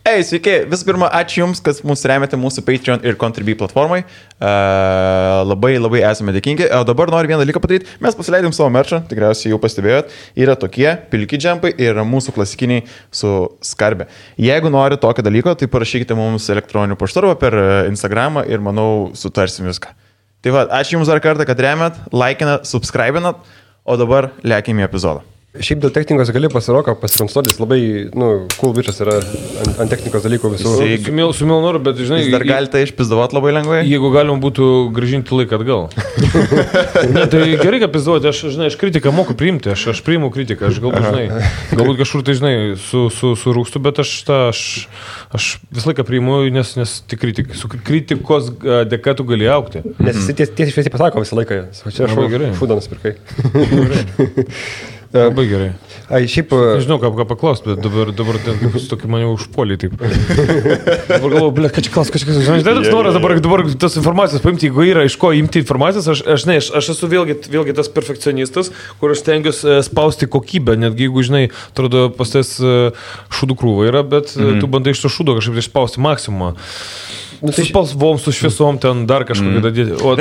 Sveiki, visų pirma, ačiū Jums, kad mūsų remiate mūsų Patreon ir Contribui platformai. Labai esame dėkingi. O dabar noriu vieną dalyką padaryti. Mes pasileidėm savo merčą, tikriausiai jau pastebėjot. Yra tokie pilki džempai ir mūsų klasikiniai su skarbė. Jeigu nori tokio dalyko, tai parašykite mums elektroniniu paštu arba per Instagramą ir manau sutarsim viską. Tai va, ačiū Jums dar kartą, kad remiat, laikinat, subscribinat, o dabar lėkime į epizodą. Šiaip dėl technikos gali pasiroką pasikonsultuotis, labai, cool bičas yra ant technikos dalykų visų. Su mielu noru, bet žinai... Jūs dar galite išpizdavot labai lengvai? Jeigu galima būtų grąžinti laiką atgal. Ne, tai gerai, kad pizdavoti, aš kritiką moku priimti, aš priimu kritiką, aš galbūt kažkur tai, surūkstu, bet aš visą laiką priimu, nes tik kritikos dėka tu gali augti. Nes jis tiesiai šviesiai pasako visą laiką. Čia aš šūdą nusipirkai. Labai gerai. Šiaip... Nežinau, ką paklaust, bet dabar tokį mane užpuolį taip. Dabar galvoju, ką čia klaus, žinai, toks noras dabar tas informacijos paimti, jeigu yra iš ko imti informacijos, aš esu vėlgi tas perfekcionistas, kur aš stengiuosi spausti kokybę, netgi jeigu, žinai, atrodo, pas tas šūdų krūva yra, bet tu bandai iš to šūdo kažkaip išspausti maksimumą. Su spalvom, su šviesom ten dar kažkokį dadėti. O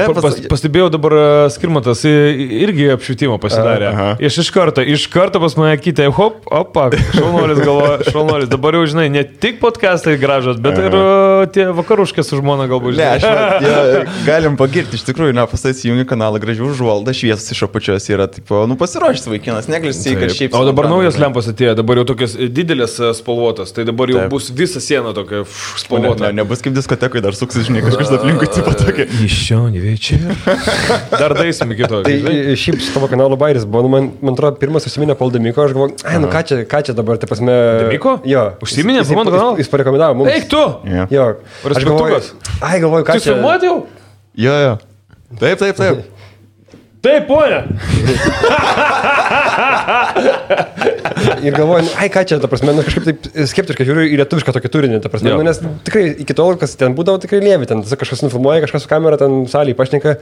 pastebėjau dabar Skirmantas irgi apšvietimą pasidarė. Iš karto pas mane kitė, opa, šaunuolis. Dabar jau, žinai, ne tik podcastai gražos, bet ir tie vakaruškės su žmona galbūt. Ne, galim pagirti, iš tikrųjų, pastai įjungi kanalą gražių užvaldą, šviesas iš apačios yra, pasiruošęs vaikinas, neglisi, kad šiaip... O dabar naujas lempas atėjo, dabar jau tokias didelės spalvotas, tai dabar jau bus visa siena tokia spalvota. Nebus kaip diskoteka, dar suksis, žinai, kažkas aplinkui tipo tokia. Iš čia, neveičia. Dar daisim iki to. Tai šiaip su tavo kanalo bairis buvo, man atrodo, pirmas užsiminė Paul Demiko, aš galvoju, ką čia dabar, tai pasme... Demiko? Jo. Užsiminė po mano kanalą? Jis parekomendavo mums. Eik tu! Jo. Aš galvoju, ką čia... Tu filmuoti jau? Jo. Taip. Taip, ponia. Ir galvoju, ką čia, ta prasme, kažkaip taip skeptiškai žiūriu į lietuvišką tokį turinį, ta prasme, nes tikrai iki tol, kas ten būdavo, tikrai lievi, ten kažkas nufilmuoja, kažkas su kamera ten salėje pašneka.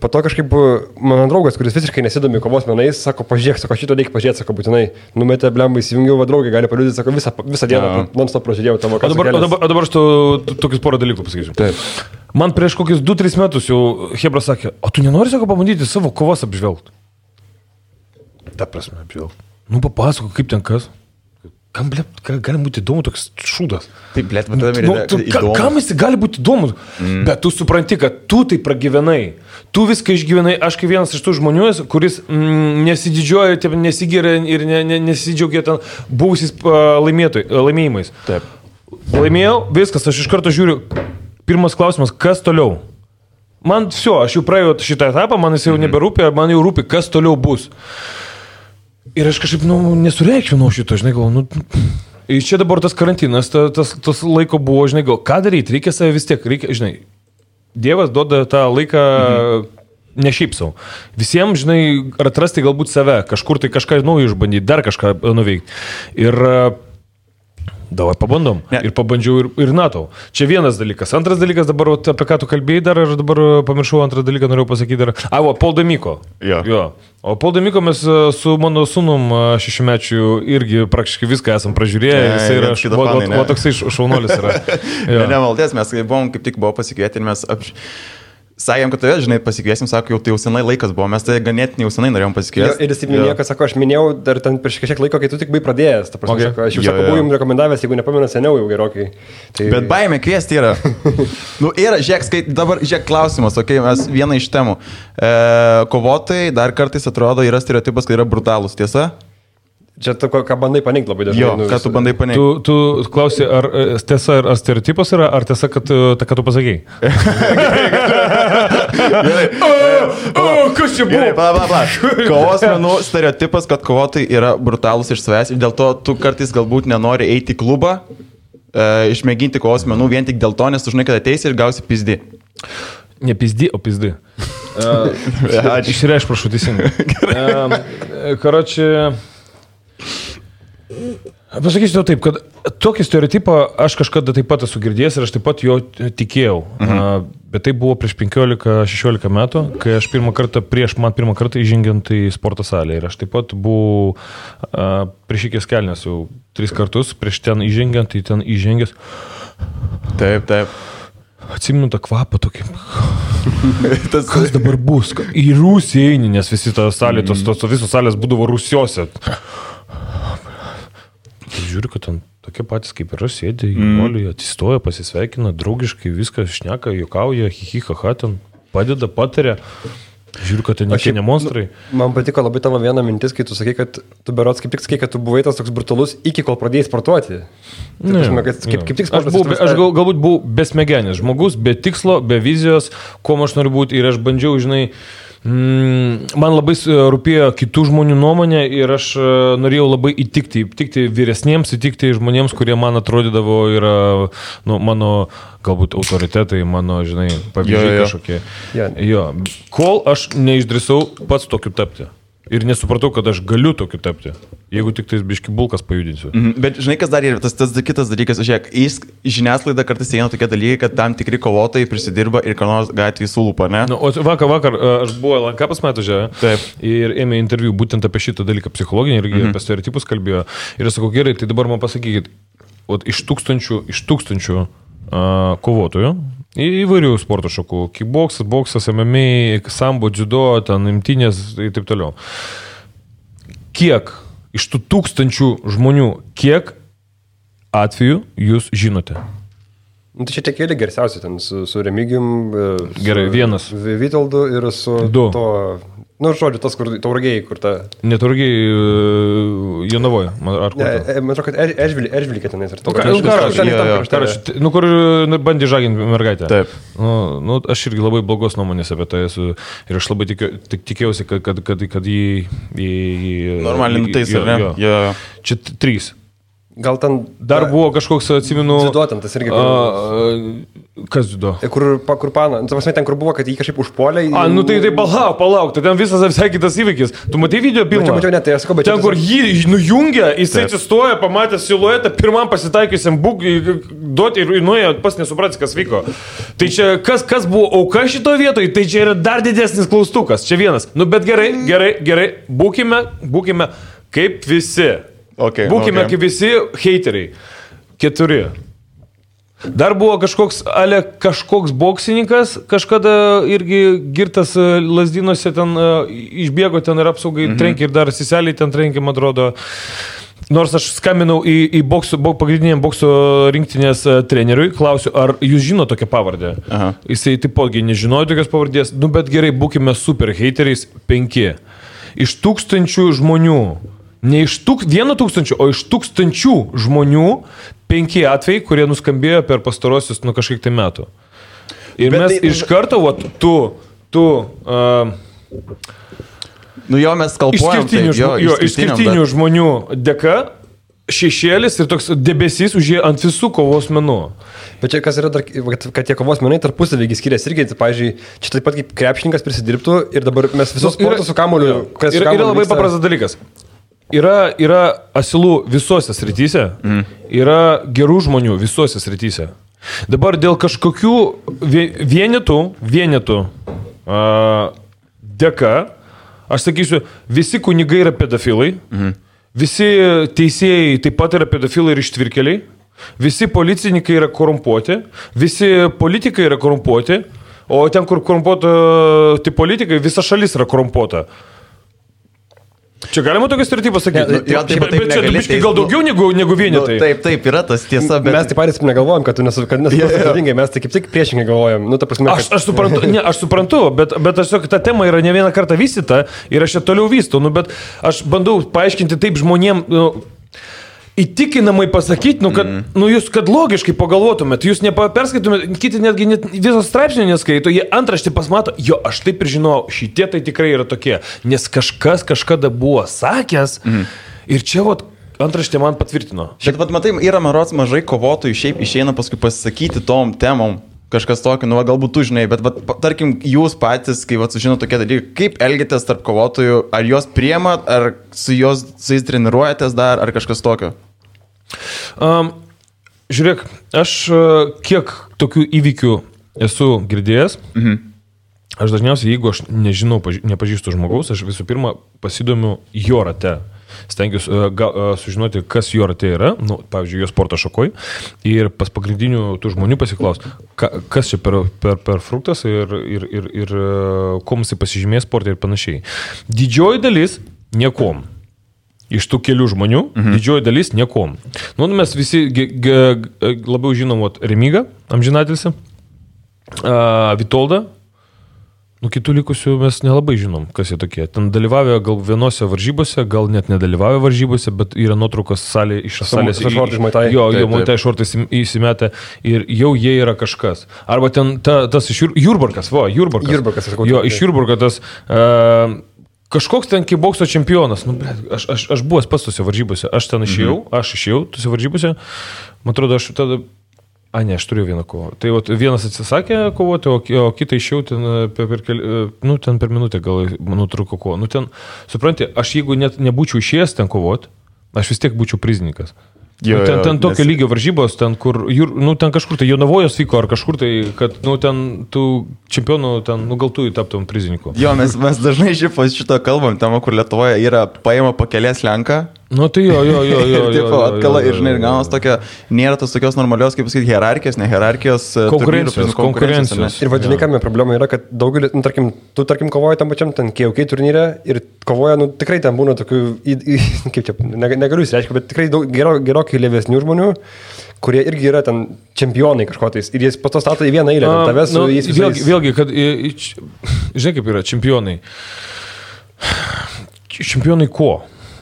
Po to kažkaip mano draugas, kuris visiškai nesidomi kovos menais, sako, pažiūrėk, šito reikia pažiūrėti, sako, būtinai, numetė blembai, įsijungiau, va draugai gali paliudyti, sako, visą dieną non-stop pražiūrėjau tavo kanalą. O dabar aš tokius porą dalykų pasakysiu. Taip. Man prieš kokius 2-3 metus jau Hebra sakė, o tu nenori, sako, pabandyti savo kovos apžvelgti? Ta prasme, apžvelgti. Papasako, kaip ten kas? Kam, gali būti įdomu toks šūdas? Taip, blėt, įdomu. Kam jis gali būti įdomu? Bet tu supranti, kad tu tai pragyvenai. Tu viską išgyvenai. Aš kaip vienas iš tų žmonių, kuris nesididžiuoja, nesigiria ir nesidžiaugia ten buvusiais laimėjimais. Taip. Laimėjau, viskas, aš iš karto žiūriu. Pirmas klausimas, kas toliau? Man aš jau praėjau šitą etapą, man jis jau neberūpė, man jau rūpi, kas toliau bus. Ir aš kažkaip, nesureikšminau šito, žinai, galvoju, ir čia dabar tas karantinas, tas laiko buvo, žinai, ką daryti, reikia save vis tiek, žinai, Dievas duoda tą laiką ne šiaip savo. Visiems, žinai, atrasti galbūt save, kažkur tai kažką naujo išbandyti, dar kažką nuveikti. Ir davai pabandom. Ne. Ir pabandžiau ir NATO. Čia vienas dalykas. Antras dalykas, dabar apie ką tu kalbėjai dar, aš dabar pamiršau antrą dalyką, norėjau pasakyti dar. Paul Demiko. Jo. O Paul Demiko mes su mano sūnum 6-mečiu irgi praktiškai viską esam pražiūrėję. Jisai yra, toksai šaunuolis yra. Nemaltės, mes buvom, kaip tik buvo pasikvieti ir mes sakėm, kad tave, žinai, pasikviesim, sako, jau tai jau senai laikas buvo, mes tai ganėtinai jau senai norėjom pasikviesti. Ir jis taip minėjo, kad sako, aš minėjau dar ten prieš kažkiek laiko, kai tu tik buvai pradėjęs, ta prasme, sako, aš jau buvau jums rekomendavęs, jeigu nepamenu seniau jau gerokai. Tai... Bet baimė kviesti yra. Dabar žiūrėk klausimas, mes vieną iš temų. Kovotojai dar kartais atrodo yra stereotipas, kad yra brutalūs, tiesa? Čia tu ką bandai paneigti labai dažnai. Jo, ką tu bandai paneigti? Tu klausi, ar tiesa, ar stereotipas yra, ar tiesa, kad tu pasakėjai? Kas čia buvo? Gerai, kovos menų stereotipas, kad kovotojai yra brutalūs iš savęs ir dėl to tu kartais galbūt nenori eiti į klubą, išmėginti kovos menų vien tik dėl to, nes tu žinai, kad ateisi ir gausi pizdi. Ne pizdi, o pizdi. Išreišk, prašau, teisingai. Karoči... Pasakysiu tau taip, kad tokį stereotipą aš kažkada taip pat esu girdėjęs ir aš taip pat jo tikėjau. Bet tai buvo prieš 15-16 metų, kai aš pirmą kartą įžengiant į sporto salę. Ir aš taip pat buvau prieš ikės kelnes jau 3 kartus, prieš ten įžengiant, tai ten įžengęs. Taip. Atsimenu tą kvapą tokį. Kas dabar bus? Į Rusiją eini, nes visi tą salę, tos visos salės būdavo Rusiose. Žiūriu, kad ten tokie patys kaip ir aš sėdė, jaunuoliai atsistoja, pasisveikina, draugiškai viską šneka, juokauja, hihihaha, ten padeda, pataria. Žiūriu, kad ten ne monstrai. Man patiko labai tavo viena mintis, kai tu sakai, kad tu berods kaip tik sakai, kad tu buvai tas toks brutalus iki kol pradėjai sportuoti. Kaip tik sportas. Aš galbūt buvau besmegenis žmogus, be tikslo, be vizijos, kuo aš noriu būti ir aš bandžiau, žinai, man labai rūpėjo kitų žmonių nuomonė ir aš norėjau labai įtikti vyresniems, įtikti žmonėms, kurie man atrodydavo yra mano galbūt autoritetai, mano, žinai, pavyzdžiai kažkokie. Jo. Kol aš neišdrįsau pats tokiu tapti. Ir nesupratau, kad aš galiu tokiu tapti, jeigu tik tais biški bulkas pajudinsiu. Bet žinai, kas dar yra, tas kitas dalykas, žiūrėk, į žiniasklaidą kartais eina tokie dalykai, kad tam tikri kovotojai prisidirba ir ką nors gatvėje sulūpa, ne? O vakar aš buvau LNK pas metu žiūrėjau ir ėmė interviu būtent apie šitą dalyką psichologinį ir apie stereotipus kalbėjo. Ir aš sakau, gerai, tai dabar man pasakykit, iš tūkstančių kovotojų, įvairių sporto šakų, kickboksas, boksas, MMA, sambo, judo, ten imtynės ir taip toliau. Kiek iš tų 1000 žmonių, kiek atvejų jūs žinote? Tai čia tie keli garsiausi, ten su Remigijum, gerai, vienas. Vitoldu ir su du. Žodžiu, tas, kur Tauragėjai, kur ta... Ne Tauragėjai, Jonavoje, ar kur ta? Man atrodo, kad Eržvilikė tenais. Kur bandė žaginti mergaitę. Taip. Aš irgi labai blogos nuomonės apie tai esu ir aš labai tikėjausi, kad jį... Normaliai nutaisė, ne? Čia 3. Gal ten... Dar buvo kažkoks, atsimenu... Dziudo ten, tas irgi... Kas dziudo? Kur pana, ten, kur buvo, kad jį kažkaip užpuolė... Tai palauk, tai ten visas visai kitas įvykis. Tu matai video pirmą? Mačiau, ne, tai aš sakau, bet... Ten, kur jį nujungia, jisai atsistoja, pamatė siluetą, pirmam pasitaikiusiam duoti ir nuėjo, pas nesupratęs, kas vyko. Tai čia, kas buvo auka šito vietoje, tai čia yra dar didesnis klaustukas. Čia vienas. Bet gerai, būkime kaip visi. Būkime kaip visi heiteriai. 4. Dar buvo kažkoks boksininkas, kažkada irgi girtas Lazdynuose ten išbėgo ten ir apsaugai trenkė ir dar siseliai ten trenkė, man atrodo. Nors aš skambinau į pagrindiniam bokso rinktinės treneriui, klausiu, ar jūs žino tokią pavardę. Jisai taipogi nežinojo tokios pavardės, bet gerai, būkime super heiteriais 5. Iš 1000 žmonių. Ne iš 1000, o iš 1000 žmonių 5 atvejai, kurie nuskambėjo per pastarosius kažkiek tai metų. Ir bet mes iš karto, mes kalbuojam. Išskirtinių žmonių dėka šešėlis ir toks debesys užėjo ant visų kovos menų. Bet čia kas yra dar, kad tie kovos menai tarpusavį skiriasi irgi, tai, pavyzdžiui, čia taip pat kaip krepšininkas prisidirbtų ir dabar mes visus sportus su kamuoliu. Yra labai paprastas dalykas. Yra asilų visose srityse, yra gerų žmonių visose srityse. Dabar dėl kažkokių vienetų dėka, aš sakysiu, visi kunigai yra pedofilai, visi teisėjai taip pat yra pedofilai ir ištvirkeliai, visi policininkai yra korumpuoti, visi politikai yra korumpuoti, o ten, kur korumpuoti politikai, visa šalis yra korumpuota. Čia galima tokią stereotipą sakyti? Bet čia biškai gal daugiau negu vienetai. Taip, yra tas tiesa, bet... Mes taip patys negalvojam, kad tu nesuprantingai, mes tai kaip tik priešingai galvojam. Aš suprantu, bet tiesiog ta tema yra ne vieną kartą vystyta ir aš ją toliau vystau, bet aš bandau paaiškinti taip žmonėm... Įtikinamai pasakyti, kad logiškai pagalvotumėt, jūs neperskaitumėt, kiti netgi visos straipsnio neskaito, jie antraštį pasmato, aš taip ir žinau, šitie tai tikrai yra tokie, nes kažkas kažkada buvo sakęs ir čia antraštė man patvirtino. Bet matai, yra marods mažai kovotojų šiaip išeina paskui pasisakyti tom temom. Kažkas tokio, galbūt tu žinai, bet tarkim, jūs patys, kai sužino tokie dalykai, kaip elgitės tarp kovotojų, ar juos priemat, ar su jais treniruojatės dar, ar kažkas tokio? Žiūrėk, aš kiek tokių įvykių esu girdėjęs, aš dažniausiai, jeigu aš nežinau, nepažįstu žmogaus, aš visų pirma pasidomiu jo rate. Stengiuosi sužinoti, kas jo rate yra, pavyzdžiui, jo sporto šakoj, ir pas pagrindinių tų žmonių pasiklaus, kas čia per fruktas ir kuom jisai pasižymės sportą ir panašiai. Didžioji dalis niekom. Iš tų kelių žmonių, didžioji dalis niekom. Mes visi labiau žinom Remigą, amžinatilsį, Vitoldą. Kitų likusių mes nelabai žinom, kas jie tokie. Ten dalyvavę gal vienose varžybose, gal net nedalyvavę varžybose, bet yra nuotraukos iš salės. Jo, Muay Thai šortais įsimetę ir jau jie yra kažkas. Arba ten tas iš Jurbarkas. Jo, iš Jurbarko tas kažkoks ten kibokso čempionas. Aš buvęs pats tose varžybose. Aš ten išėjau tose varžybose. Man atrodo, aš tada... aš turiu vieną kovą. Tai vienas atsisakė kovoti, o kitą išėjau ten per minutę gal nutrūko kovą. Supranti, aš jeigu net nebūčiau išėjęs ten kovoti, aš vis tiek būčiau prizininkas. Ten tokio lygio varžybos, ten kur, ten kažkur tai Jonavojos vyko, ar kažkur tai, kad, ten tų čempionų, gal tu taptum prizininku. Jo, mes dažnai šito kalbam, ten, kur Lietuvoje yra paima pakelės lenką. Tai jo. Taip, atkala ir, žinai, ir gaunas tokia, nėra tos tokios normalios, kaip pasakyti, hierarchijos, ne hierarchijos, konkurencijos. Ir vadinai, kame problema yra, kad daugelį, tu tarkim kovoji tam pačiam, ten KOK turnyre ir kovoja, tikrai ten būna tokių, kaip čia, negaliu įsireiškia, bet tikrai gerokai lėvesnių žmonių, kurie irgi yra ten čempionai kažkotais ir jis po to stato į vieną eilę, tavęs su jais visais. Vėlgi, kad, žinai kaip yra, čempionai. Čempionai ko?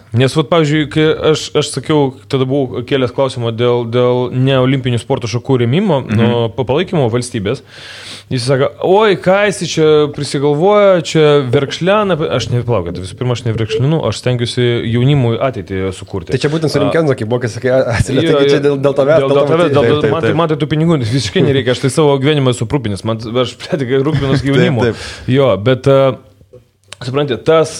Nes, pavyzdžiui, kai aš sakiau, tada buvau kėlęs klausimą dėl neolimpinių sporto šakų rėmimo, palaikymo valstybės. Jis sako, oi, ką jis čia prisigalvoja, čia verkšlena. Aš neplaukit, visų pirma, aš neverkšlinu, aš stengiuosi jaunimui ateitį sukurti. Tai čia būtent su Rimkenzo, kaip buvo, kai sakai, atsiliepti čia dėl tavęs. Man tai tų pinigų visiškai nereikia, aš tai savo gyvenimą esu rūpinis, aš pretikai rūpinos gyvenimu. Jo, bet, suprantate, tas...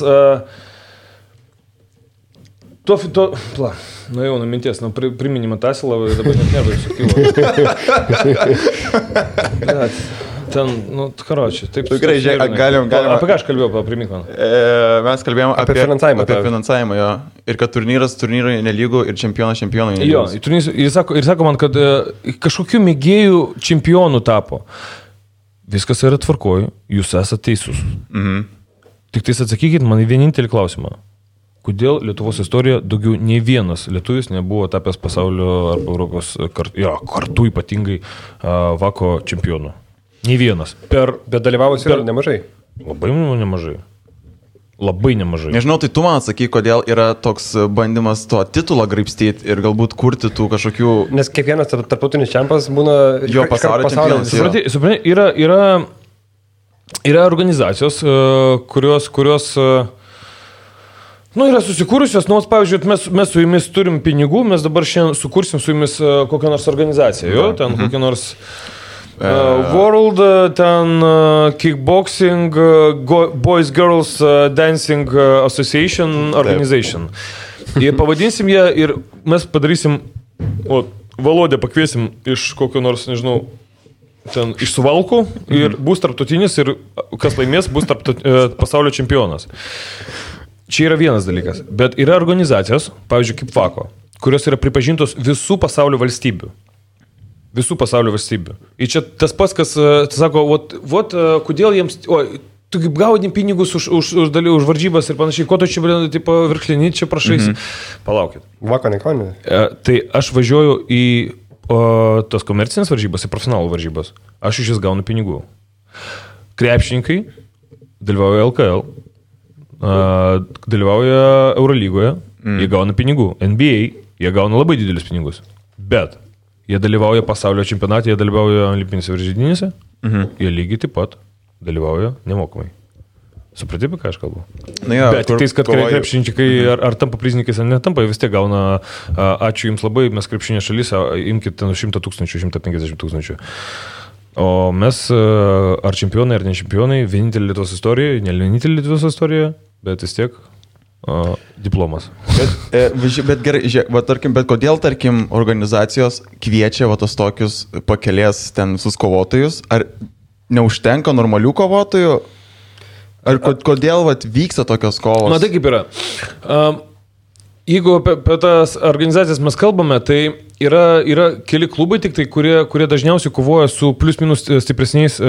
Nuėjau nuo minties, priminimą Tasilą, dabar net nervai sukilo. Ten, karočiui, taip. Gerai, galim. Apie ką aš kalbėjau, primink man? Mes kalbėjome apie finansavimą, jo. Ir kad turnyrai nelygų ir čempionai nelygų. Jo, ir sako man, kad kažkokių mėgėjų čempionų tapo. Viskas yra tvarkoj, jūs esate teisus. Tik tais atsakykit man į vienintelį klausimą. Kodėl Lietuvos istorija daugiau nei vienas lietuvis nebuvo tapęs pasaulio arba Europos kartu ypatingai vako čempionų? Nei vienas. Bet dalyvavusi yra nemažai. Labai nemažai. Labai nemažai. Nežinau, tai tu man atsakyk, kodėl yra toks bandymas to titulą graibstyti ir galbūt kurti tų kažkokių... Nes kiekvienas tarptautinis čempas būna... Jo pasaulio čempionas. Supranti, yra organizacijos, kurios yra susikūrusios, pavyzdžiui, mes su jumis turim pinigų, mes dabar šiandien sukursim su jumis kokią nors organizaciją, ten kokią nors World, ten Kickboxing, Boys Girls Dancing Association Organization. Ir pavadinsim ją ir mes padarysim, Valodę pakviesim iš kokio nors, nežinau, ten iš Suvalkų ir bus tarptautinis ir kas laimės, bus pasaulio čempionas. Čia yra vienas dalykas, bet yra organizacijos, pavyzdžiui, kaip VAKO, kurios yra pripažintos visų pasaulio valstybių. Visų pasaulio valstybių. Ir čia tas pats, kas sako, kodėl jiems, tu kaip gauni pinigus už varžybas ir panašiai, ko tu čia, virklinį čia prašaisi. Palaukit. VAKO nekonė. Tai aš važiuoju į tos komercinės varžybas, į profesionalų varžybas. Aš iš jas gaunu pinigų. Krepšininkai dalyvauja LKL. Dalyvauja Eurolygoje, jie gauna pinigų. NBA, jie gauna labai didelius pinigus. Bet jie dalyvauja pasaulio čempionate, jie dalyvauja olimpinėse varžybinėse, jie lygiai taip pat dalyvauja nemokamai. Supratė, apie ką aš kalbu? Bet tik tais, kad krepšininkai ar tampa prizininkais, ar netampa, vis tiek gauna, ačiū jums labai, mes krepšinė šalis, imkite 100 000, 150 000. O mes, ar čempionai, ar ne čempionai, vienintelė Lietuvos istorija, ne vienintelė Lietuvos istorija, bet vis tiek diplomas. Bet gerai, bet kodėl, tarkim, organizacijos kviečia tos tokius pakelės ten visus kovotojus? Ar neužtenka normalių kovotojų? Ar kodėl vyksta tokios kovos? Na, tai kaip yra. Jeigu apie tas organizacijas mes kalbame, tai yra keli klubai tik tai, kurie dažniausiai kovoja su plius minus stipresniais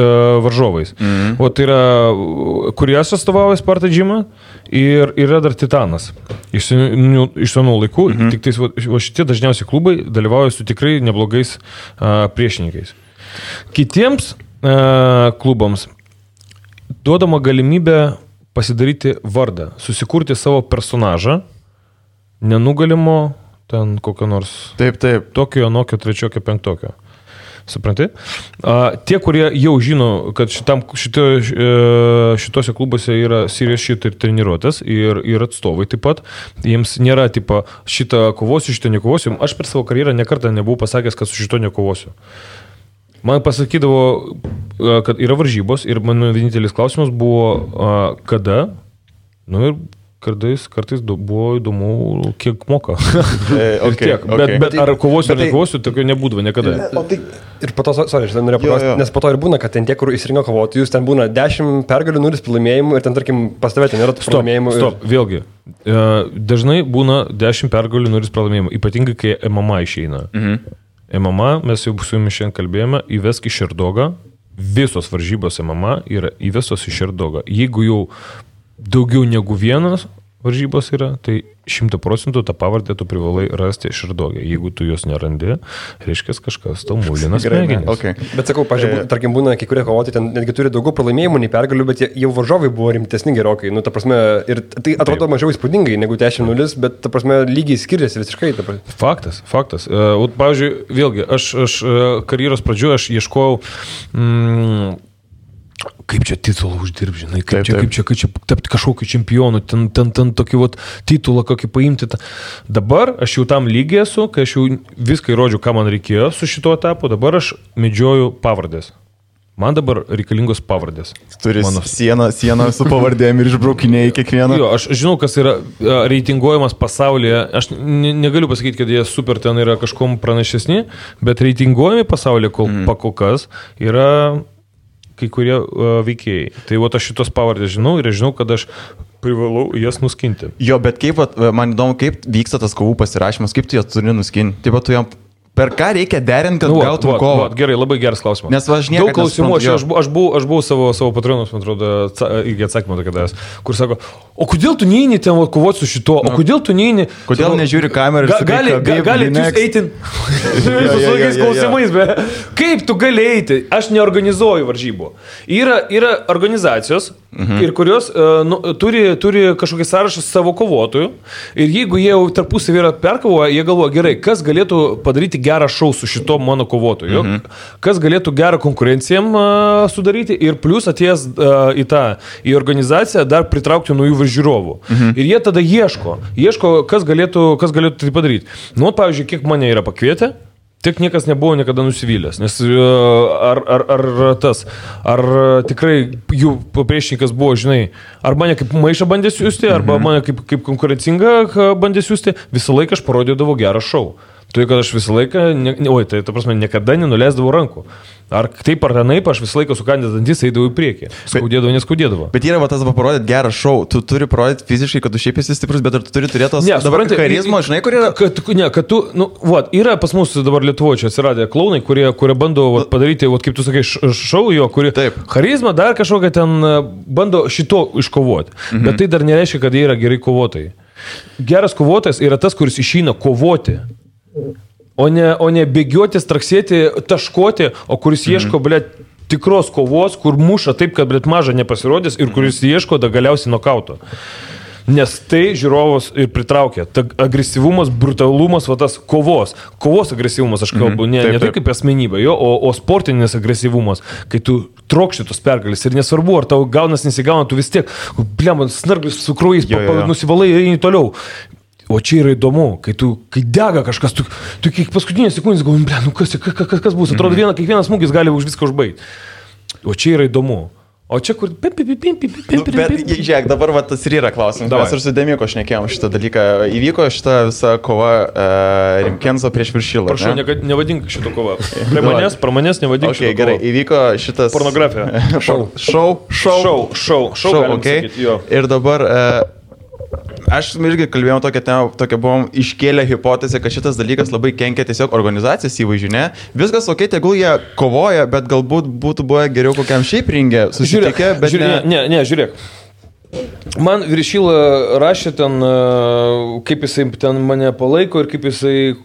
varžovais. O tai yra Kurijas atstovauja Sparta Gymą ir yra dar Titanas. Iš senų laikų, tik tais šitie dažniausiai klubai dalyvauja su tikrai neblogais priešininkais. Kitiems klubams duodama galimybė pasidaryti vardą, susikurti savo personažą, nenugalimo, ten kokio nors tokio, anokio, trečiokio, penktokio. Supranti? Tie, kurie jau žino, kad šitose klubuose yra serious shit ir treniruotės ir atstovai taip pat, jiems nėra tipo šitą kovosiu, šitą nekovosiu. Aš per savo karjerą nekartą nebuvau pasakęs, kad su šito nekovosiu. Man pasakydavo, kad yra varžybos ir mano vienintelis klausimas buvo, kada, ir kartais buvo įdomu, kiek moka. Bet ar kovosiu ar nekovosiu, tokio nebūdavo niekada. Ir po to, norėjau paklausti, nes po to ir būna, kad ten tie, kur įsirinko kovotojus, ten būna 10 pergalių, 0 pralaimėjimų ir ten, tarkim, pas tave ten nėra pralaimėjimų. Stop, vėlgi. Dažnai būna 10 pergalių, 0 pralaimėjimų, ypatingai, kai MMA išeina. MMA, mes jau su jumis šiandien kalbėjome, įvesk į Šerdogą, visos varžybos MMA yra įvesos į Šerdogą. Jeigu jau daugiau negu vienas varžybos yra, tai 100% tą pavardę tu privalai rasti Šerdogę. Jeigu tu jos nerandi, reiškia kažkas tau mūlinas smegenis. Okay. Bet sakau, pažiūrėjau, tarkim, būna kai kurie kovotojai ten netgi turi daugiau pralaimėjimų nei pergalių, bet jau varžovai buvo rimtesni gerokai. Ta prasme, ir tai atrodo mažiau įspūdingai negu 10-0, bet ta prasme lygiai skiriasi visiškai. Faktas. Pavyzdžiui, vėlgi, aš karjeros pradžioje aš ieškojau kaip čia titulą uždirbti, žinai, kaip čia tapti kažkokiu čempionu, ten tokį titulą kokį paimti. Dabar aš jau tam lygiai esu, kai aš jau viską įrodžiau, ką man reikėjo su šito etapu, dabar aš medžioju pavardės. Man dabar reikalingos pavardės. Turi sieną su pavardėm ir išbraukinėjai kiekvieną. Jo, aš žinau, kas yra reitinguojamas pasaulyje. Aš negaliu pasakyti, kad jie super ten yra kažkom pranašesni, bet reitinguojami pasaulyje kol kas yra kai kurie veikėjai. Tai aš šitos pavardės žinau ir aš žinau, kad aš privalau jas nuskinti. Jo, bet man įdomu, kaip vyksta tas kovų pasirašymas, kaip tu jas turi nuskinti. Taip pat tu jam per ką reikia derinti, kad gautum kovą? Gerai, labai geras klausimas. Nes aš niekada daug klausimų, aš buvau savo patronus, man atrodo, irgi atsakymą tokia davęs, kur sako, o kodėl tu neini ten kovoti su šito, o kodėl tu neini... Kodėl nežiūri kamerą ir sakai, gali jūs eiti su tokiais klausimais, bet kaip tu gali eiti? Aš neorganizuoju varžybų. Yra organizacijos, ir kurios turi kažkokį sąrašą savo kovotojų ir jeigu jie jau tarpusavį yra perkovoję, jie galvoja, gerai, kas galėtų padaryti gerą šou su šito mano kovotoju, kas galėtų gerą konkurenciją sudaryti ir plus atėjęs į organizaciją dar pritraukti naujų žiūrovų. Ir jie tada ieško, kas galėtų tai padaryti. Pavyzdžiui, kiek mane yra pakvietę, tik niekas nebuvo niekada nusivylęs, nes ar tikrai jų priešininkas buvo, žinai, ar mane kaip maišą bandė siūsti, arba mane kaip konkurencingą bandė siūsti, visą laiką aš parodydavau gerą šou. Tai, kad aš visą laiką, niekada nenuleisdavau rankų. Ar taip ar tenaip, aš visą laiką sukandęs dantis eidavau į priekį. Neskaudėdavo. Bet yra tas parodyti gerą šou. Tu turi parodyti fiziškai, kad tu šiaip esi stiprus, bet ar tu turi turėti dabar charizmą, žinai, kur yra? Yra pas mus dabar Lietuvoje čia atsiradę klounai, kurie bando padaryti, kaip tu sakai, šou jo, kurie charizmą dar kažkokią ten bando šito iškovoti. Bet tai dar nereiškia, kad jie yra gerai kovotojai. Geras kovotojas yra tas, kuris išeina kovoti. O ne bėgioti, straksėti, taškoti, o kuris ieško, tikros kovos, kur muša taip, kad, maža nepasirodys ir kuris ieško galiausiai nokauto. Nes tai žiūrovus ir pritraukia. Ta agresyvumas, brutalumas, tas kovos agresyvumas, aš kalbu, ne tai kaip asmenybė, o sportinis agresyvumas, kai tu trokšti tos pergalės ir nesvarbu, ar tau gaunas nesigauna, tu vis tiek, snarglis su krūjais nusivalai ir eini toliau. O čia yra įdomu, kai dega kažkas, tu kiek paskutinės sekundės galvoji, kas bus, atrodo, kiekvienas smūgis gali už viską užbaigti. O čia yra įdomu. O čia kur... Bet, žiūrėk, dabar va, tas ir yra klausimas. Mes ir su Demiko šnekėjom šitą dalyką. Įvyko šitą visą kova Rimkenzo prieš Viršilą. Prašau, nevadink šitą kovą. Prie manęs nevadink šitą kovą. Gerai, įvyko šitas... Pornografija. Šou, okay. Ir dabar... Aš irgi kalbėjom tokią buvom iškėlę hipotezę, kad šitas dalykas labai kenkia tiesiog organizacijos įvaizdžiui, ne? Viskas ok, tegul jie kovoja, bet galbūt būtų buvę geriau kokiam šiaip ringė susitikę, bet ne, žiūrėk. Man Viršila rašė ten, kaip jisai ten mane palaiko ir kaip jisai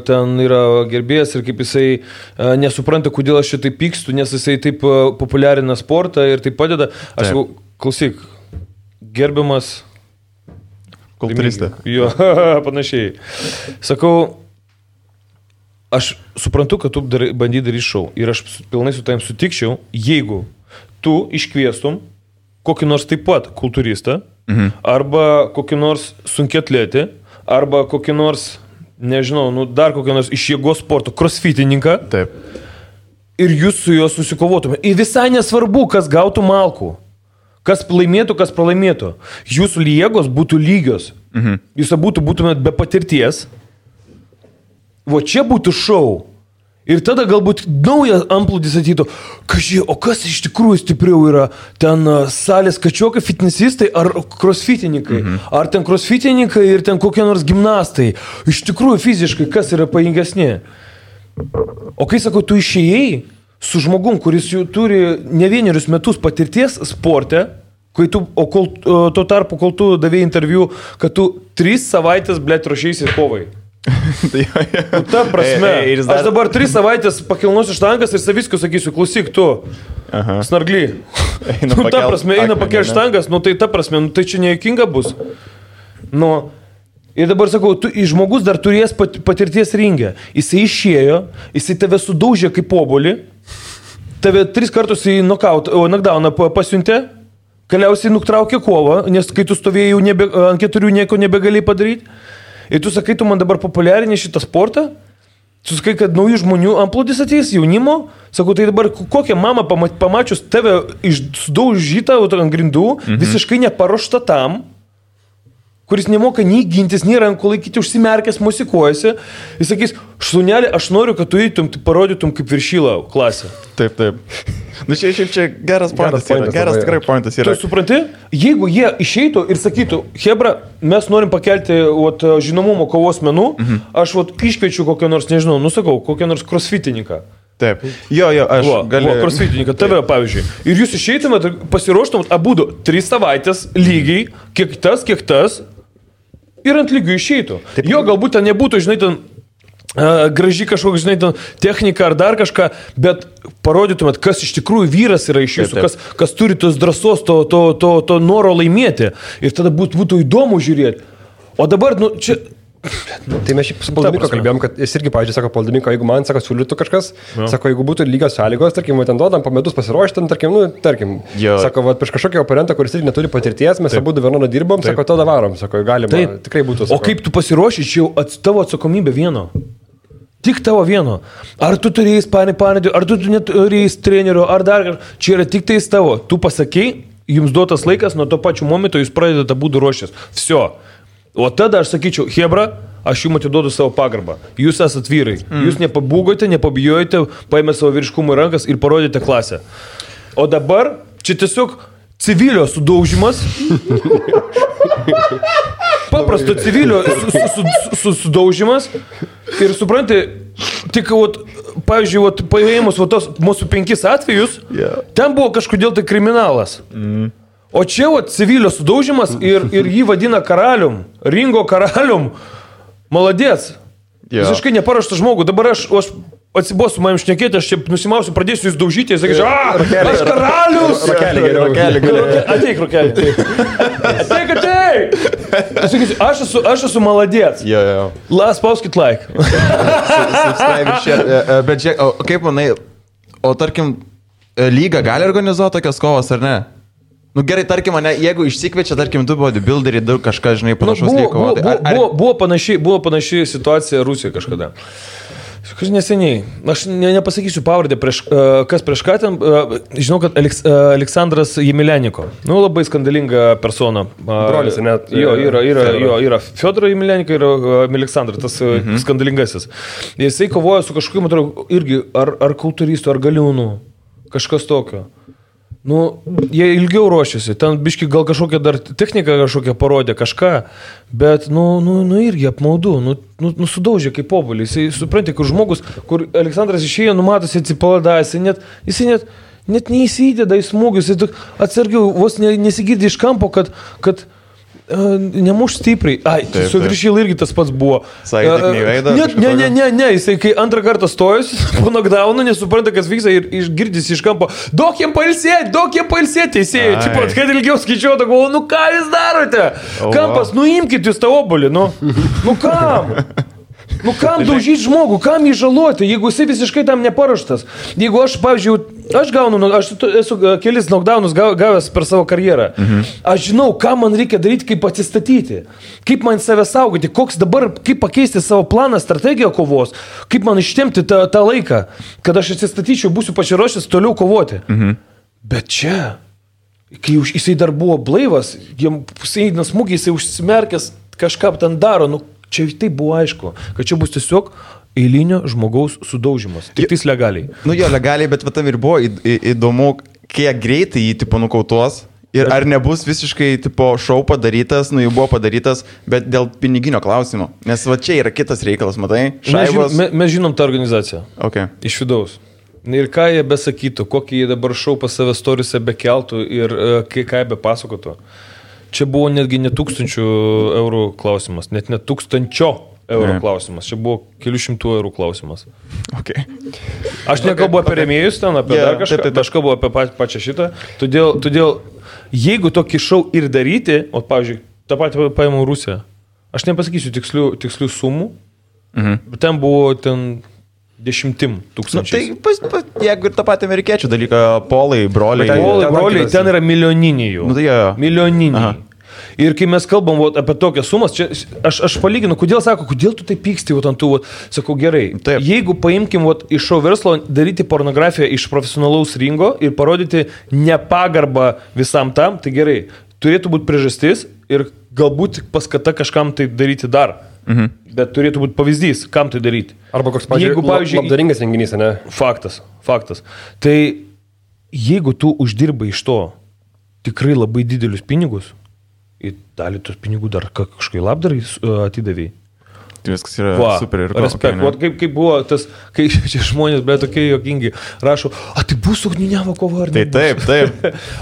ten yra gerbėjas ir kaip jisai nesupranta, kodėl aš šitai pykstu, nes jisai taip populiarina sportą ir taip padeda. Aš sakau, klausyk, gerbiamas kultūristė. Jo, panašiai. Sakau, aš suprantu, kad tu bandy daryti šou ir aš pilnai su tavim sutikčiau, jeigu tu iškviestum kokį nors taip pat kultūristą, arba kokį nors sunkiatletį, arba kokį nors, nežinau, dar kokį nors iš jėgos sporto crossfitininką. Taip. Ir jūs su juo susikovotume. Ir visai nesvarbu, kas gautų malkų. Kas laimėtų, kas pralaimėtų. Jūsų jėgos būtų lygios. Jūs būtumėt be patirties. O čia būtų šou. Ir tada galbūt naujas amplūdis atytų. O kas iš tikrųjų stipriau yra? Ten salės kačiokai, fitnesistai ar crossfitininkai? Ar ten crossfitininkai ir ten kokie nors gimnastai? Iš tikrųjų fiziškai kas yra pajingesnė? O kai sakau, tu išėjai su žmogum, kuris jau turi ne vienerius metus patirties sporte, tuo tarpu, kol tu davėjai interviu, kad tu 3 savaitės, blėt, ruošėsi kovai. Ta prasme, aš dabar 3 savaitės pakilnosiu štangas ir saviskiu sakysiu, klausyk tu, snargly. Ta prasme, eina pakelti štangas, tai ta prasme, tai čia nejuokinga bus. Ir dabar sakau, žmogus dar turės patirties ringę. Jisai išėjo, jisai tave sudaužė kaip obuolį, tave 3 kartus į knockdowną pasiuntė, galiausiai nutraukė kovą, nes kai tu stovėjai ant 4 nieko nebegali padaryti. Ir tu sakai, tu man dabar populiarini šitą sportą, tu sakai, kad naujų žmonių amplūdis ateis, jaunimo. Sakau, tai dabar kokią mamą pamačius tave sudaužytą ant grindų, visiškai neparuošta tam, kuris nemoka nei gintis, nei rankų laikyti, užsimerkęs, mosikuojasi. Jis sakys, šunelė, aš noriu, kad tu eitum, parodytum kaip Viršilą klasę. Taip. Čia geras pointas yra. Geras tikrai pointas yra. Tu supranti, jeigu jie išeitų ir sakytų, Hebra, mes norim pakelti žinomumo kovos menų, aš iškviečiu kokią nors, nežinau, kokią nors crossfitininką. Taip. Jo, aš galiu. Crossfitininką, tave pavyzdžiui. Ir jūs išeitumėt, pasiruoštumėt abudu 3 savaitės lygiai, kiek tas, ir ant lygių išeitų. Taip. Jo, galbūt ten nebūtų, žinai, ten graži kažkokia, žinai, ten technika ar dar kažką, bet parodytumėt, kas iš tikrųjų vyras yra iš jūsų, kas turi tos drąsos, to noro laimėti. Ir tada būtų įdomu žiūrėti. O dabar, čia... Tai mes šiaip su Poldimiko kalbėjom, kad jis irgi, pavyzdžiui, sako Poldimiko, jeigu man, sako, siūlytų kažkas, sako, jeigu būtų lygios sąlygos, tarkim, ten duodam po metus pasiruošti, tarkim, sako, prieš kažkokį oponentą, kuris irgi neturi patirties, mes abu vienodą dirbom, sako, tada varom, sako, galima, tikrai būtų. Sako. O kaip tu pasiruoši, čia jau tavo atsakomybė vieno. Tik tavo vieno. Ar tu turėjai panėdį, ar tu neturėjai trenerio, ar dar kažką. Čia yra tik tais tavo. Tu pasakei, jums duotas laikas, nuo to pačiu momento jūs pradedate būti ruošęs. Всё. O tada aš sakyčiau, Hebra, aš jums atiduodu savo pagarbą. Jūs esat vyrai. Jūs nepabūgote, nepabijojate, paėmė savo vyriškumą į rankas ir parodėte klasę. O dabar čia tiesiog civilio sudaužimas. Paprasto civilio sudaužimas. Ir supranti, tik, pavyzdžiui, paėmus mūsų 5 atvejus, ten buvo kažkodėl tai kriminalas. O čia civilio sudaužimas ir jį vadina karalium, ringo karalium. Maladės. Visiškai neparuoštas žmogų. Dabar aš atsibosiu manim šnekėti, aš čia nusimausiu, pradėsiu jūs daužyti ir sakysiu, aš karalius! Rokelį. Ateik, Rokelį. Ateik! Aš esu maladės. Spauskit like. Bet žiūrėk, kaip manai, o tarkim, lyga gali organizuoti tokias kovas ar ne? Gerai, tarkim, jeigu išsikviečia, tarkim, du bodybuilderiai, daug kažką, žinai, panašaus lygo. Buvo panaši situacija Rusijoje kažkada. Kažkai neseniai, aš nepasakysiu pavardę, kas prieš ką ten, žinau, kad Aleksandras Jemileniko, labai skandalinga persona. Brolis, net. Jo, yra Fiodoro Jemileniko ir Aleksandras, tas skandalingasis. Jisai kovoja su kažkokiu, matau, irgi ar kultūristu, ar galiūnu, kažkas tokio. Jie ilgiau ruošiasi, ten biški gal kažkokią dar techniką kažkokią parodė, kažką, bet, irgi apmaudu, sudaužė kaip obuolį. Jisai supranti, kur žmogus, kur Aleksandras išėjo, numatosi atsipalada, jisai net neįsideda į smūgius, jisai atsargiau, vos nesigirdi iš kampo, kad nemuš stipriai. Su Viršyl irgi tas pats buvo. Sakė, tik neįveidą? Ne, jisai kai antrą kartą stojus, po knockdownu, nesupranta, kas vyksta ir išgirdys iš kampo, duok jiem pailsėti, teisėjai. Čipat, kad ilgiau skaičiuotų, galvoju, ką jūs darote? Kampas, imkit jūs tą obuolį, kam? Kam daužyti žmogų, kam jį žaloti, jeigu jisai visiškai tam neparuoštas. Jeigu aš, pavyzdžiui, aš esu kelis knockdownus gavęs per savo karjerą. Aš žinau, ką man reikia daryti, kaip atsistatyti, kaip man save saugoti, kaip pakeisti savo planą, strategiją kovos, kaip man ištemti tą laiką, kad aš atsistatyčiau, būsiu pasiruošęs toliau kovoti. Bet čia, kai jisai dar buvo blaivas, jisai eina smūgiai, jisai užsimerkęs, kažką ten daro, čia tai buvo aišku, kad čia bus tiesiog eilinio žmogaus sudaužimas. Tik tais legaliai. Jo, legaliai, bet tam ir buvo įdomu, kiek greitai jį tipo nukautuos ir ar nebus visiškai tipo šou padarytas, jau buvo padarytas, bet dėl piniginio klausimo. Nes va čia yra kitas reikalas, matai? Šaibos. Mes žinom tą organizaciją. Okay. Iš vidaus. Ir ką jie besakytų, kokį jie dabar šou pas save storiuose bekeltų ir ką jie bepasakotų. Čia buvo netgi ne 1000 eurų klausimas, net ne 1000 eurų klausimas. Čia buvo kelių šimtų eurų klausimas. Okay. Aš nekalbu apie rėmėjus ten, apie dar kažką, aš kalbu apie pačią šitą. Todėl, jeigu tokį šou ir daryti, pavyzdžiui, tą patį paėmų Rusiją, aš nepasakysiu tikslių sumų, bet ten buvo 10 tūkstančių. Tai jeigu ir tą patį amerikiečių dalyką, polai, broliai. Broliai, ten yra milijoniniai jau. Milijoniniai. Aha. Ir kai mes kalbam apie tokias sumas, čia, aš palyginu, kodėl tu tai pyksti, ant tų, sakau, gerai. Taip. Jeigu paimkim iš šou verslo, daryti pornografiją iš profesionalaus ringo ir parodyti nepagarbą visam tam, tai gerai. Turėtų būti priežastis ir galbūt paskata kažkam tai daryti dar. Bet turėtų būti pavyzdys, kam tai daryti. Arba koks, pavyzdžiui, labdaringas renginys, ne? Faktas. Tai jeigu tu uždirbai iš to tikrai labai didelius pinigus, ir dalį tos pinigų dar kažkai labdarai atidavai. Tai viskas yra super ir respekt. Kaip buvo tas, kai čia žmonės, bet tokie jokingi, rašo, tai bus ugniavo kova ar ne? Taip.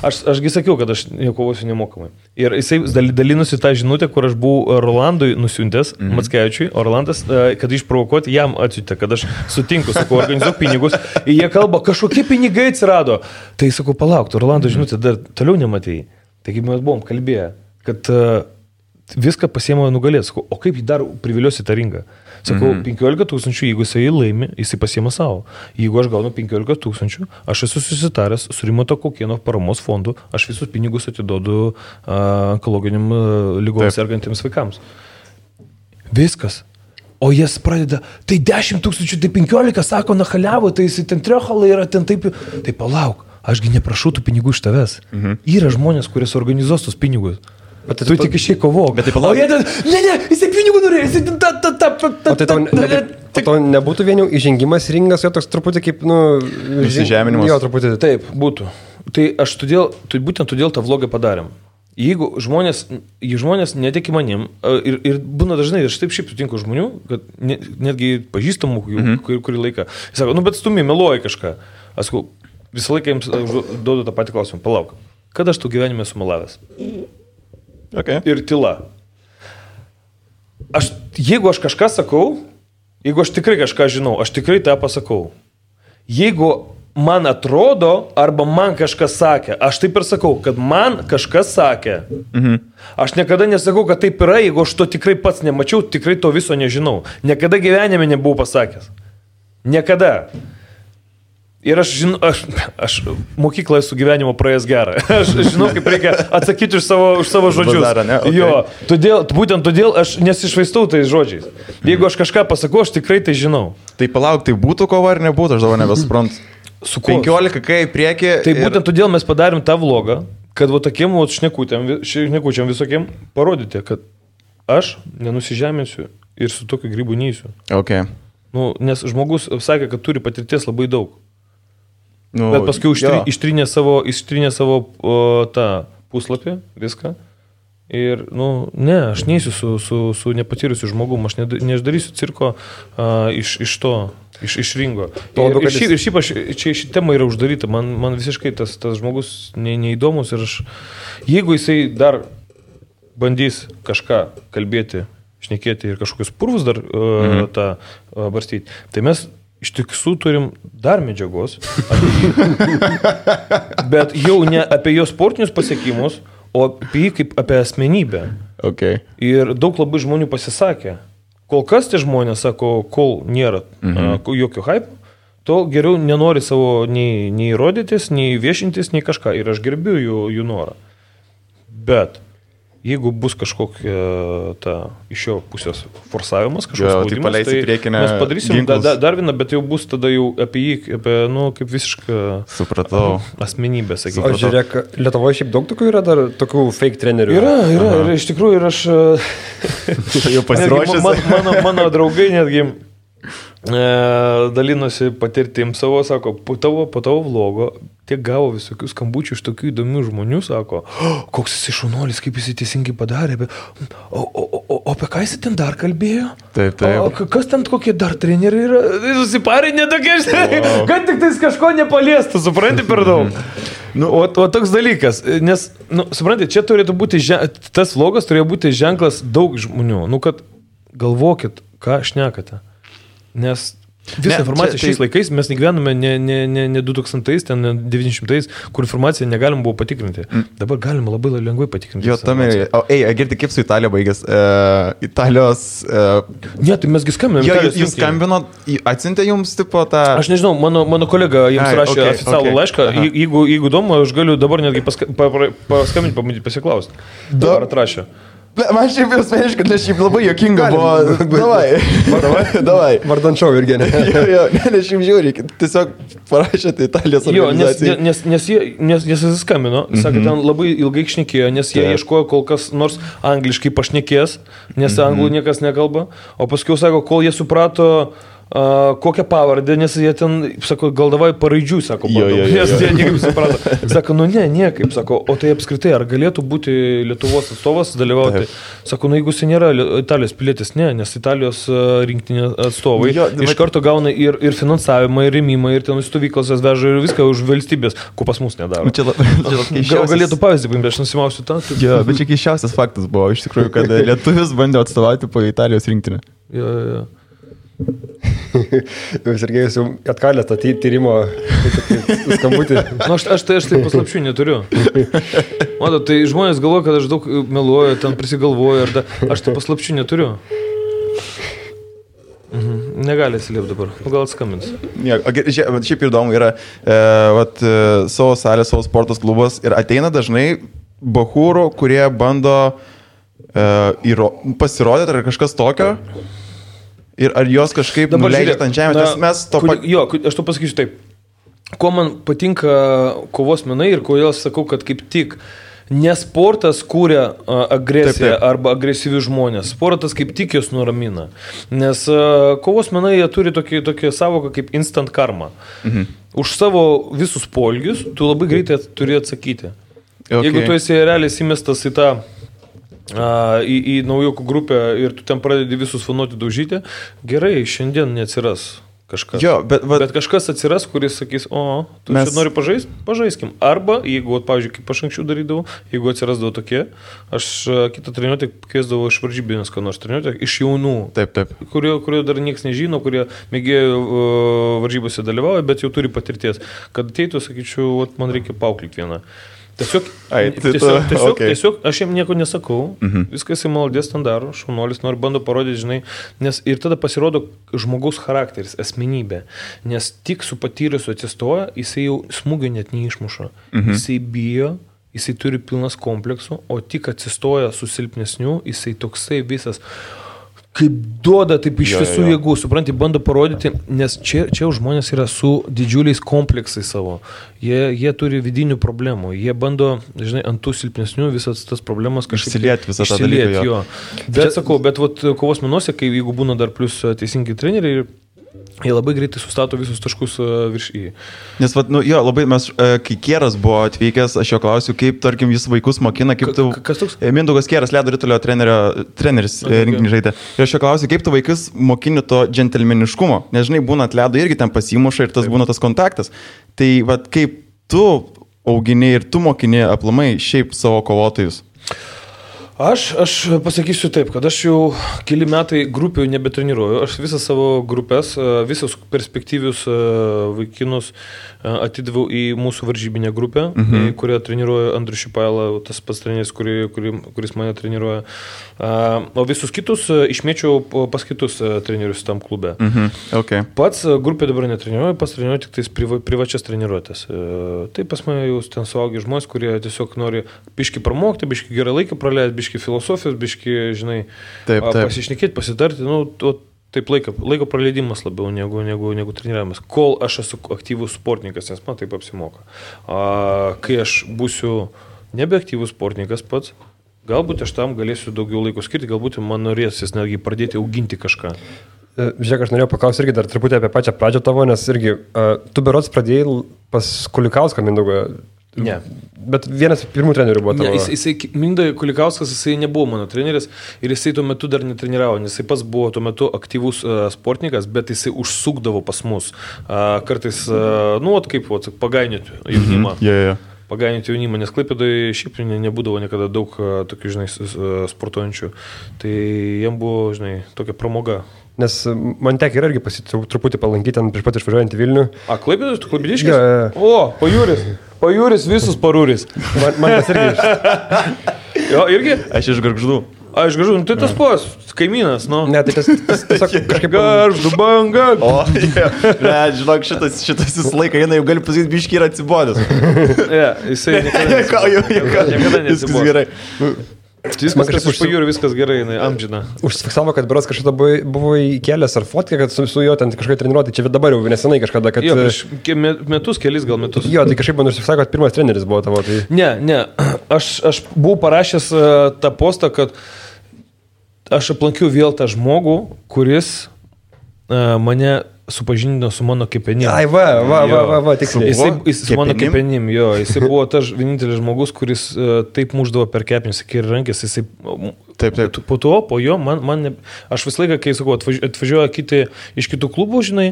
Ašgi sakiau, kad aš kovosiu nemokamai. Ir jisai dalinusi tą žinutę, kur aš buvau Rolandui nusiuntęs, Mackevičiui, o Rolandas, kad išprovokuoti, jam atsiuntė, kad aš sutinku, sakau, organizuok pinigus. Ir jie kalba, kažkokie pinigai atsirado. Tai sakau, palauk, Rolando žinutė dar toliau nematėjai. Taigi mes buvom kalbėję, kad viską pasiema nugalėti. Sakau, o kaip jį dar priviliosi tą ringą? Sakau, 15 tūkstančių, jeigu jisai laimi, jisai pasiema savo. Jeigu aš gaunu 15 tūkstančių, aš esu susitaręs su Rimanto Kaukėno paramos fondu, aš visus pinigus atiduodu onkologiniam ligom sergantiems vaikams. Viskas. O jas pradeda, tai 10 tūkstančių, tai 15, sako, nachaliavo, tai jisai ten triohalai yra, ten taip. Tai palauk, ašgi neprašau tų pinigų iš tavęs. Yra žmonės, kurie suorganizuos tos pinigus. Bet tu tik išėjai kovok. Bet tai palauk. Jisai pinigų norėjo, jisai Tai to nebūtų vien jau įžengimas ringas, jo toks truputį kaip, įsižeminimas. Jo, truputį. Taip, būtų. Tai aš būtent todėl tą vlogą padarėm. Jeigu žmonės netiki manim, ir būna dažnai, aš taip šiaip sutinku žmonių, kad netgi pažįstamų kurį laiką, jis sako, bet stumi, meluoji kažką. Aš sakau, visą laiką jums duodu tą patį klausimą, palauk, kada aš tu gyvenime esu melavęs? Okay. Ir tyla. Jeigu aš kažką sakau, jeigu aš tikrai kažką žinau, aš tikrai tą pasakau. Jeigu man atrodo, arba man kažkas sakė, aš taip ir sakau, kad man kažkas sakė. Aš niekada nesakau, kad taip yra, jeigu aš to tikrai pats nemačiau, tikrai to viso nežinau. Niekada gyvenime nebuvau pasakęs. Niekada. Ir aš žinau, aš mokyklą esu gyvenimo praėjęs gerą. Aš žinau, kaip reikia atsakyti už savo žodžius. Bazarą, ne? Okay. Jo, būtent todėl aš nesišvaistau tais žodžiais. Jeigu aš kažką pasakau, aš tikrai tai žinau. Tai palauk, tai būtų kova ar nebūtų, aš dabar nebesuprantu. Su 15 kai į priekį. Tai būtent todėl mes padarėm tą vlogą, kad va tokiem šnekučiam visokiem parodyti, kad aš nenusižeminsiu ir su tokiu grybu neįsiu. Okay. Nu, nes žmogus sakė, kad turi patirties labai daug. Nu, bet paskui ištrinė savo tą puslapį, viską. Ir, ne, aš neįsiu su nepatyrusiu žmogum, aš neišdarysiu cirko iš ringo. Ir šiaip ši tema yra uždaryta, man visiškai tas žmogus neįdomus ir jeigu jisai dar bandys kažką kalbėti, šnekėti ir kažkokius purvus dar tą barstyti, tai mes iš tiesų turim dar medžiagos, bet jau ne apie jo sportinius pasiekimus, o apie jį kaip apie asmenybę. Okay. Ir daug labai žmonių pasisakė. Kol kas tie žmonės sako, kol nėra jokio hype, tol geriau nenori savo nei rodytis, nei viešintis, nei kažką. Ir aš gerbiu jų norą. Bet jeigu bus kažkokia iš jo pusės forsavimas, kažkoks spaudimas, tai mes padarysim dar vieną, bet jau bus tada jau apie jį, kaip visišką asmenybę, sakykime. O žiūrėk, Lietuvoje šiaip daug tokių yra dar tokių fake trenerių? Yra, ir iš tikrųjų, ir aš... jau pasiruošęs. Mano draugai netgi dalinosi patirtim savo, sako, po tavo vlogo tiek gavo visokių skambučių iš tokių įdomių žmonių, sako, koks jis šaunuolis, kaip jis teisingai padarė, o apie ką jis ten dar kalbėjo? Taip. O kas ten kokie dar treneriai yra? Susiparinė tokie, kad tik tais kažko nepaliestų, supranti per daug. O toks dalykas, nes, supranti, čia turėtų būti, tas vlogas turėjo būti ženklas daug žmonių, kad galvokit, ką šnekate. Nes visą informaciją šiais laikais mes negyvename ne 2000-ais, ten 900-ais, kur informaciją negalim buvo patikrinti. Dabar galima labai lengvai patikrinti. Jo, tam ir... Girdi, kaip su Italija baigės? Italijos... Ne, tai mesgi skambiname. Jo, jūs skambino, atsiuntė jums tipo tą... Aš nežinau, mano kolega jums rašė oficialų laišką. Jeigu įdomu, aš galiu dabar netgi paskambinti, pabandyti pasiklausti. Dabar atrašė. Man šiaip ir asmeniškai, nes šiaip labai jokinga buvo. Davai. Vardančiau irgi, ne? Jo, nes šiaip žiūri, tiesiog parašėte Italijos organizacijai. Nes jis skambino, sakė, ten labai ilgai šnekėjo, nes jie ieškojo kol kas nors angliškai pašnekės, nes anglų niekas nekalba, o paskui sako, kol jie suprato kokią pavardę, nes jie ten, sako, gal davai paraidžių, sako, nes jie niekaip suprato. Sako, niekaip, sako, o tai apskritai, ar galėtų būti Lietuvos atstovas dalyvauti? Sako, jeigu jis nėra Italijos pilietis, ne, nes Italijos rinktinė atstovai iš karto gauna ir finansavimą, ir rėmimą, ir ten stovyklas veža ir viską už valstybės, ko pas mus nedaro. Gal galėtų pavyzdį paimti, aš nusimausiu tą. Jo, bet čia keisčiausias faktas buvo, iš tikrųjų, kad lietuvis bandė atstovauti po Italijos rinktinę. Jo. Sergejus jau atkalė tą tyrimo skambutį. Aš tai paslapčių neturiu. Mato, tai žmonės galvoja, kad aš daug meluoju, ten prisigalvoju, aš tai paslapčių neturiu. Negali atsiliepti dabar, gal atskambins. Šiaip įdomu yra, savo salės, savo sportos klubas ir ateina dažnai bachūrų, kurie bando pasirodyti ar kažkas tokio. Ir ar jos kažkaip nuleidžia ant žemės, nes mes to... Aš to pasakysiu taip. Kuo man patinka kovos menai ir kodėl sakau, kad kaip tik ne sportas kūrė agresiją arba agresyvius žmonės. Sportas kaip tik jos nuramina. Nes kovos menai jie turi tokį savoką kaip instant karma. Už savo visus polgius tu labai greitai turi atsakyti. Jeigu tu esi realiai įmestas į tą į naujokų grupę ir tu ten pradedi visus fanuoti daužyti, gerai, šiandien neatsiras kažkas. Bet kažkas atsiras, kuris sakys, tu čia nori pažaist? Pažaiskim. Arba, jeigu, pavyzdžiui, kaip aš anksčiau darydavau, jeigu atsirasdavo tokie, aš kitą treniruotę kviesdavau iš varžybinės, ką nors treniruotę, iš jaunų, kurio dar niekas nežino, kurie mėgėjo varžybose dalyvauja, bet jau turi patirties. Kad ateitų, sakyčiau, man reikia paauklyti vieną. Tiesiog, okay. tiesiog aš jam nieko nesakau, viskas jis maldės ten daro, šaunuolis nori bando parodyti, žinai, nes ir tada pasirodo žmogaus charakteris, asmenybė, nes tik su patyrusiu atsistoja, jisai jau smūgio net neišmuša, jisai bijo, jisai turi pilnas kompleksų, o tik atsistoja su silpnesniu, jisai toksai visas kaip duoda taip iš visų jėgų, supranti, bando parodyti, nes čia žmonės yra su didžiuliais kompleksais savo. Jie turi vidinių problemų, jie bando, žinai, ant tų silpnesnių visas tas problemas kažkaip išsilieti visą tą dalyką. Jo. Bet sakau, bet vat, kovos menuose, kai jeigu būna dar plus teisingi treneriai, jie labai greitai sustato visus taškus virš į. Nes, labai mes, kai Kieras buvo atvykęs, aš jo klausiu, kaip, tarkim, jis vaikus mokina, kaip tu... Kas toks? Mindaugas Kieras, ledo ritulio treneris rinkinį žaidė. Ir aš jo klausiu, kaip tu vaikus mokini to džentelmeniškumo. Nes, žinai, būna ant ledo irgi ten pasimuša ir tas būna tas kontaktas. Tai, kaip tu augini ir tu mokini aplamai šiaip savo kovotojus? Aš pasakysiu taip, kad aš jau keli metai grupių nebetreniruoju. Aš visas savo grupės, visus perspektyvius vaikinus atidaviau į mūsų varžybinę grupę, kurią treniruoja Andrius Šipaila, tas pats treneris, kuris mane treniruoja. O visus kitus išmėčiau pas kitus trenerius tam klube. Okay. Pats grupė dabar netreniruoju, pats treniruoju tik tais privačias treniruotės. Tai pas mane jau ten suaugi žmonės, kurie tiesiog nori biški pramokti, biški gerą laiką praleisti, biški filosofijos, biški, žinai, pasišnekėti, pasitarti, taip laiko praleidimas labiau negu treniravimas. Kol aš esu aktyvus sportininkas, nes man taip apsimoka. Kai aš būsiu nebeaktyvus sportininkas pats, galbūt aš tam galėsiu daugiau laiko skirti, galbūt man norėsis netgi pradėti auginti kažką. Žiūrėk, aš norėjau paklausti irgi dar truputį apie pačią pradžią tavo, nes irgi tu berods pradėjai pas Kulikauską Mindaugą. Ne. Bet vienas pirmų trenerių buvo tavo. Mindai Kulikauskas, jisai nebuvo mano treneris ir jisai tuo metu dar netreniravo, nes jisai pats buvo tuo metu aktyvus sportininkas, bet jisai užsukdavo pas mus. Kartais, pagainėti jaunimą. Pagainėti jaunimą, nes Klaipėdoje šiaip nebūdavo niekada daug tokių, žinai, sportuojančių. Tai jam buvo, žinai, tokia pramoga. Nes man teki irgi truputį palankyti ten prieš pat išvažiuojant į Vilnių. Klaipėdas, tu Klaipėdiškis? O, pajūris, visus parūris. Man tas irgi. Jo, irgi? Aš iš Gargždų. Aš Gargždų, tai tas pos, kaimynas, nu. Ne, tai tas tiesiog kažkaip... Gargždų banga. O, žinok, šitas visą laiką, jau gali pasakyti, biški yra atsibodęs. Jisai niekada neatsibodęs. Gerai. Viskas iš pajūrių, viskas gerai, amžina. Užsifiksavo, kad berods kažkada buvo įkėlęs ar fotkę, kad su juo ten kažkaip treniruoti, čia dabar jau nesenai kažkada, kad... Jo, prieš kelis metus. Jo, tai kažkaip man užsifiksavo, kad pirmas treneris buvo tavo. Tai... Ne, aš buvau parašęs tą postą, kad aš aplankiau vėl tą žmogų, kuris mane supažindino su mano kepenim. Ai, va, tiksliai. Jis su mano kepenim, jo. Jisai buvo tas vienintelis žmogus, kuris taip muždavo per kepenis, ir rankės, jisai... Taip. Po jo, aš visą laiką, kai sakau, atvažiuoja kiti iš kitų klubų, žinai,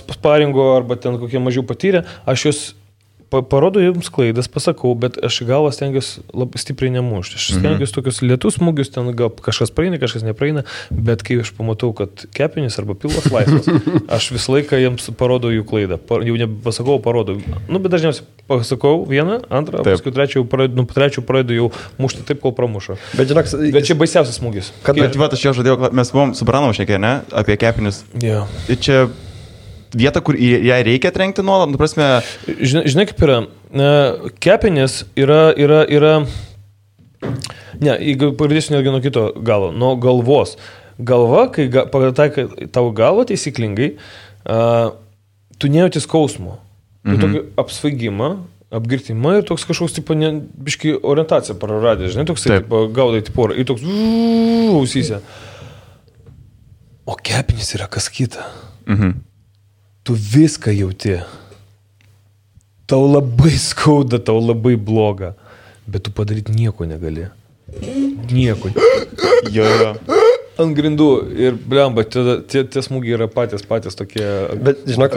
sparingo arba ten kokie mažiau patyrę, aš juos parodo jums klaidas, pasakau, bet aš galvą stengiuosi labai stipriai nemušti. Aš stengiuosi tokius lietus smūgius, ten gal kažkas praeina, kažkas nepraeina, bet kai aš pamatau, kad kepenis arba pilvas laisvas, aš visą laiką jiems parodau jų klaidą. Jau nepasakau, parodau. Bet dažniausiai pasakau vieną, antrą, paskui trečią pradedu jau mušti taip, kol pramušo. Bet čia baisiausias smūgis. Bet aš jau žadėjau, mes buvom su Branovu šnekėję, ne? Apie kepenis. Yeah. Čia vieta, kur ją reikia trenkti nuolat, prasme... Žinai, kaip yra, kepenės yra... Ne, pradėsiu netgi nuo kito galo, nuo galvos. Galva, kai pataikai tavo galvą taisyklingai, tu nejauti skausmo. Tu tokį apsvaigimą, apgirtimą ir toks kažkoks, biški orientaciją praradė, žinai, toks, gaudai porą ir toks ausyse. O kepenys yra kas kita. Tu viską jauti. Tau labai skauda, tau labai bloga, bet tu padaryti nieko negali. Nieko. Jo. Ant grindų ir blemba, tie smūgiai yra patys tokie. Bet žinok,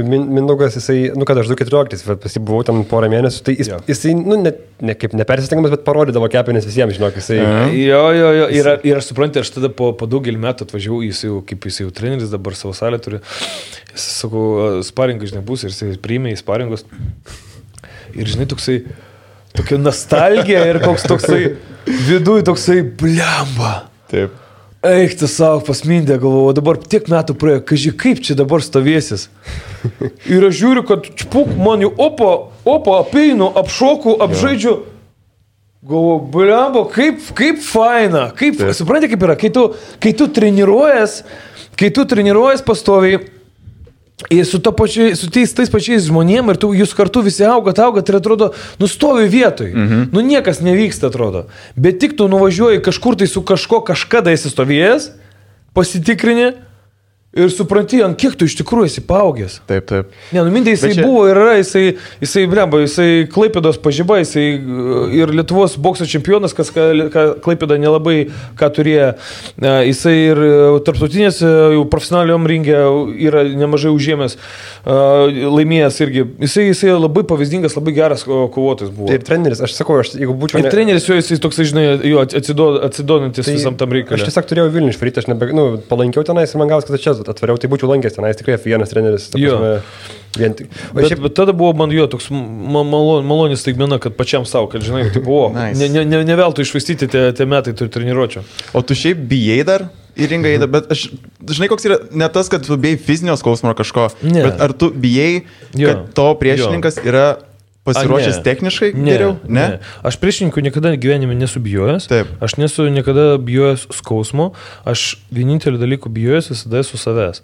Mindaugas, jisai, kad aš 2014, pasibuvau ten porą mėnesių, tai jisai, ne kaip nepersistengiamas, bet parodydavo kepenis visiems, žinok, jisai. Jo, ir aš suprantu, aš tada po daugelį metų atvažiavau, jis jau treneris, dabar savo salę turi, jis, sakau, sparingai, žinai, bus ir jisai priėmė į sparingus. Ir žinai, tokia nostalgija ir koks toksai viduj toksai blemba. Taip. Eik, tu savo pasmindė, galvoju, dabar tiek metų praėjo, kažkai kaip čia dabar stovėsis. Ir aš žiūriu, kad čpuk, man jau opa, apeinu, apšoku, apžaidžiu. Galvoju, blemba, kaip faina, supranti kaip yra, kai tu treniruojas pastoviai, ir su tais pačiais žmonėm ir jūs kartu visi augat ir atrodo, nustovi vietoj. Niekas nevyksta, atrodo. Bet tik tu nuvažiuoji kažkur tai su kažkada esi stovėjęs, pasitikrini ir supranti, ant kiek tu iš tikrųjų esi paaugęs. Taip. Ne, mintė, jisai buvo ir yra, jisai Klaipėdos pažiba, jisai ir Lietuvos bokso čempionas, kas Klaipėda nelabai ką turėjo. Jisai ir tarptautinės jau profesionaliom ringė yra nemažai užėmęs, laimėjęs irgi. Jisai labai pavyzdingas, labai geras kovotojas buvo. Ir treneris, aš sakau, jeigu būčiau... Ir treneris jo, jisai toksai, žinai, jo atsidodantis visam tam reikalui. Aš tiesiog turėjau Vilnių išvaryti, aš palankiau tenais ir man gavos, kad čia atvariau, tai būčiau lankęs tenais, tikrai vienas treneris. Bet tada buvo man jo toks malonis staigmena, kad pačiam savo, kad žinai, tai buvo, ne veltui išvaistyti tie metai turi treniruočio. O tu šiaip bijai dar į ringą eiti, bet aš, žinai, koks yra, ne tas, kad tu bijai fizinio skausmo ar kažko, bet ar tu bijai, kad to priešininkas yra pasiruošęs techniškai geriau? Ne? Aš priešininkų niekada gyvenime nesu bijojęs. Taip. Aš nesu niekada bijojęs skausmo. Aš vienintelį dalykų bijojęs visada esu savęs.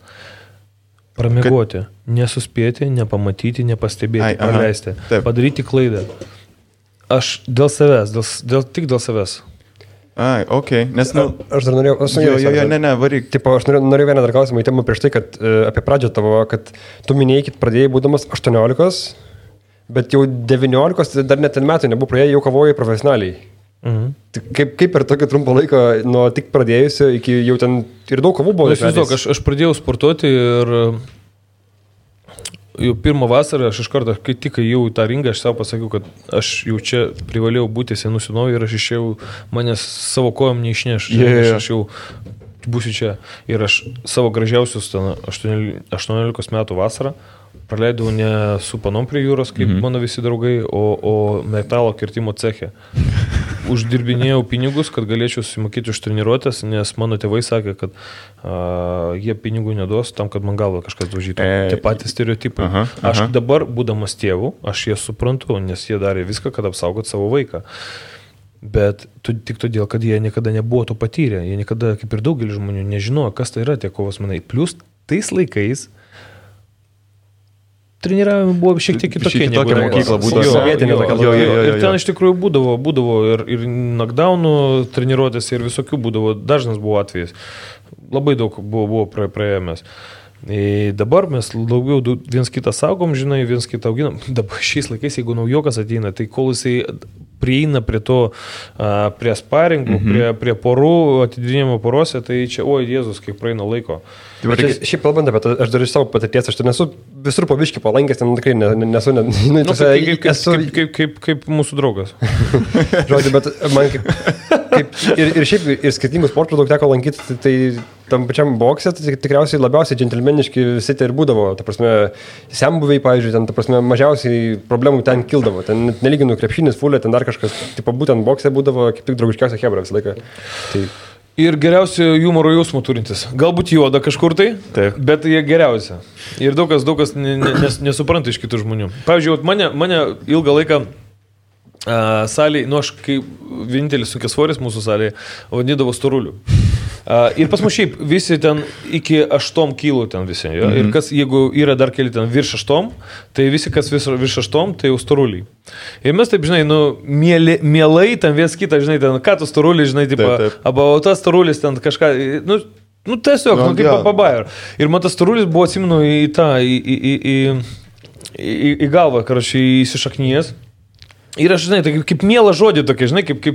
Pramiegoti. Nesuspėti, nepamatyti, nepastebėti, praleisti. Padaryti klaidą. Aš dėl savęs, tik dėl savęs. Nes, aš dar norėjau... Varyk. Tipo, aš norėjau vieną dar klausimą įtemą prieš tai, kad apie pradžią tavo, kad tu minėjai, kad pradėjai būdamas 18, bet jau 19, dar net ten metų nebuvo praėję, jau kavojai profesionaliai. Kaip per tokį trumpą laiką nuo tik pradėjusio iki jau ten ir daug kavų buvo? Aš pradėjau sportuoti ir jau pirmą vasarą aš iš karto, kai tik jau į tą ringą, aš savo pasakiau, kad aš jau čia privalėjau būti senų senovį ir aš išėjau, manęs savo kojom neišneš. Aš jau būsiu čia. Ir aš savo gražiausius 18 metų vasarą praleidau ne su panom prie jūros, kaip mano visi draugai, o metalo kirtimo ceche. Uždirbinėjau pinigus, kad galėčiau susimokėti už treniruotės, nes mano tėvai sakė, kad jie pinigų neduos tam, kad man galvą kažkas daužytų. Tie patys stereotipai. Aš dabar, būdamas tėvų, aš jie suprantu, nes jie darė viską, kad apsaugot savo vaiką. Bet tik todėl, kad jie niekada nebuvo to patyrę. Jie niekada, kaip ir daugelis žmonių, nežinojo, kas tai yra tie kovos menai. Plius tais laikais treniravimai buvo šiek tiek kitokie. Tokia mokykla būdavo. Ir ten iš tikrųjų būdavo ir knockdownų treniruotės ir visokių būdavo. Dažnas buvo atvejis. Labai daug buvo praėjomės. Dabar mes daugiau viens kitą saugom, žinai, viens kitą auginam. Dabar šiais laikais, jeigu naujokas ateina, tai kol jisai prieina prie to, prie sparingų, prie porų, atidinėjimo porose, tai čia, Jėzus, kiek praeina laiko. Šiaip kalbant apie tai, aš dar iš savo patirties, aš ten esu visur po biškį palankęs, ten tikrai nesu... Kaip mūsų draugas. Žodžiu, bet man kaip ir šiaip ir skirtingų sportų daug teko lankyti, tai tam pačiam bokse, tai tikriausiai labiausiai džentelmeniški visi tai ir būdavo. Ta prasme, sembuviai, pavyzdžiui, ten, ta prasme, mažiausiai problemų ten kildavo. Ten nelyginu krepšinis, fulė, ten dar kažkas, tipo, būtent bokse būdavo kaip tik draugiškiausia chebra visą laiką. Tai... Ir geriausia humoro jausmų turintis. Galbūt juoda kažkur tai, bet jie geriausia. Ir daug kas nesupranta iš kitų žmonių. Pavyzdžiui, mane ilgą laiką salėje, aš kaip vienintelis sunkiasvoris mūsų salėje, vadindavo storuliu. Ir pas mus šiaip visi ten iki 8 kilų ten visi. Ja? Ir kas, jeigu yra dar keli ten virš 8, tai visi, kas virš 8, tai jau storuliai. Ir mes taip, žinai, mielai ten viens kitą, žinai, ten, ką tu storuliai, žinai, tipo, arba tas storulis ten kažką, tiesiog, kaip pabair. Ir man tas storulis buvo, atsimenu, į galvą, karočiui, įsišaknyjęs. Ir aš, žinai, tai kaip mielą žodį tokia, žinai, kaip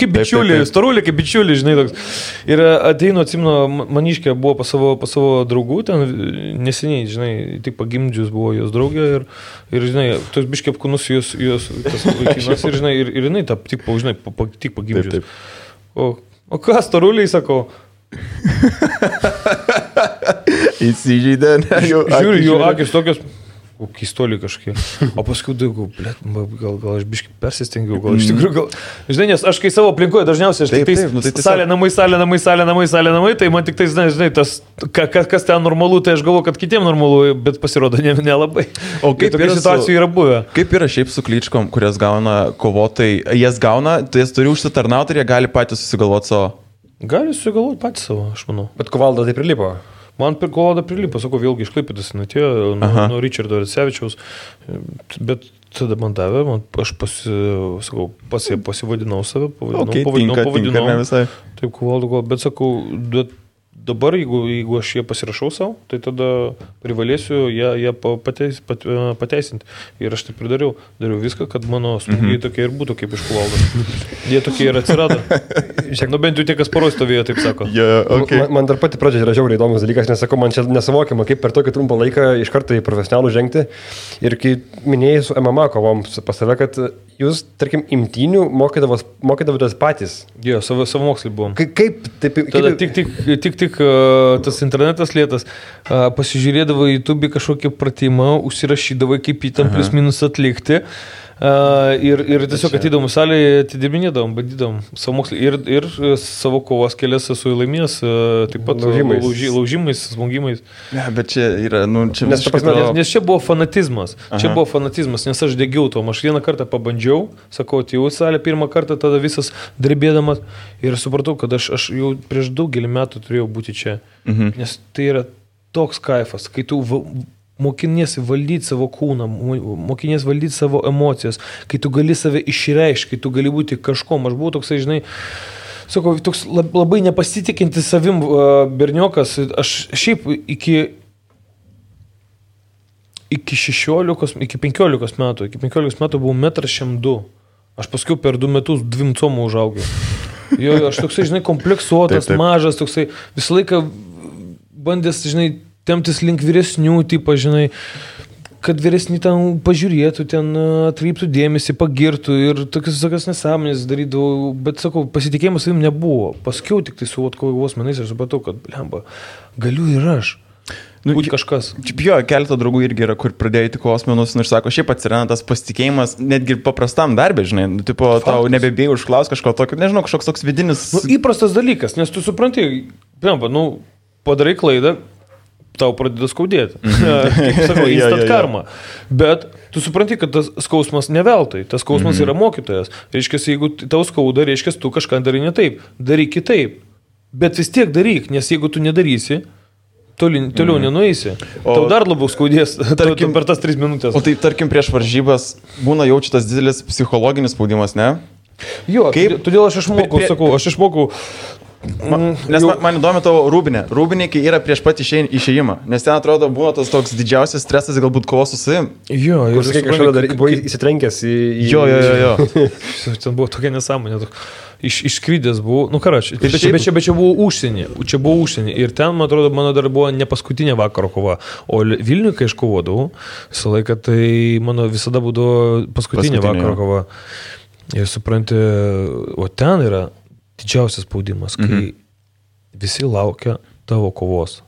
bičiulį, storulį, kaip bičiulį, žinai, toks. Ir ateinu, atsimenu, maniškė buvo pas savo draugų, ten neseniai, žinai, tik pagimdžius buvo jos draugė ir žinai, tos biškė apkūnus jos tas vaikinas ir, žinai, ir jinai tik pagimdžius. O ką, storuliai, sakau? Įsižeidė, ne? Žiūriu, jų akis tokios... keistoliai kažkokie. O paskui daugiau, gal aš biškai persistengiau, gal iš tikrųjų, žinai, nes aš kai savo aplinkoje dažniausiai, aš tik tai salė, namai, tai man tik tai, žinai, tas, kas ten normalu, tai aš galvoju, kad kitiem normalu, bet pasirodo nelabai. O kaip tokių situacijų yra buvę? Kaip yra šiaip su kličkom, kurias gauna kovotojai, jas gauna, tai jas turi užsitarnauti ir jie gali patys susigalvoti savo? Gali susigalvoti patys savo, aš manau. Bet Kovalda tai prilipo. Man Kovalda prilipo, sakau, vėlgi iš Klaipėdos atėjo, nuo Richardo Racevičiaus, bet tada man davė, aš pasivadinau save, pavadinau, taip Kovalda, bet sakau, dabar, jeigu aš jie pasirašau savo, tai tada privalėsiu ją pateisinti. Ir aš taip ir dariau viską, kad mano smūgiai tokie ir būtų kaip iš Kovaldos. Jie tokie ir atsirado. Bent jau tie, kas paros stovėjo, taip sako. Man dar pati pradžia yra žiauriai įdomus dalykas, nes sakau, man čia nesuvokiama, kaip per tokį trumpą laiką iš karto į profesionalų žengti. Ir kai minėjai su MMA kovom pas save, kad jūs, tarkim, imtynių mokydavotės patys. Jo, savo mokslį buvom. Kaip? Tada tik tas internetas lėtas, pasižiūrėdavo į YouTube kažkokį pratimą, užsirašydavo, kaip jį tam plius minus atlikti. Ir tiesiog ateidavom salėje, atidirbinėdavom, bandydavom savo mokslį ir savo kovos kelias esu laimėjęs, taip pat laužimais, smogimais. Ne, bet čia yra, čia nes čia buvo fanatizmas. Nes aš degiau tom. Aš vieną kartą pabandžiau, sakau, atėjau į salę pirmą kartą, tada visas drebėdamas ir supratau, kad aš jau prieš daugelį metų turėjau būti čia. Nes tai yra toks kaifas, kai tu mokiniesi valdyti savo kūną, mokiniesi valdyti savo emocijas, kai tu gali save išreikšti, kai tu gali būti kažkom. Aš buvau toksai, žinai, sakau, toks labai nepasitikintis savim berniokas. Aš šiaip iki 15 metų buvau 1,1 m. Aš paskui per 2 metus 2 comų užaugiau. Jo, aš toksai, žinai, kompleksuotas, taip. Mažas, toksai, visą laiką bandęs, žinai, temptis link vyresnių, tipo, žinai, kad vyresni ten pažiūrėtų, ten atkreiptų dėmesį, pagirtų ir tokias nesąmonės darydavau, bet, sakau, pasitikėjimas savim nebuvo. Paskiau tik tai su kovos menais aš supratau, kad, blemba, galiu ir aš. Būti kažkas. Jo, keletą draugų irgi yra, kur pradėjo į kovos menus ir sako, šiaip atsiranda tas pasitikėjimas netgi paprastam darbė, žinai, tipo, tau nebebėjai užklaus kažko tokio, nežinau, kažkoks toks vidinis... Įprastas dalykas, nes tu supranti, blemba, padarai klaidą, tau pradeda skaudėti. Kaip sakau, instant karma. Bet tu supranti, kad tas skausmas neveltui. Tas skausmas yra mokytojas. Reiškia, jeigu tau skauda, reiškia, tu kažką darai ne taip. Daryk kitaip. Bet vis tiek daryk, nes jeigu tu nedarysi, toliau nenueisi. Tau dar labiau skaudės per tas 3 minutės. O tai, tarkim, prieš varžybas būna jaučiatas didelis psichologinis spaudimas, ne? Jo, todėl aš išmokau, Nes man įdomi tavo rūbinė. Rūbinė, kai yra prieš pat išėjimą. Nes ten atrodo būna tas toks didžiausias stresas, galbūt kovos su savim. Jo, ir kažkada dar buvo įsitrenkęs į... Jo. Ten buvo tokia nesąmonė. Išskrydęs buvau, bet čia buvo užsienį. Ir ten, man atrodo, mano dar buvo ne paskutinė vakaro kova. O Vilniuje, kai aš kovodavau, visą laiką, tai mano visada būdavo paskutinė vakaro kova. Ir supranti, o ten yra didžiausias spaudimas, kai visi laukia tavo kovos.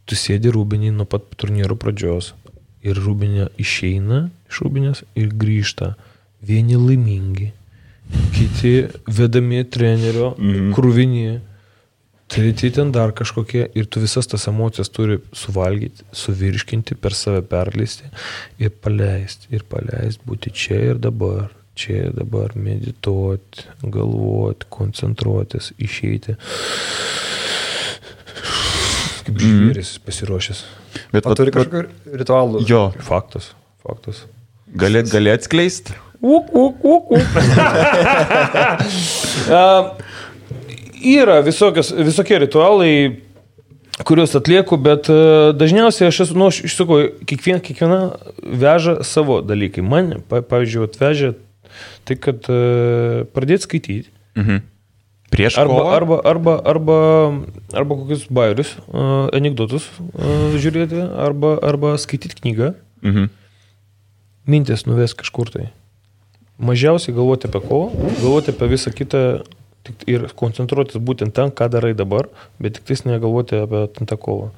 Tu sėdi rūbinį nuo pat turnyro pradžios ir rūbinė išeina iš rūbinės ir grįžta. Vieni laimingi, kiti vedami trenerio, krūvinį, treti ten dar kažkokie ir tu visas tas emocijas turi suvalgyti, suvirškinti, per save perleisti ir paleisti, būti čia ir dabar. Čia dabar medituoti, galvoti, koncentruotis, išeiti. Kaip žvėris pasiruošęs. Bet turi kažkokių ritualų. Jo. Faktas. Gali atskleisti? Yra visokie ritualai, kuriuos atlieku, bet dažniausiai aš sakau, kiekviena veža savo dalykai. Man, pavyzdžiui, atvežė tai, kad pradėti skaityti. Prieš kovą? Arba kokius bajerius, anekdotus žiūrėti, arba skaityti knygą. Mintis nuves kažkur tai. Mažiausiai galvoti apie kovą, galvoti apie visą kitą ir koncentruotis būtent ten, ką darai dabar, bet tik tais negalvoti apie tą kovą.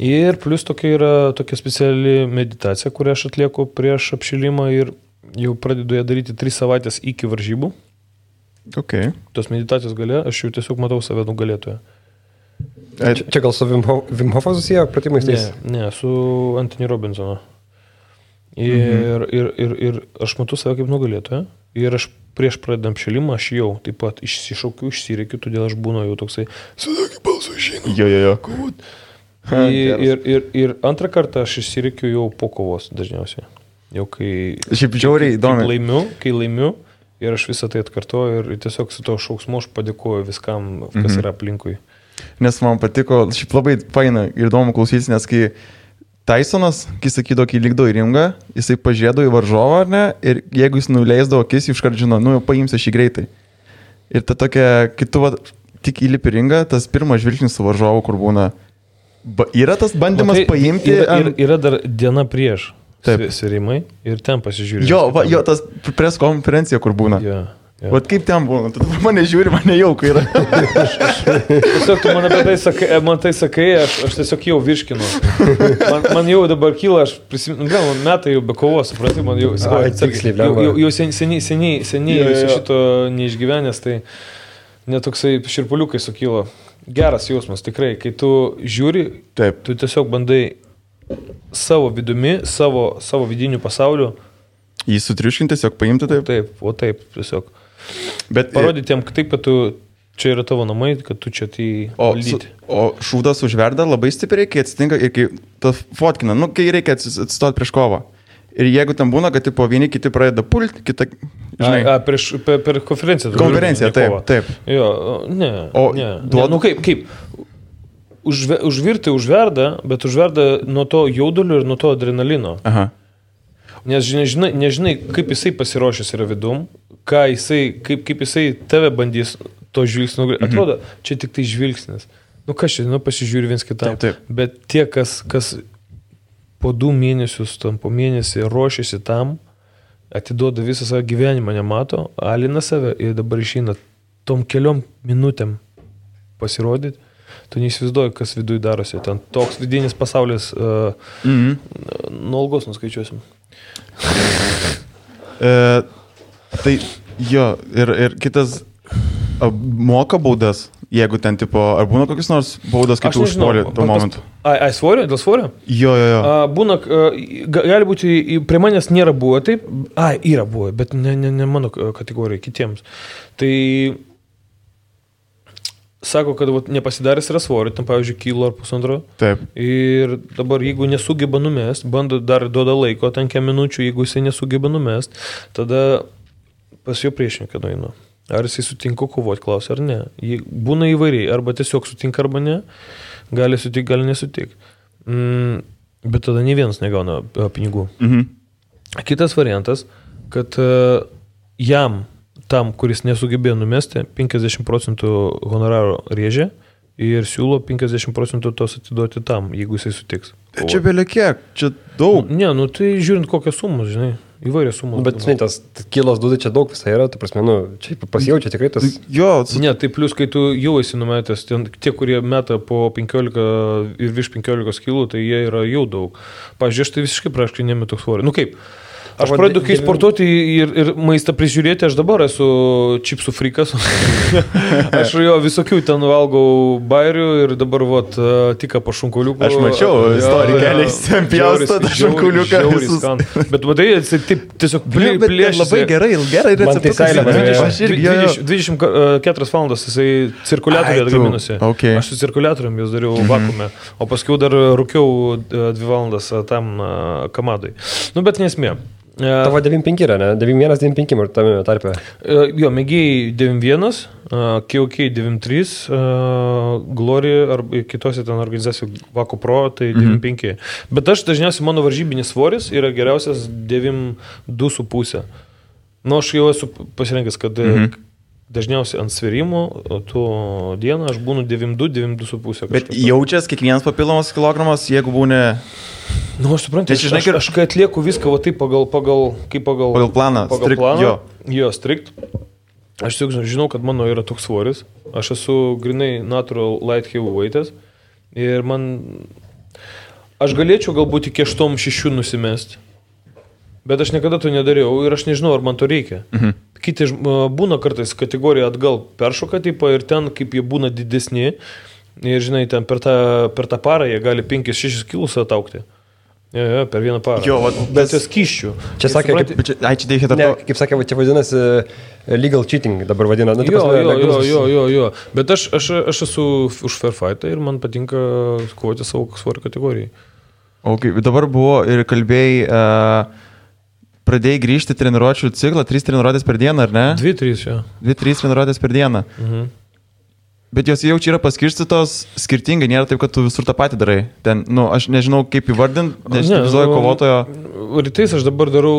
Ir plus tokia speciali meditacija, kurią aš atlieku prieš apšilimą ir jau pradedu ją daryti 3 savaitės iki varžybų. Okay. Tos meditacijos gale, aš jau tiesiog matau save nugalėtoje. Čia gal su Wim Hofo susiję pratimais? Ne, su Anthony Robinsono. Ir aš matau save kaip nugalėtoje. Ir aš prieš pradedam apšilimą, aš jau taip pat išsišaukiu, išsireikiu, todėl aš būnu jau toksai, sakyk balsu išeinu. Jo. Ir antrą kartą aš išsireikiu jau po kovos dažniausiai. Jau kai... Šiaip žiauriai įdomi. Kai laimiu ir aš visą tai atkartoju ir tiesiog su to šauksmu aš padėkoju viskam, kas yra aplinkui. Nes man patiko, šiaip labai faina ir įdomu klausytis, nes kai Tysonas, kai sakydavo, kai lygdavo į ringą, jisai pažiūrėdavo į varžovą, ar ne, ir jeigu jis nuleisdavo akis, iškart žino, nu jau paimsi šį greitai. Ir ta tokia, kai tu tik įlipi ringą, tas pirmas žvilgsnis su varžovu, kur būna, yra tas bandymas paimti. Yra dar diena prieš sverimai ir ten pasižiūrė. Jo, tas pres konferencija, kur būna. Yeah. Vat kaip ten būna, tu mane žiūri, mane jauku yra. Tiesiog tu man apie tai sakai, aš tiesiog jau virškinu. Man jau dabar kyla, aš prisimenu, metai jau be kovos, suprati, man jau seniai šito neišgyvenęs, tai netoksai širpuliukai sukyla. Geras jausmas, tikrai, kai tu žiūri, tu tiesiog bandai savo vidumi, savo vidinių pasaulių. Jį sutriuškinti, tiesiog paimti taip? Taip, tiesiog. Bet parodyti jam taip, kad tu čia yra tavo namai, kad tu čia tai valdyti. O šūdas užverda labai stipriai, kai atsitinka ir kai ta fotkina, kai reikia atsistoti prieš kovą. Ir jeigu tam būna, kad tipo vieni kiti pradeda pulti, kita, žinai. Per konferenciją. Konferenciją, taip. Jo, ne. Kaip? Užvirti užverda, bet užverda nuo to jaudulio ir nuo to adrenalino. Aha. Nes nežinai, kaip jisai pasiruošęs yra vidum, kaip jisai tave bandys to žvilgsnio. Atrodo, čia tik tai žvilgsnis. Kas čia, pasižiūri viens kitam. Taip. Bet tie, kas po 2 mėnesius, po mėnesį ruošiasi tam, atiduoda visą savo gyvenimą, nemato, alina save ir dabar išeina tom keliom minutėm pasirodyti. Tu neįsivaizduoji, kas viduj darosi. Ten toks vidinis pasaulis, nuo algos nuskaičiuosim. Tai jo, ir kitas moka baudas, jeigu ten tipo, ar būna kokius nors baudas, kai tu užpuoli tuo momentu? Svorio? Dėl svorio? Jo. Būna, gali būti, prie manęs nėra buvo taip, yra buvo, bet ne mano kategorijai, kitiems. Tai sako, kad nepasidaręs yra svorio, tam pavyzdžiui, kilo ar 1,5. Taip. Ir dabar, jeigu nesugeba numest, bando dar duoda laiko, ten kiek minučių, jeigu jisai nesugeba numest, tada pas jo priešininką nueinu. Ar jisai sutinka kovoti, klausia, ar ne. Būna įvairiai, arba tiesiog sutinka, arba ne. Gali sutik, gali nesutik. Bet tada nei vienas negauna pinigų. Kitas variantas, kad jam tam, kuris nesugebėjo numesti, 50% honoraro rėžė ir siūlo 50% tos atiduoti tam, jeigu jisai sutiks. Čia belia kiek, čia daug. Ne, tai žiūrint kokios sumos, žinai, įvairios sumos. Bet, žinai, tas kilos dūdai čia daug visai yra, tai prasme, čia pasijaučia tikrai tas... Ne, tai plus, kai tu jau esi numetęs, tie, kurie meta po 15 ir virš 15 kilų, tai jie yra jau daug. Pavyzdžiui, aš tai visiškai praškai nemetu svorį. Kaip? Aš pradedu, kai sportuoti ir maistą prižiūrėti, aš dabar esu čipsų frikas. Aš jo visokių ten valgau bairių ir dabar tik po šunkuliuku. Aš mačiau istoriją keliais, ten pjaustą šunkuliuką. Bet matai, jis taip tiesiog plėšė. Labai gerai receptukas. 24 valandas jisai cirkuliatorių atgaminusi. Aš su cirkuliatorium jūs dariau vakume, o paskui dar rūkiau 2 valandas tam kamadai. Bet nesmė. Tavo 9.5 yra, ne? 9.1, 9.5 ir tame tarpe. Jo, mėgiai 9.1, KOK 9.3, Glory ar kitose ten organizacijų Vako Pro, tai 9.5. Bet aš dažniausiai mano varžybinis svoris yra geriausias 9.2,5. Aš jau esu pasirinkęs, kad dažniausiai ant sverimo, tuo dieną aš būnu 9.2, 9.2,5. Bet jaučias kiekvienas papildomas kilogramas, jeigu būni... Aš suprantu, aš kai atlieku viską taip pagal planą. Pagal planą. Jo, strikt. Aš žinau, kad mano yra toks svoris. Aš esu grinai natural light heavyweightas. Ir man aš galėčiau galbūt iki 8-6 nusimesti, bet aš niekada to nedariau ir aš nežinau, ar man to reikia. Kiti būna kartais kategoriją atgal peršoka tipą ir ten, kaip jie būna didesni, ir žinai, ten per tą parą jie gali 5-6 kilus ataukti. Jo, per vieną parą. Jo, bet tai skyščių. Čia sakė, kaip sakė, čia vadinasi legal cheating dabar vadina. Nu, jo. Bet aš esu už fair fightą ir man patinka kovoti savo svorio kategorijai. Okay, dabar buvo ir kalbėjai, pradėjai grįžti treniruočių ciklą, 3 treniruotės per dieną, ar ne? 2-3, jo. 2-3 treniruotės per dieną. Bet jos jau čia yra paskirstytos skirtingai, nėra taip, kad tu visur tą patį darai. Ten, aš nežinau, kaip įvardinti, nes vizuoju kovotojo. Rytais aš dabar darau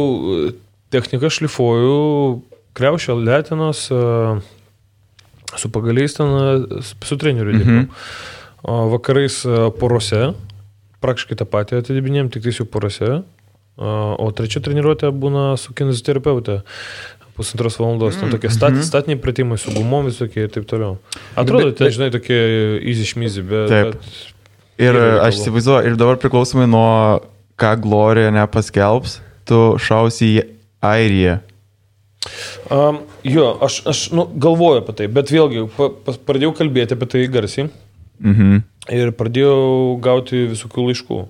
techniką, šlifuoju, kriaušę, letinos, su pagaliais ten, su treneriu dirbu. Vakarais porose, praktiškai tą patį atidibinėjom, tik tai jau porose. O trečia treniruotė būna su kineziterapeutė. 1,5 valandos, ten tokie statiniai pratimai su gumom visokie ir taip toliau. Atrodo, ten, žinai, tokie easy šmizy, bet... Ir aš įsivaizduoju, ir dabar priklausomai nuo ką Glorija nepaskelbs, tu šausi į Airiją. Jo, aš galvoju apie tai, bet vėlgi pradėjau kalbėti apie tai garsiai ir pradėjau gauti visokių laiškų.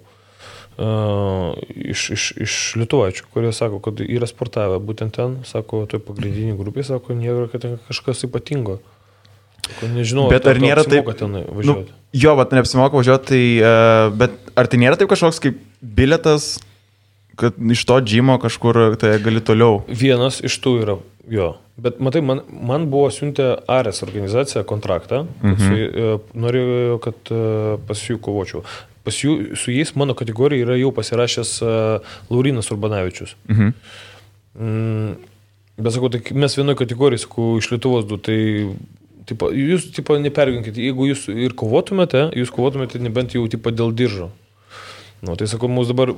Iš lietuvaičių, kurie sako, kad yra sportavę būtent ten, sako, toj pagrindinį grupį, sako, nėra, kad ten kažkas ypatingo. Sako, nežinau, bet ar nėra taip, važiuoti. Jo, bet neapsimoka važiuoti, tai, bet ar tai nėra taip kažkoks kaip biletas, kad iš to džimo kažkur tai gali toliau? Vienas iš tų yra, jo. Bet matai, man buvo siuntę Ares organizacija kontraktą, norėjo, kad pas jų kovočiau. Su jais mano kategorija yra jau pasirašęs Laurinas Urbanavičius. Bet sakau, tai mes vienoje kategorijoje, sakau, iš Lietuvos du, tai jūs neperginkite, jeigu jūs ir kovotumėte, nebent jau dėl diržo. Tai sakau, mūsų dabar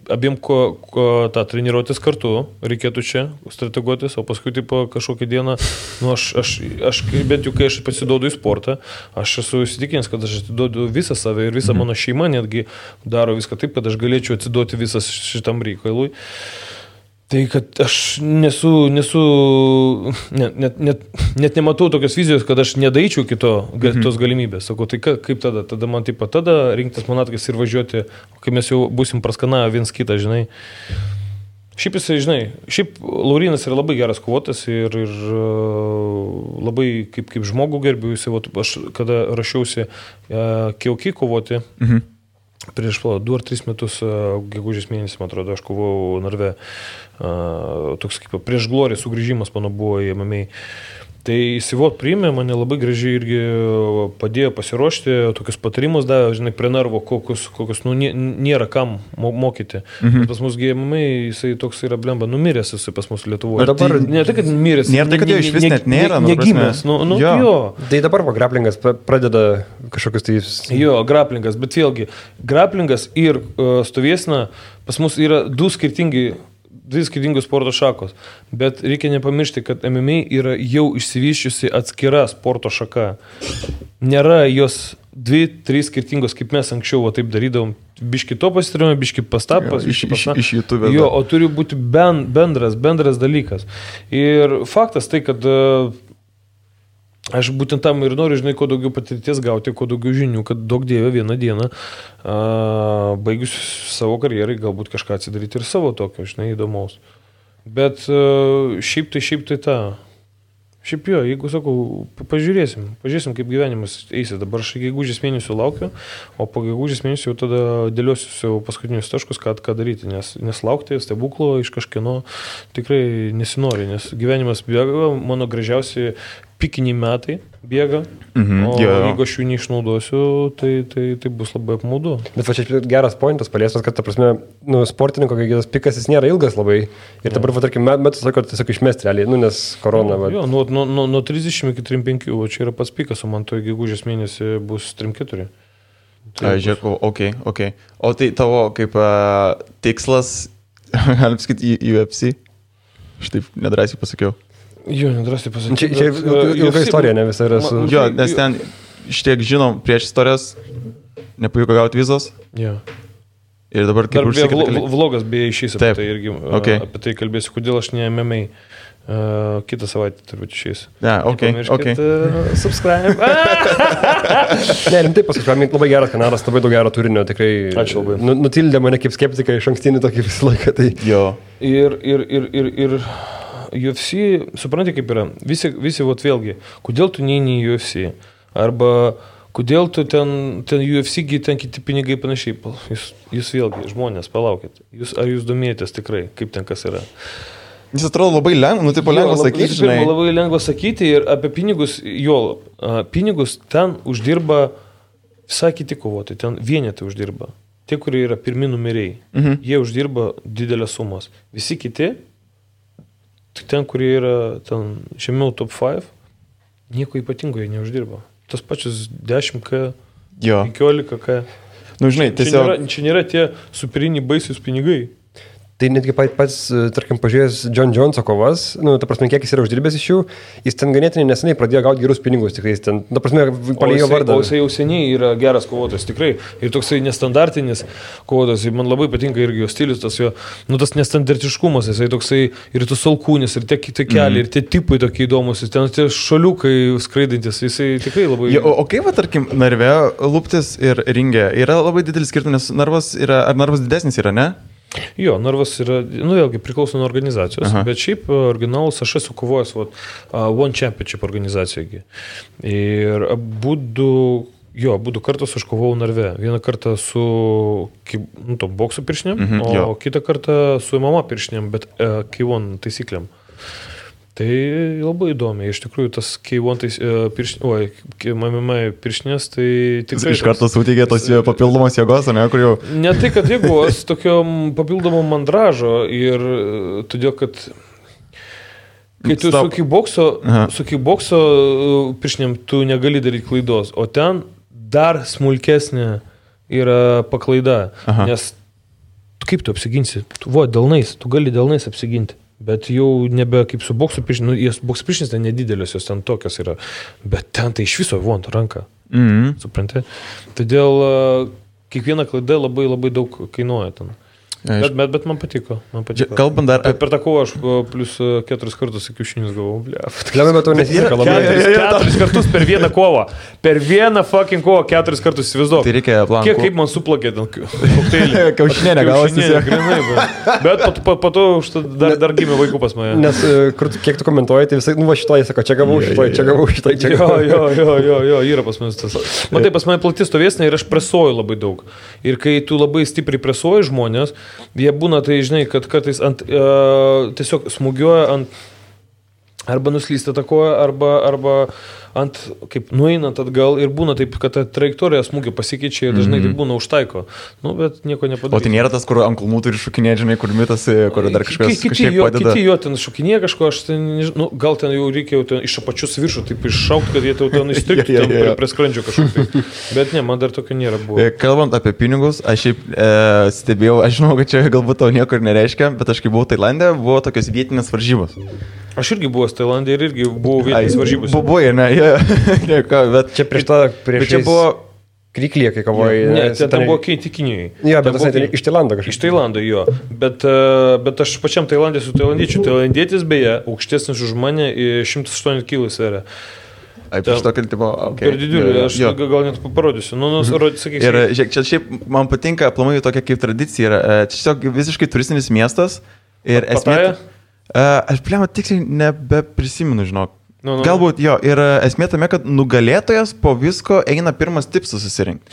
abiem tą treniruotės kartu reikėtų čia strateguotis, o paskui kažkokią dieną, aš bent jau kai aš pasiduodu į sportą, aš esu įsitikinęs, kad aš atiduodu visą save ir visą mano šeimą netgi daro viską taip, kad aš galėčiau atsiduoti visas šitam reikalui. Tai kad aš net nematau tokios vizijos, kad aš nedaičiau tos galimybės. Sakau, tai kaip tada? Tada man tada rinktis manatkais ir važiuoti, kai mes jau būsim praskanavę viens kitą, žinai. Šiaip jisai, žinai, Laurinas yra labai geras kovotas ir labai kaip žmogų gerbiu. Aš kada rašiausi Kiauki kovoti, prieš 2 ar 3 metus, gegužės mėnesį, man atrodo, aš kovau Narve. Toks kaip prieš Gloriją sugrįžimas mano buvo į MMA. Tai įsivot priėmė, mane labai gražiai irgi padėjo pasiruošti, tokius patarimus davė, žinai, prie narvo, kokius nėra kam mokyti. Pas mus MMA, jisai toks yra blemba, numiręs jisai pas mus Lietuvoje. Dabar ne tai, kad numiręs. Nėra tai, kad jo iš vis net nėra. Negimęs. Jo. Tai dabar graplingas pradeda kažkokius tai... Jo, graplingas, bet vėlgi, graplingas ir stovėsena pas mus yra 2 skirtingos sporto šakos, bet reikia nepamiršti, kad MMA yra jau išsivyščiusi atskira sporto šaka. Nėra jos 2-3 skirtingos, kaip mes anksčiau taip darydavom, biški to pasitarėme, biški pastapas, iš YouTube. Jo, o turi būti bendras dalykas. Ir faktas tai, kad aš būtent tam ir noriu, žinai, kuo daugiau patirties gauti, kuo daugiau žinių, kad daug dievė vieną dieną, baigus savo karjerai, galbūt kažką atsidaryti ir savo tokio, žinai, įdomaus. Bet šiaip tai tą. Šiaip jo, jeigu sakau, pažiūrėsim, kaip gyvenimas eisi. Dabar aš gegužės mėnesių laukiu, o po gegužės mėnesių jau tada dėliosiu savo paskutinius taškus, ką daryti, nes laukti stebuklo iš kažkieno tikrai nesinori, nes gyvenimas bėga, mano gražiausi pikiniai metai bėga, jeigu aš jų neišnaudosiu, tai bus labai apmaudu. Bet va čia geras pointas paliestas, kad, ta prasme, sportininko, kai tas pikas jis nėra ilgas labai ir dabar, tarkim, metus laiko tiesiog išmesti realiai, nes korona. Jo, nuo 30 iki 35, o čia yra pats pikas, o man to gegužės mėnesį bus 3-4. Žiūrėk, ok. O tai tavo kaip tikslas, galim sakyti, į UFC? Štaip nedrasiai pasakiau. Jo, nedrasiai pasakiau. Čia ilga istorija, ne visai yra su... Jo, nes ten, šitiek žinom, prieš istorijas nepavyko gauti vizos. Jo. Ir dabar kaip vlogas beje išeis apie tai irgi. Okay. Apie tai kalbėsiu, kodėl aš ne MMA. Kitą savaitę turbūt išeis. Okay. Subscribe. Ne, rimtai pasakyti, labai geras kanalas, labai daug gero turinio, tikrai. Ačiū labai. Nutildė mane kaip skeptiką iš ankstinį tokį visą laiką. Tai... Jo. Ir UFC, suprantate kaip yra, visi vat vėlgi, kodėl tu neini į UFC? Arba kodėl tu ten UFC, ten kiti pinigai panašiai. Jūs vėlgi, žmonės, palaukit. Ar jūs domėjotės tikrai, kaip ten kas yra? Jis atrodo labai lengva, lengva sakyti. Žinai. Labai lengva sakyti ir apie pinigus, pinigus ten uždirba visai kiti kovotojai, ten vienetai uždirba. Tie, kurie yra pirmi numeriai, jie uždirba didelės sumos. Visi kiti, ten, kurie yra ten žemiau top 5, nieko ypatingo jie neuždirba. Tas pačius 10K, 15K. Nu, žinai, tiesiog... Čia nėra tie superiniai baisius pinigai. Tai netgi pats, tarkim, pažiūrėjęs John Joneso kovas, ta prasme, kiek jis yra uždirbęs iš jų, jis ten ganėtinai neseniai pradėjo gauti gerus pinigus, tikrai, ten, ta prasme, palėjo vardą. O jisai jau seniai yra geras kovotojas, tikrai, ir toksai nestandartinis kovotojas, man labai patinka irgi jo stilius, tas jo, tas nestandartiškumas, jisai toksai, ir tus alkūnis, ir tie keliai, ir tie tipai tokie įdomus, ten tie šaliukai skraidantis, jisai tikrai labai... O kaip, tarkim, narve lūptis ir ringė, yra labai didelis skirtumas, ar narvas didesnis yra, ne? Jo, narvas yra, vėlgi priklauso nuo organizacijos, bet šiaip originalus aš esu kovojęs One Championship organizacijoje. Ir abudu kartus aš kovojau narve. Vieną kartą su bokso piršinėm, o kitą kartą su MMA piršinėm, bet K1 taisyklėm. Tai labai įdomi, iš tikrųjų tas K1 piršinės, tai tikrai... Iš karto suteikė tos papildomos jėgos, ne, kur jau... Ne tai, kad jėgos, tokio papildomo mandražo ir todėl, kad kai tu su kickbokso piršinėm tu negali daryti klaidos, o ten dar smulkesnė yra paklaida, nes kaip tu apsiginsi? Delnais, tu gali delnais apsiginti. Bet jau nebe kaip su bokso piršinės, bokso piršinės ten nedidelės, jos ten tokios yra, bet ten tai iš viso ranka, supranti. Todėl kiekviena klaida labai labai daug kainuoja ten. Bet man patiko. Kalbant dar... Per tą kovą aš plus 4 kartus kiaušinius gavau, Klemai, bet to nesiseka labai. 4 kartus per vieną kovą. Per vieną fucking kovą 4 kartus įsivaizduok. Tai reikia plankų. Kaip man suplakė ten kokteilį. Kiaušinė negavosi. Bet po to dar gimė vaikų pas mane. Nes kiek tu komentuoji, tai visai, šitoj, sako, čia gavau šitoj. Jo, yra pas mane tas. Matai, pas mane plati stovėsnė ir aš presuoju labai daug. Ir kai tu labai stipriai presuoji žmonės, jie būna, tai žinai, kad kartais tiesiog smūgiuoja ant arba nuslysta ta koja, arba ant, kaip nueinant atgal ir būna taip, kad ta trajektorija smūgio pasikeičia ir dažnai tai būna užtaiko. Bet nieko nepadarys. O tai nėra tas, kur ant kulmų turi šokinėti, žinai, kur mitasi, kur dar kažkas padeda. Kiti jo ten šokinėja kažko, aš ten, gal ten jau reikia iš apačius viršų, taip iššaukti, kad jie ten įstriktų prie skrandžio kažkokį. Bet ne, man dar tokio nėra buvo. Kalbant apie pinigus, aš šiaip stebėjau, aš žinau, kad čia galbūt tau nieko ir nereiškia, bet aš kai buvau Tailande, buvo tokios vietinės varžybos. Aš irgi buvau Tailandė ir irgi buvau vietinės varžybos. Buvo, ne, bet čia prieš čia buvo Kriklyje, kai kovoji. Ne, ten buvo Keiti Kinijai. Jo, bet tas iš Tailando kažkaip. Iš Tailando, jo. Bet aš pačiam Tailandė su tailandiečiu. Tailandietis beje, aukštesnis už mane, 108 kg sveria. Per didžiulį, aš gal net parodysiu. Ir čia šiaip man patinka, aplamai tokia kaip tradicija yra. Čia tiesiog visiškai turistinis miestas. Ir esmė... Aš tiksliai nebeprisimenu, žinok. Galbūt jo, ir esmė tame, kad nugalėtojas po visko eina pirmas tipsas susirinkti.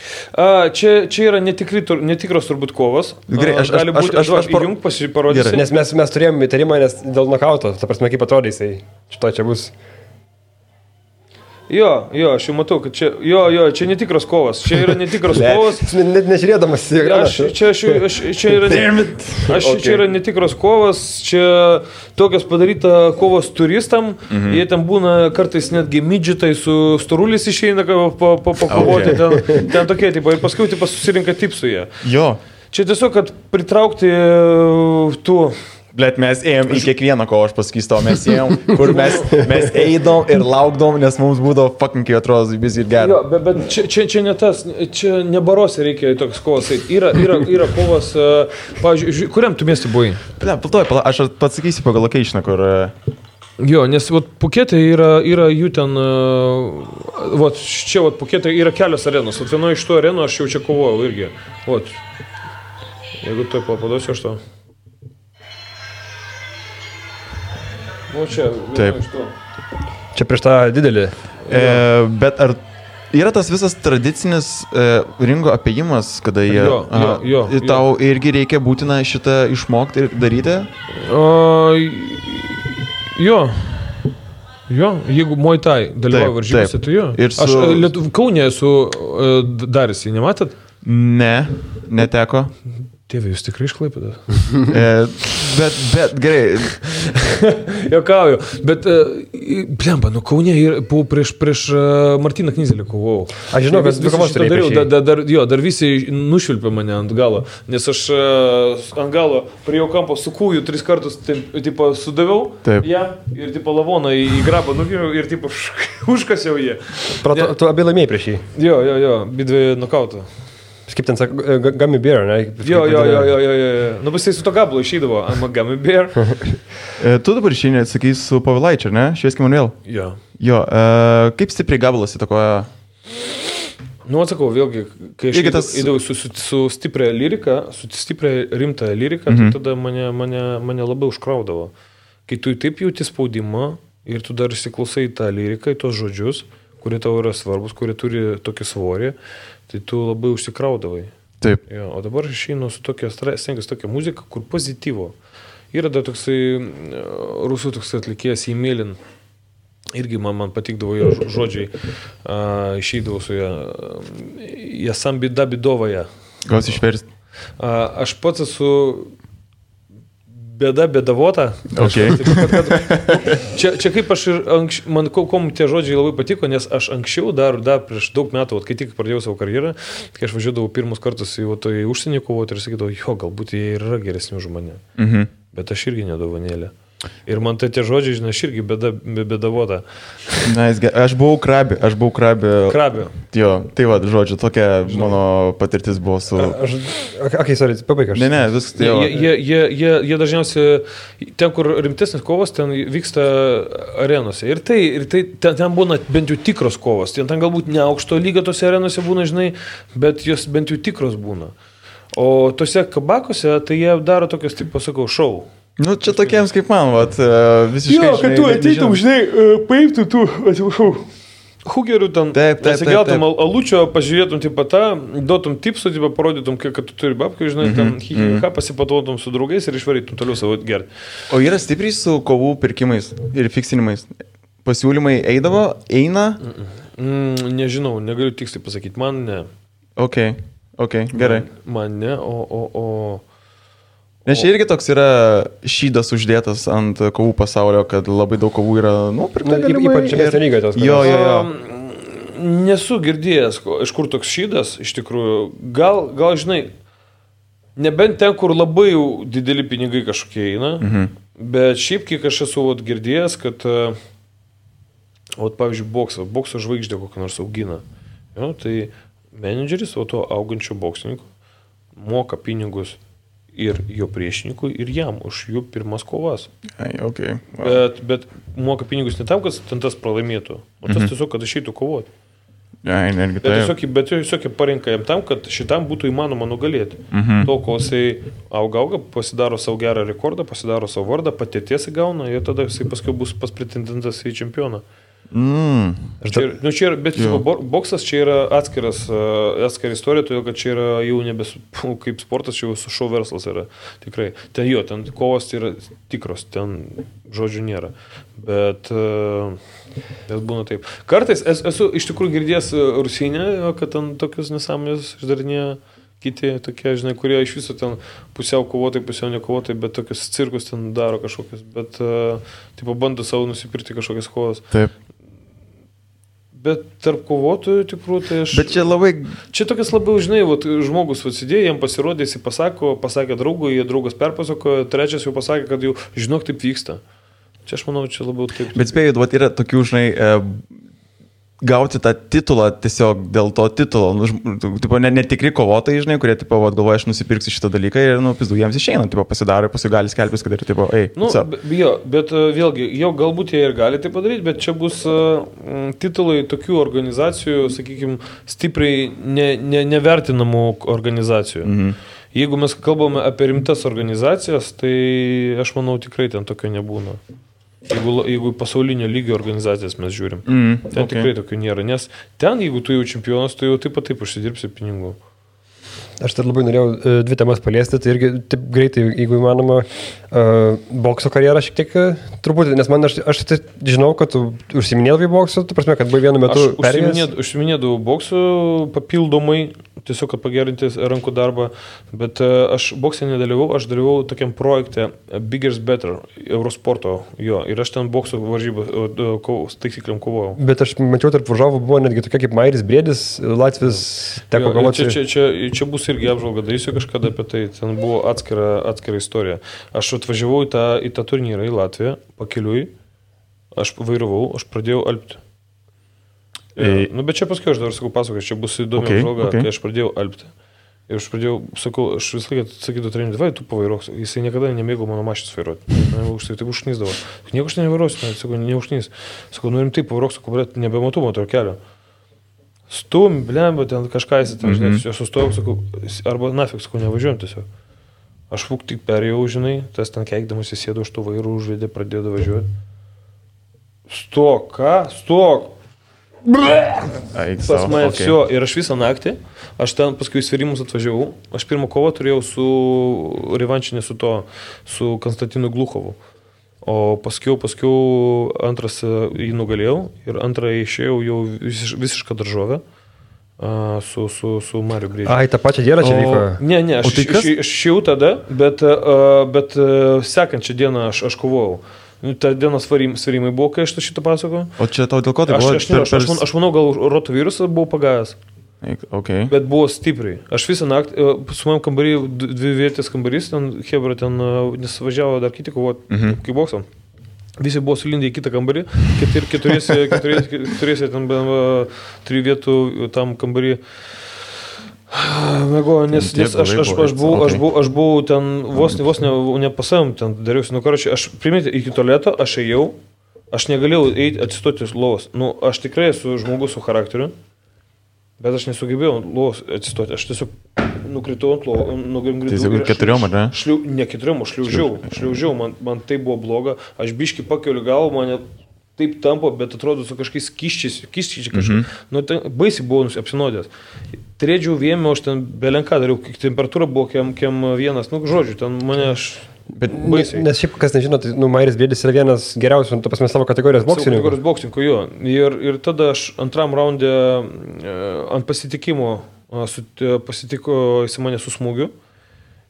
Čia yra netikros turbūt kovos. Gerai, aš įjung pasiparodysiu. Nes mes turėjome įtarimą, nes dėl nokauto, ta prasme, kaip atrodė jisai. Čia bus. Jo, aš jau matau, kad čia netikros kovos. Čia yra netikros kovos. Net nežiūrėdamas į ekraną. Čia yra netikros kovos, čia tokios padaryta kovos turistam. Jie ten būna kartais netgi midžitai su storulis išeina pakovoti. Ten tokie tipai. Ir paskui susirinka tipsų jie. Jo. Čia tiesiog, kad pritraukti tų Blet, mes ėjom į kiekvieną, ko aš pasakysiu, mes ėjom, kur mes eidom ir laukdom, nes mums būdavo fucking, kai atrodo, vis ir gerai. Jo, bet čia ne tas, čia ne barose reikia toks kovas. Yra kovas, pavyzdžiui, kuriam tu miestui buvai? Aš pasakysiu pagal locationą, kur... Jo, nes Pukete yra jų ten, čia Pukete yra kelios arenos, vienoje iš tų arenų aš jau čia kovojau irgi. Jeigu tu paduosiu aš to. Čia, taip. Čia prieš tą didelį. Bet ar yra tas visas tradicinis ringo apėjimas, kada jie... Jo. Tau irgi reikia būtina šitą išmokti ir daryti? Jo, jeigu Muay Thai dalyvauja varžybose, tai jo. Aš Kaune esu daręs, nematėt? Ne, neteko. Tėvė, jūs tikrai iš Klaipėdos? Bet gerai. Jokauju, bet blemba, Kaune buvau prieš Martyną Knyzelį kovojau. Aš žinau, kad kovos dariau. Dar visi nušvilpė mane ant galo, nes aš ant galo prie jo kampo su kūju 3 kartus sudaviau jam ir lavoną į grabą nugiriau ir užkasiau jį. Tu abi laimėjai prieš jį? Jo, bidvi nokautų. Kaip ten sako, gummy bear, ne? Jo. Nu, bet jisai su to gablo išeidavo, I'm a gummy bear. Tu dabar išeini, sakys, su Pavilaičiu, ar ne? Švieskim Manuel. Jo. Kaip stipriai gabalas įtakoja? Nu, atsakau, vėlgi, kai aš įdavau su stipria lyrika, su stipria rimta lyrika, tai tada mane labai užkraudavo. Kai tu taip jauti spaudimą ir tu dar įsiklausai tą lyriką, į tos žodžius, kurie tau yra svarbus, kurie turi tokį svorį, tai tu labai užsikraudavai. Taip. Jo, o dabar aš išeinu su stengiuosi tokia muzika, kur pozityvo. Yra dar toksai rusų toks atlikėjas Emilin. Irgi man patikdavo jo žodžiai. Išeidavau su ją. Jasam bida bidovąją. Gal išversti? Aš pats esu bėdavota. Okay. Čia kaip aš ir man kom tie žodžiai labai patiko, nes aš anksčiau dar prieš daug metų, kai tik pradėjau savo karjerą, kai aš važiuodavau pirmus kartus į užsienį kovoti ir sakydavau, galbūt jie yra geresni už mane. Bet aš irgi nedovanėlė. Ir man tai tie žodžiai, žinai, aš irgi bėdavota. Aš buvau krabė. Krabė. Jo, tai va, žodžiu, tokia mano patirtis buvo su... Sorry, pabaiga. Ne, viskas tai jo. Jie dažniausiai, ten, kur rimtesnis kovos, ten vyksta arenose. Ir ten būna bent jau tikros kovos. Ten galbūt ne aukšto lygio tose arenose būna, žinai, bet jos bent jau tikros būna. O tose kabakose, tai jie daro tokios, taip pasakau, šou. Nu, čia tokiems kaip man, visiškai... Jo, kad tu ateitum, žinai, paimtum tu, atsiprašau, hugerių ten, atsigeltum alučio, pažiūrėtum duotum tipsų, parodytum, kad tu turi babkių, žinai, ten pasipatotum su draugais ir išvarytum toliau savo gerti. O yra stipriai su kovų pirkimais ir fiksinimais? Pasiūlymai eina? Nežinau, negaliu tiksliai pasakyti, man ne. Ok, gerai. Man ne, Nes čia irgi toks yra šydas uždėtas ant kovų pasaulio, kad labai daug kovų yra, pirkta galimai. Ypač čia lygiai tos. Jo. Nesu girdėjęs, iš kur toks šydas, iš tikrųjų. Gal, žinai, nebent ten, kur labai dideli pinigai kažkokie eina, bet šiaip kiek aš esu girdėjęs, kad, pavyzdžiui, bokso žvaigždė kokią nors augina. Jo, tai menedžeris, to augančio boksininkų moka pinigus ir jo priešininkui, ir jam už jų pirmas kovas. Okay. Wow. Bet moka pinigus ne tam, kad ten tas pralaimėtų, o tas tiesiog, kad išeitų kovoti. Bet tiesiog parinka jam tam, kad šitam būtų įmanoma nugalėti. To, kol jisai auga, pasidaro savo gerą rekordą, pasidaro savo vardą, patirties įgauna ir tada jisai paskui bus pas pretendentas į čempioną. Bet boksas čia yra atskira istorija, todėl kad čia yra jau kaip sportas, čia jau su šou verslas yra tikrai. Ten kovos yra tikros, ten žodžių nėra. Bet būna taip. Kartais esu iš tikrųjų girdėjęs Rusinę, kad ten tokius nesąmonės išdarinėja kiti tokie, žinai, kurie iš viso ten pusiau kovotai, pusiau nekovotai, bet tokius cirkus ten daro kažkokius, bet bando savo nusipirkti kažkokias kovas. Taip. Bet tarp kovotojų tikrų, tai aš... Bet čia labai... Čia tokias labiau, žinai, vat, žmogus atsidėjo, jam pasirodė, jis pasakė draugui, jie draugas perpasakojo, trečias jau pasakė, kad jau žinok, taip vyksta. Čia aš manau, čia labiau taip. Bet spėjau, vat, yra tokių, žinai, gauti tą titulą tiesiog dėl to titulo. Tipo, netikri kovotojai, žinai, kurie, tipo, vat, galvoja, aš nusipirksiu šitą dalyką ir, pizdu, jiems išeina, tipo, pasidaro, paskui gali skelbtis, kad ir, tipo, bet vėlgi, jau galbūt jie ir gali tai padaryti, bet čia bus titulai tokių organizacijų, sakykime, stipriai nevertinamų organizacijų. Mhm. Jeigu mes kalbame apie rimtas organizacijas, tai aš manau, tikrai ten tokio nebūna. Jeigu pasaulinio lygio organizacijas mes žiūrim, ten tikrai tokių nėra, nes ten, jeigu tu jau čempionas, tu jau taip užsidirbsi pinigų. Aš tai labai norėjau dvi temas paliesti, tai irgi taip greitai, jeigu įmanoma, bokso karjerą šiek tiek truputį, nes aš tai žinau, kad tu užsiminėdavai boksu, tu prasme, kad buvai vienu metu perėjęs. Aš užsiminėdavau boksu papildomai, tiesiog, kad pagerinti rankų darbą, bet aš boksė nedalyvau, aš dalyvau tokiam projekte Bigger's Better, Eurosporto, jo, ir aš ten bokso varžybą taisykliam kovojau. Bet aš mačiau, tarp varžovų buvo netgi tokia kaip Mairis Briedis, Latvis, teko kovoti. Čia bus irgi apžvalga, darysiu kažkada apie tai, ten buvo atskira istorija. Aš atvažiavau į tą turnyrą į Latviją, pakeliui, aš vairavau, aš pradėjau alpti. Bet čia paskui aš dar sakau pasakosiu, čia bus įdomi apžvalga, kai aš pradėjau alpti. Ir aš pradėjau, sakau, aš visą laiką sakydavau treneriui, vai, tu pavairuok, jisai niekada nemėgo mano mašinas vairuoti. Tai užknysdavo. Nieko aš nevairuosiu, sakau, neužknys. Sakau, rimtai pavairuok, sakau, bet nebematu motor kelio. Stum, blemba, ten kažką jisai ten, žinai, aš sustojau, sakau, arba nafik, sakau, nevažiuojam tiesiog. Aš tik perėjau, žinai, tas ten keikdamas įsėdo už tų vairų, užvedė, pradėjo važiuoti. Stok, ką? Stok! Pas mane все, ir aš visą naktį, aš ten paskui sverimus atvažiavau, aš pirmą kovą turėjau su revanšinė su Konstantinu Gluchovu, o paskui antras jį nugalėjau ir antrą išėjau jau visišką daržovę su Mariu Briedžiu. Ai, tą pačią dieną čia vyko? Ne, aš išėjau tada, bet sekančią dieną aš kovojau. Ta dienos svarimai buvo, kai aš šitą pasakojau. O čia tau dėl ko tai buvo? Aš manau, gal rotavirusas buvo pagavęs. Okay. Bet buvo stipriai. Aš visą naktį, su manim kambarį, dvi vietės kambarys, ten Hebra ten nesvažiavo dar kiti kovoti, kaip boksam. Visi buvo sulindę į kitą kambarį, keturiese ten 3 vietų tam kambarį. Mėgo, nes aš buvau ten vos nepasavim, ten dariausi, aš primėti iki tualeto, aš ėjau, aš negalėjau eiti atsistoti lovos. Aš tikrai esu žmogus su charakteriu, bet aš nesugebėjau lovos atsistoti, aš tiesiog nukritau ant lovos, Tai keturiom, ar ne? Ne keturiom, aš šliaužiau, man tai buvo bloga, aš biškį pakeliu galvą, mane taip tampo, bet atrodo su kažkokiais kiščiais kažkaip. Baisiai buvau apsinodęs. Trėdžiau vėmė, aš ten belenką dariau, temperatūra buvo kiem vienas, žodžiu, ten mane aš baisiai. Nes šiaip, kas nežino, tai Mairis Briedis yra vienas geriausių, tu pasmės savo kategorijos boksininkų, jo. Ir tada aš antram raunde ant pasitikimo pasitiko jis mane su smūgiu.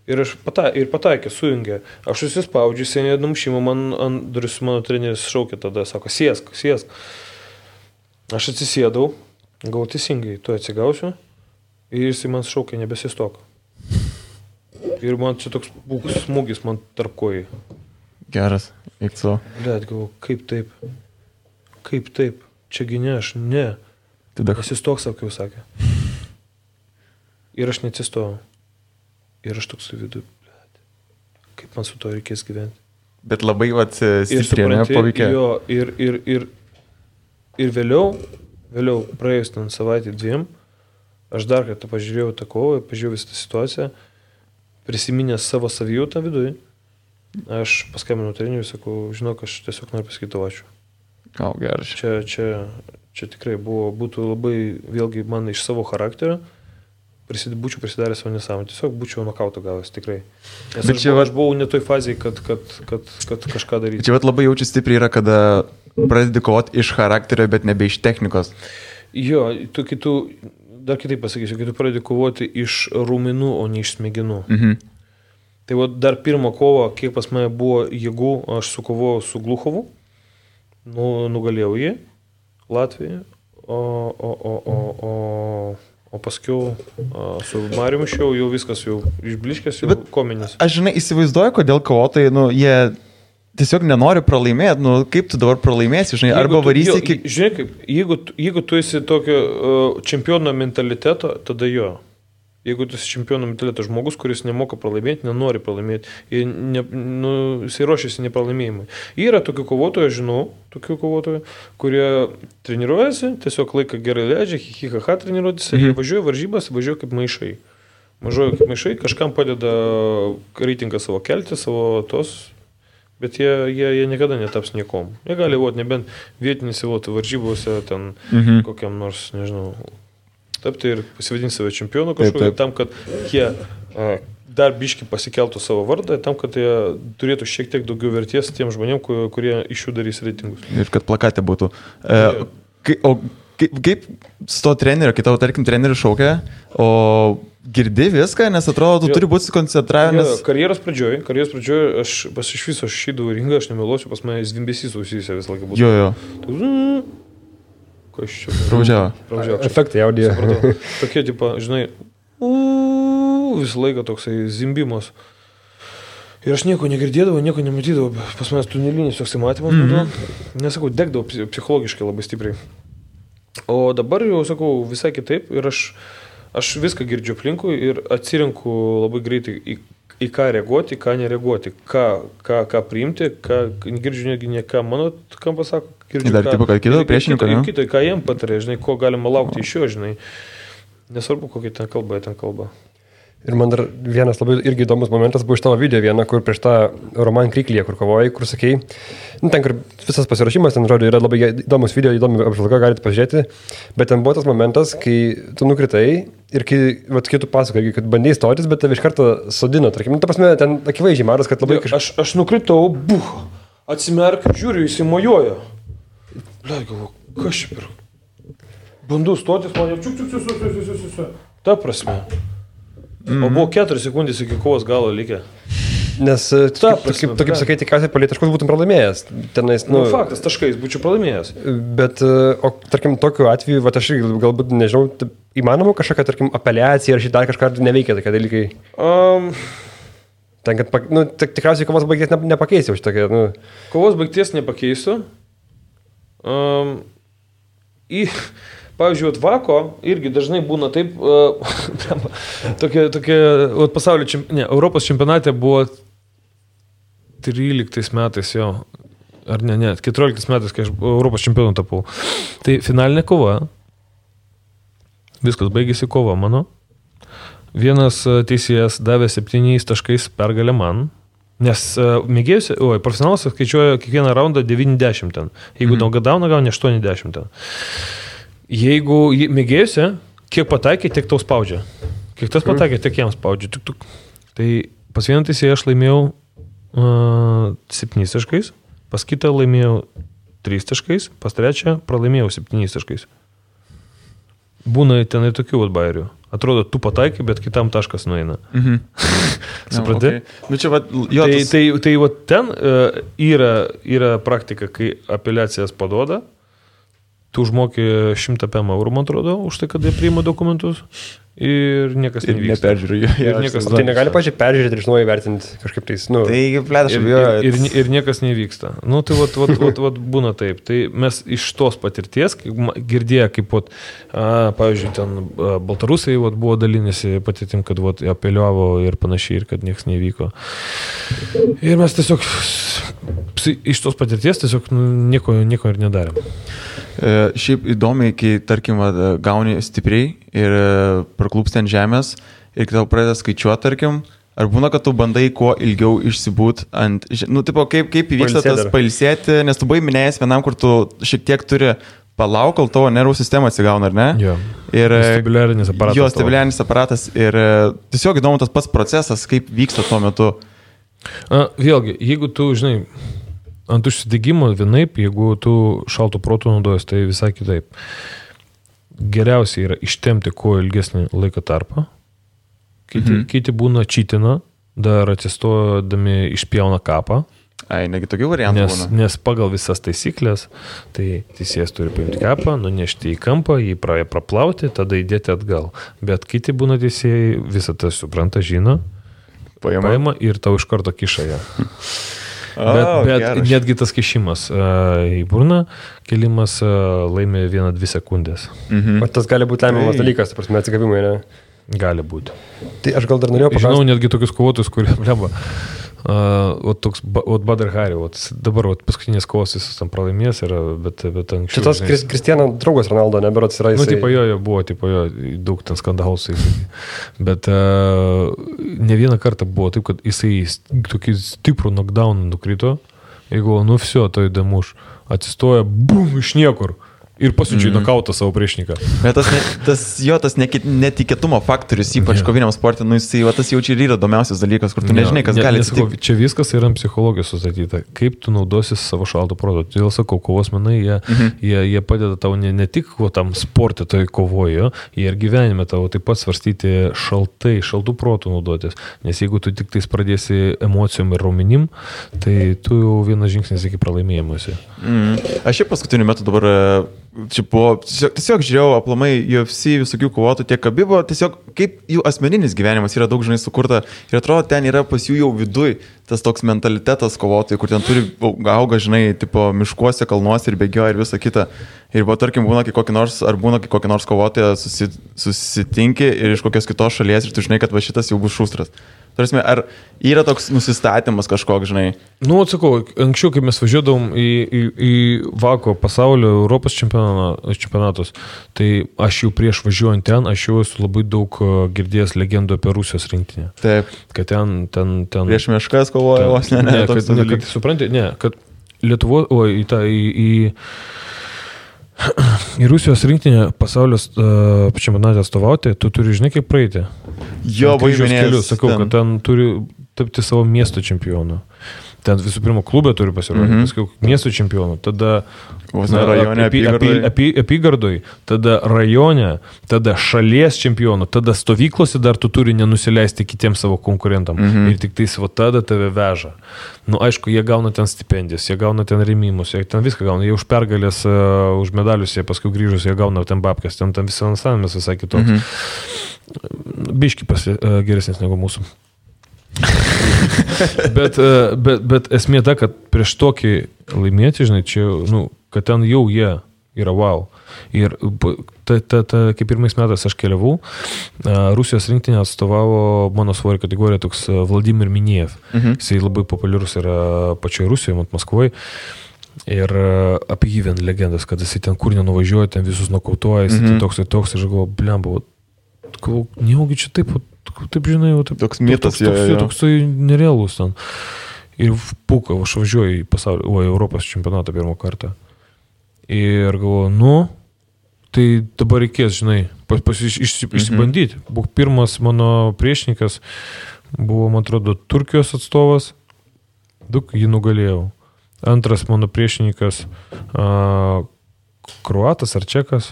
Ir aš pataikė, sujungė. Aš susispaudžiu, seniai numušimo, man ant duris mano treneris šaukė tada, sako, sėsk. Aš atsisėdau, gavau teisingai, tu atsigausiu ir jis man šaukė, nebesistok. Ir man čia toks smūgis man tarp kojai. Geras, eik so. Blet, galvoju, kaip taip, čiagi ne, aš ne. Atsistok, sakiau, sakė. Ir aš neatsistojau. Ir aš toks vidu, kaip man su to reikės gyventi. Bet labai stipriai paveikė. Jo, ir vėliau, praėjus ten savaitę 2, aš dar kartą pažiūrėjau tą kovą, pažiūrėjau visą tą situaciją, prisiminęs savo savijautą viduje, aš paskambinau treneriui, sakau, žinok, aš tiesiog noriu pasakyti ačiū. Geras. Čia tikrai būtų labai, vėlgi, man iš savo charakterio, būčiau prisidaręs savo nesąmonę, tiesiog būčiau nokauto gavęs, tikrai. Nes aš buvau ne toj fazėje, kad kažką daryti. Čia labai jaučiu stipriai yra, kada pradedi kovoti iš charakterio, bet nebe iš technikos. Jo, dar kitaip pasakysiu, kai tu pradedi kovoti iš raumenų, o ne iš smegenų. Tai dar pirmą kovą, kiek pas mane buvo jėgų, aš sukovojau su Gluchovu, nugalėjau jį Latvijoje, O paskiau su Mariumi jau viskas jau išbliškęs, jau kominis. Aš, žinai, įsivaizduoju, kodėl kovotojai, jie tiesiog nenori pralaimėti, kaip tu dabar pralaimėsi, žinai, arba varysi iki... Žinai, kaip, jeigu tu esi tokio čempiono mentaliteto, tada jo. Jeigu tu esi čempiono mentaliteto žmogus, kuris nemoka pralaimėti, nenori pralaimėti, jisai ruošiasi nepralaimėjimui. Yra tokių kovotojų, aš žinau, kurie treniruojasi, tiesiog laiką gerai leidžia, hihihaha treniruotis, jie važiuoja varžybas, važiuoja kaip maišai. Kažkam padeda reitingą savo kelti, savo tos, bet jie niekada netaps niekom. Jie gali nebent vietinėse varžybose, ten kokiam nors, nežinau, tapti ir pasivadinti save čempionu kažkokį, tam, kad jie dar biški pasikeltų savo vardą, tam, kad jie turėtų šiek tiek daugiau verties tiem žmonėm, kurie iš jų darys reitingus. Ir kad plakate būtų. Kaip su to treneriu, kai tavo, tarkim, treneriu šaukia, o girdi viską, nes atrodo, tu turi būti susikoncentravęs. Karjeros pradžioje aš iš viso šydavau ringą, aš nemeluosiu, pas mane zvimbesys ausysė visą laiką būtų. Jo. Kas čia? Pravažiavo. Efektai audio. Tokie, tipo, žinai, visą laiką toksai zimbimas. Ir aš nieko negirdėdavau, nieko nematydavau. Pas manęs tunelinis toksai matymas būdavo. Nesakau, degdavau psichologiškai labai stipriai. O dabar jau, sakau, visai kitaip. Ir aš viską girdžiu aplinkui ir atsirinku labai greitai į ką reaguoti, į ką nereaguoti. Ką priimti, girdžiu netgi ne ką mano, kam pasako. Dar tipo, kad kito priešininko, ne? Kito, ką jiem patarė, žinai, ko galima laukti iš jo, žinai. Nesvarbu, kokia ten kalba. Ir man dar vienas labai irgi įdomus momentas buvo iš tavo video vieną, kur prieš tą Roman Kriklyje, kur kovojai, kur sakei, ten, kur visas pasirašymas, ten, žodžiu, yra labai įdomus video, įdomi apžvalga, galite pažiūrėti, bet ten buvo tas momentas, kai tu nukritai ir kai tu pasakai, kad bandėjai stotis, bet tave iš karto sodino, tarkim, ta prasme, ten akivaizdžiai maras, kad labai kažkas... Aš nukritau, atsimerk, žiūriu, jis įmojuoja. Blei, galvoju, kas čia per... Bandu stotis, man jau ta prasme. O buvo 4 sekundės iki kovos galo likę. Nes, kaip sakai, tikriausiai palei taškus būtum pralaimėjęs. Tenais, faktas, taškais būčiau pralaimėjęs. Bet, tarkim, tokiu atveju, aš galbūt, nežinau, įmanoma kažkokia, tarkim, apeliacija ar šitą dar kažką neveikia tokie dalykai. Ten, kad, tikriausiai kovos baigties nepakeisiu šitokia, Kovos baigties nepakeisiu. Pavyzdžiui, Vako irgi dažnai būna taip, tokie pasaulio Europos čempionate buvo 13 metais jo, ar ne, 14 metais, kai aš Europos čempionu tapau. Tai finalinė kova, viskas baigėsi kova mano. Vienas teisėjas davė 7 taškais pergalę man. Nes profesionalas skaičiuoja kiekvieną raundą 90 ten. Jeigu gauna 80 ten. Jeigu mėgėjusi, kiek pataikė, tiek tau spaudžia. Kiek tas pataikė, tiek jam spaudžia. Tai pas vieną teisėją aš laimėjau 7 taškais, pas kitą laimėjau 3 taškais, pas trečią pralaimėjau 7 taškais. Būna ten ir tokių bairių. Atrodo, tu pataikai, bet kitam taškas nueina. Supranti? Tai ten yra praktika, kai apeliacijas paduoda, tu užmokė 100 eurų, man atrodo, už tai, kad jie priima dokumentus ir niekas nevyksta. Neperžiūrėjau. Tai negali pačiai peržiūrėti ir iš naujo vertinti kažkaip tais. Ir niekas nevyksta. Tai būna taip. Tai mes iš tos patirties, girdėję, kaip, pavyzdžiui, ten baltarusai buvo dalinėsi patirtim, kad apeliavo ir panašiai, ir kad niekas nevyko. Ir mes tiesiog iš tos patirties tiesiog nieko ir nedarėm. Šiaip įdomiai, kai, tarkim, gauni stipriai ir praklūpsti ant žemės ir kai tau pradeda skaičiuoti, tarkim, ar būna, kad tu bandai kuo ilgiau išsibūt ant, kaip įvyksta tas pailsėti, nes tu buvai minėjęs vienam, kur tu šiek tiek turi palauk, kol tavo nervų sistema atsigauna, ar ne? Jo. Ir stabiliarinis aparatas. Jo, stabiliarinis aparatas ir tiesiog įdomu tas pats procesas, kaip vyksta tuo metu. Vėlgi, jeigu tu, žinai, ant užsidegimo vienaip, jeigu tu šalto proto naudojas, tai visai kitaip. Geriausia yra ištempti kuo ilgesnį laiko tarpą. Kiti būna čytina, dar atsistodami išpjauna kapą. Ai, negi tokių variantų būna. Nes pagal visas taisyklės, tai teisėjas turi paimti kepą, nunešti į kampą, jį praplauti, tada įdėti atgal. Bet kiti būna teisėjai, visą tai supranta, žino, paima ir tau iš karto kiša ją. Bet netgi tas kišimas į burną, kelimas laimė 1-2 sekundės. O tas gali būti lemiamas dalykas, ta prasme, atsigavimai, ne? Gali būti. Tai aš gal dar norėjau paklausti. Žinau netgi tokius kovotojus, kurie bleba. Badr Hari, dabar paskutinės kovos jis tam pralaimės yra, bet anksčiau. Šitas Kristiano draugas Ronaldo, neberots yra jisai. Tipo jo buvo, daug ten skandalų. Bet ne vieną kartą buvo taip, kad jisai tokį stiprų knockdown nukrito. Jeigu, viso, tai įdomuš, atsistoja, bum, iš niekur. Ir pasiunčia į nokautą savo priešininką. Bet tas netikėtumo faktorius, ypač koviniam sportui, tas jau čia ir yra įdomiausias dalykas, kur tu nežinai, kas gali atsitikti. Čia viskas yra psichologijos sustatyta. Kaip tu naudosi savo šalto proto. Todėl sakau, kovos menai, jie padeda tau ne tik tam sportui toj kovojo, jie ir gyvenime tavo taip pat svarstyti šaltų protų naudotis. Nes jeigu tu tik tais pradėsi emocijom ir raumenim, tai tu jau vienas žingsnis iki pralaimėjimuose. Aš šiaip paskutiniu metu dabar tiesiog žiūrėjau aplamai UFC visokių kovotų tiek Khabibo, tiesiog kaip jų asmeninis gyvenimas yra daug žinai sukurta ir atrodo ten yra pas jų jau viduj tas toks mentalitetas kovotojai, kur ten turi auga, žinai, tipo miškuose, kalnuose ir bėgioja ir visa kita. Ir tarkim būna kokį nors kovotoją susitinki ir iš kokios kitos šalies ir tu žinai, kad va šitas jau bus šustras. Tarsi, ar yra toks nusistatymas kažkoks, žinai? Atsakau, anksčiau, kai mes važiuodavom į Vako pasaulio Europos čempionatus, tai aš jau prieš važiuojant ten, aš jau esu labai daug girdėjęs legendų apie Rusijos rinktinę. Taip. Kad ten prieš meškas kovoja vos, kad supranti, kad Lietuvo, į Rusijos rinktinę pasaulio čempionatą atstovauti, tu turi, žinai, kaip praeiti. Jo, važiuojanės. Sakau, kad ten turi tapti savo miesto čempionu. Ten visų pirma klube turi pasirodyti, paskui miesto čempionu, tada apygardoj, tada rajone, tada šalies čempionu, tada stovyklose dar tu turi nenusileisti kitiems savo konkurentam. Ir tik tais tada tave veža. Aišku, jie gauna ten stipendijas, jie gauna ten rėmimus, jie ten viską gauna, jie už pergalės, už medalius, jie paskui grįžus, jie gauna ten babkės, ten visą finansavimas visai kitoks. Biški geresnis negu mūsų. bet esmė ta, kad prieš tokį laimėti, žinai, čia, kad ten jau jie yra wow. Ir kaip pirmais metais aš keliavau, Rusijos rinktinė atstovavo mano svorio kategoriją toks Vladimir Miniev. Jisai labai populiarus yra pačioje Rusijoje, Maskvoje. Ir apie jį vien legendas, kad jisai ten kur nenuvažiuoja, ten visus nokautuoja, jisai toks, aš galvoju, blemba, nejaugi čia taip, žinai, toks mitas, toks nerealus ten. Ir puka, aš važiuoju į pasaulio, Europos čempionatą pirmą kartą. Ir galvoju, tai dabar reikės, žinai, išsibandyti. Pirmas mano priešininkas buvo, man atrodo, Turkijos atstovas, jį nugalėjau. Antras mano priešininkas kroatas ar čekas.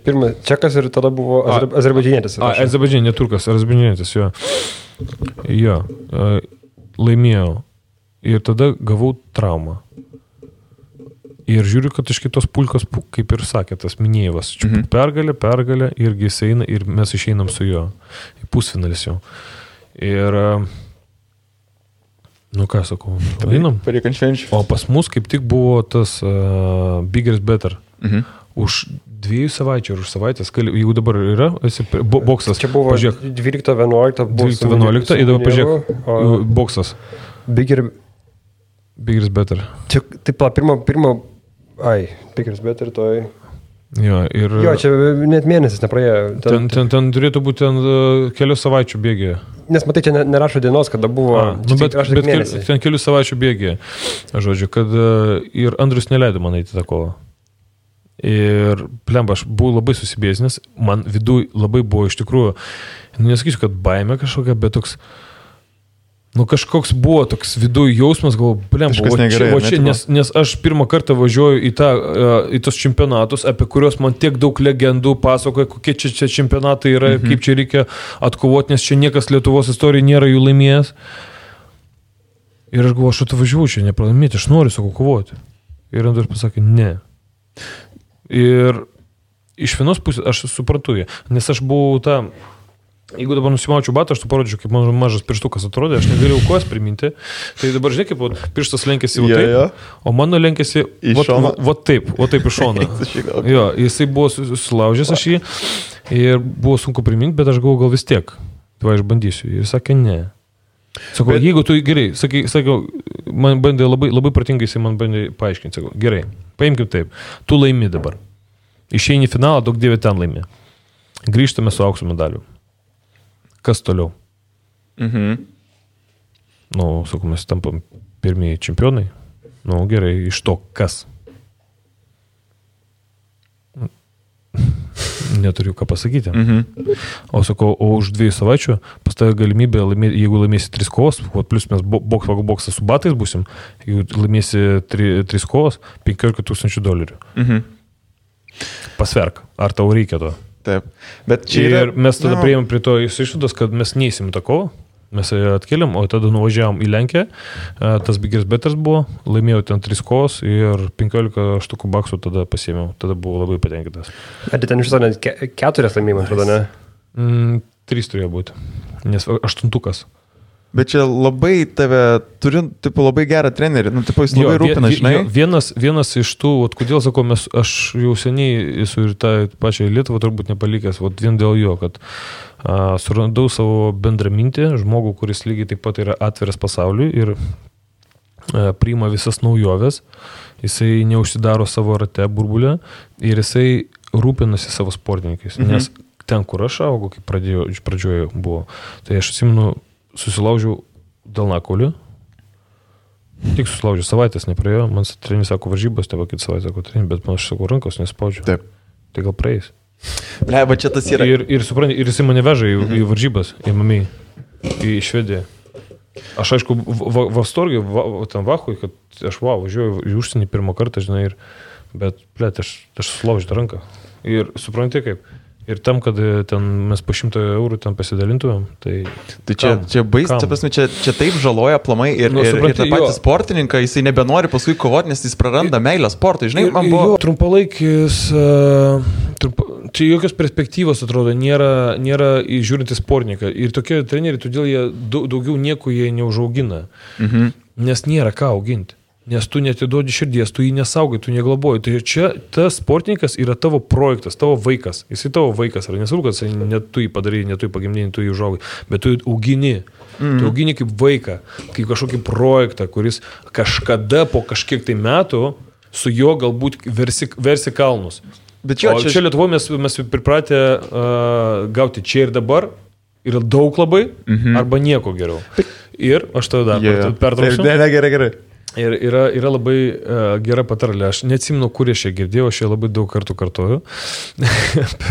Pirmas čekas ir tada buvo azerbaidžinietis. Azerbaidžianė, ne turkas, azerbaidžinietis, jo. Jo, laimėjau. Ir tada gavau traumą. Ir žiūriu, kad iš kitos pulkos, kaip ir sakė, tas Minėjevas, pergalė, irgi jis eina ir mes išeinam su juo. Į pusfinalis jau. Ir, ką sakau, einam. O pas mus kaip tik buvo tas Bigger is Better. Už 2 savaičių ar už savaitės, jeigu dabar yra, esi boksas. Čia buvo 12-11 ir dabar pažiūrėk, boksas. Bigger is Better. Čia, taip, Bigger is Better, toj. Jo, čia net mėnesis nepraėjo. Ten turėtų būti kelių savaičių bėgėje. Nes matai, čia nerašo dienos, kada buvo. Bet ten kelių savaičių bėgėje. Žodžiu, kad ir Andrius neleido man eiti tą kovą. Ir plemba, aš buvau labai susibėsnės, man viduj labai buvo iš tikrųjų, nesakysiu, kad baimė kažkokia, bet toks, kažkoks buvo toks viduj jausmas, galvoju, plemba, nes aš pirmą kartą važiuoju į tos čempionatus, apie kuriuos man tiek daug legendų pasakoja, kokie čia čempionatai yra, kaip čia reikia atkovoti, nes čia niekas Lietuvos istorijoje nėra jų laimėjęs. Ir aš galvoju, aš atvažiuoju čia nepralaimėti, aš noriu sakau kovoti. Ir Andrius pasakė, ne. Ir iš vienos pusės aš suprantu jį, nes aš buvau jeigu dabar nusimaučiau batą, aš tu parodžiau, kaip man mažas pirštukas atrodė, aš negalėjau kojas priminti, tai dabar žinai, kaip pirštas lenkėsi taip, o mano lenkėsi taip iš šono. Jo, jisai buvo sulaužęs aš jį ir buvo sunku priminti, bet aš galvoju, gal vis tiek, tai aš bandysiu. Ir sakė, ne. Sakau, jeigu tu gerai, sakau, man bandė labai pratingai, jisai man bandė paaiškinti, sakau, gerai, paimkim taip, tu laimi dabar. Išeini į finalą, daug dievė ten laimi. Grįžtame su aukso medaliu. Kas toliau? Sakau, mes tampam pirmieji čempionai. Gerai, iš to kas? Neturiu ką pasakyti. O sakau, už 2 savaičių pas tave galimybė laimėti, jeigu laimėsi 3 kovos, plus mes boksą su batais būsim, jeigu laimėsi 3 kovos, $15,000. Pasverk, ar tau reikia to? Taip. Bet čia ir mes tada priėjom prie to išvados, kad mes neįsim tą kovą, mes atkeliam, o tada nuvažiavom į Lenkiją, tas biggest betters buvo, laimėjau ten 3 kovos ir $15 tada pasiėmiau, tada buvau labai patenkintas. Ar ten iš to net 4 laimėjimai, atrodo, ne? 3 turėjo būti, nes 8. Bet čia labai turi, labai gerą trenerį, jis labai rūpina, žinai. Vienas iš tų, kodėl sakau, aš jau seniai esu ir tą pačią Lietuvą turbūt nepalikęs, vien dėl jo, kad surandau savo bendramintį, žmogų, kuris lygiai taip pat yra atviras pasauliui ir priima visas naujoves, jisai neužsidaro savo rate burbulę ir jisai rūpinasi savo sportininkais, nes ten, kur aš augau, kaip pradžioje buvo, tai aš atsimenu, susilaužiau delnakaulį. Tik susilaužiau, savaitės nepraėjo. Man treneris sako varžybos, teba kitą savaitę sako treneris, bet man aš sakau rankos nespaudžiu. Taip. Tai gal praeis. Bleba, čia tas yra. Ir supranti, ir jisai mane veža į varžybas, į Mami, į Švediją. Aš aišku, Vastorgiai, tam Vachui, kad aš važiuoju į užsienį pirmą kartą, žinai, bet, aš susilaužiu ranką. Ir supranti kaip. Ir tam, kad ten mes po €100 ten pasidalintumėm, tai čia bais, čia taip žaloja aplamai ir tą patį sportininką, jisai nebenori paskui kovoti, nes jis praranda meilę sportui, žinai, man buvo. Trumpalaikis, čia jokios perspektyvos atrodo, nėra žiūrinti sportininką. Ir tokie treneriai, todėl jie daugiau nieko jie neužaugina, nes nėra ką auginti. Nes tu netiduodi širdies, tu jį nesaugai, tu neglaboji. Tai čia tas sportininkas yra tavo projektas, tavo vaikas. Jisai tavo vaikas, ar nesvarbu, kad net tu jį padarai, net tu jį pagimdini, tu jį užaugai, bet tu jį augini. Tu augini kaip vaiką, kaip kažkokį projektą, kuris kažkada po kažkiek tai metų su juo galbūt versi kalnus. Bet o čia Lietuvoje mes pripratę gauti čia ir dabar, yra daug labai, arba nieko geriau. Ir aš tave dar pertrauksiu. Gerai. Ir yra labai gera patarlė. Aš neatsimenu, kur aš ją girdėjau, aš ją labai daug kartų kartoju.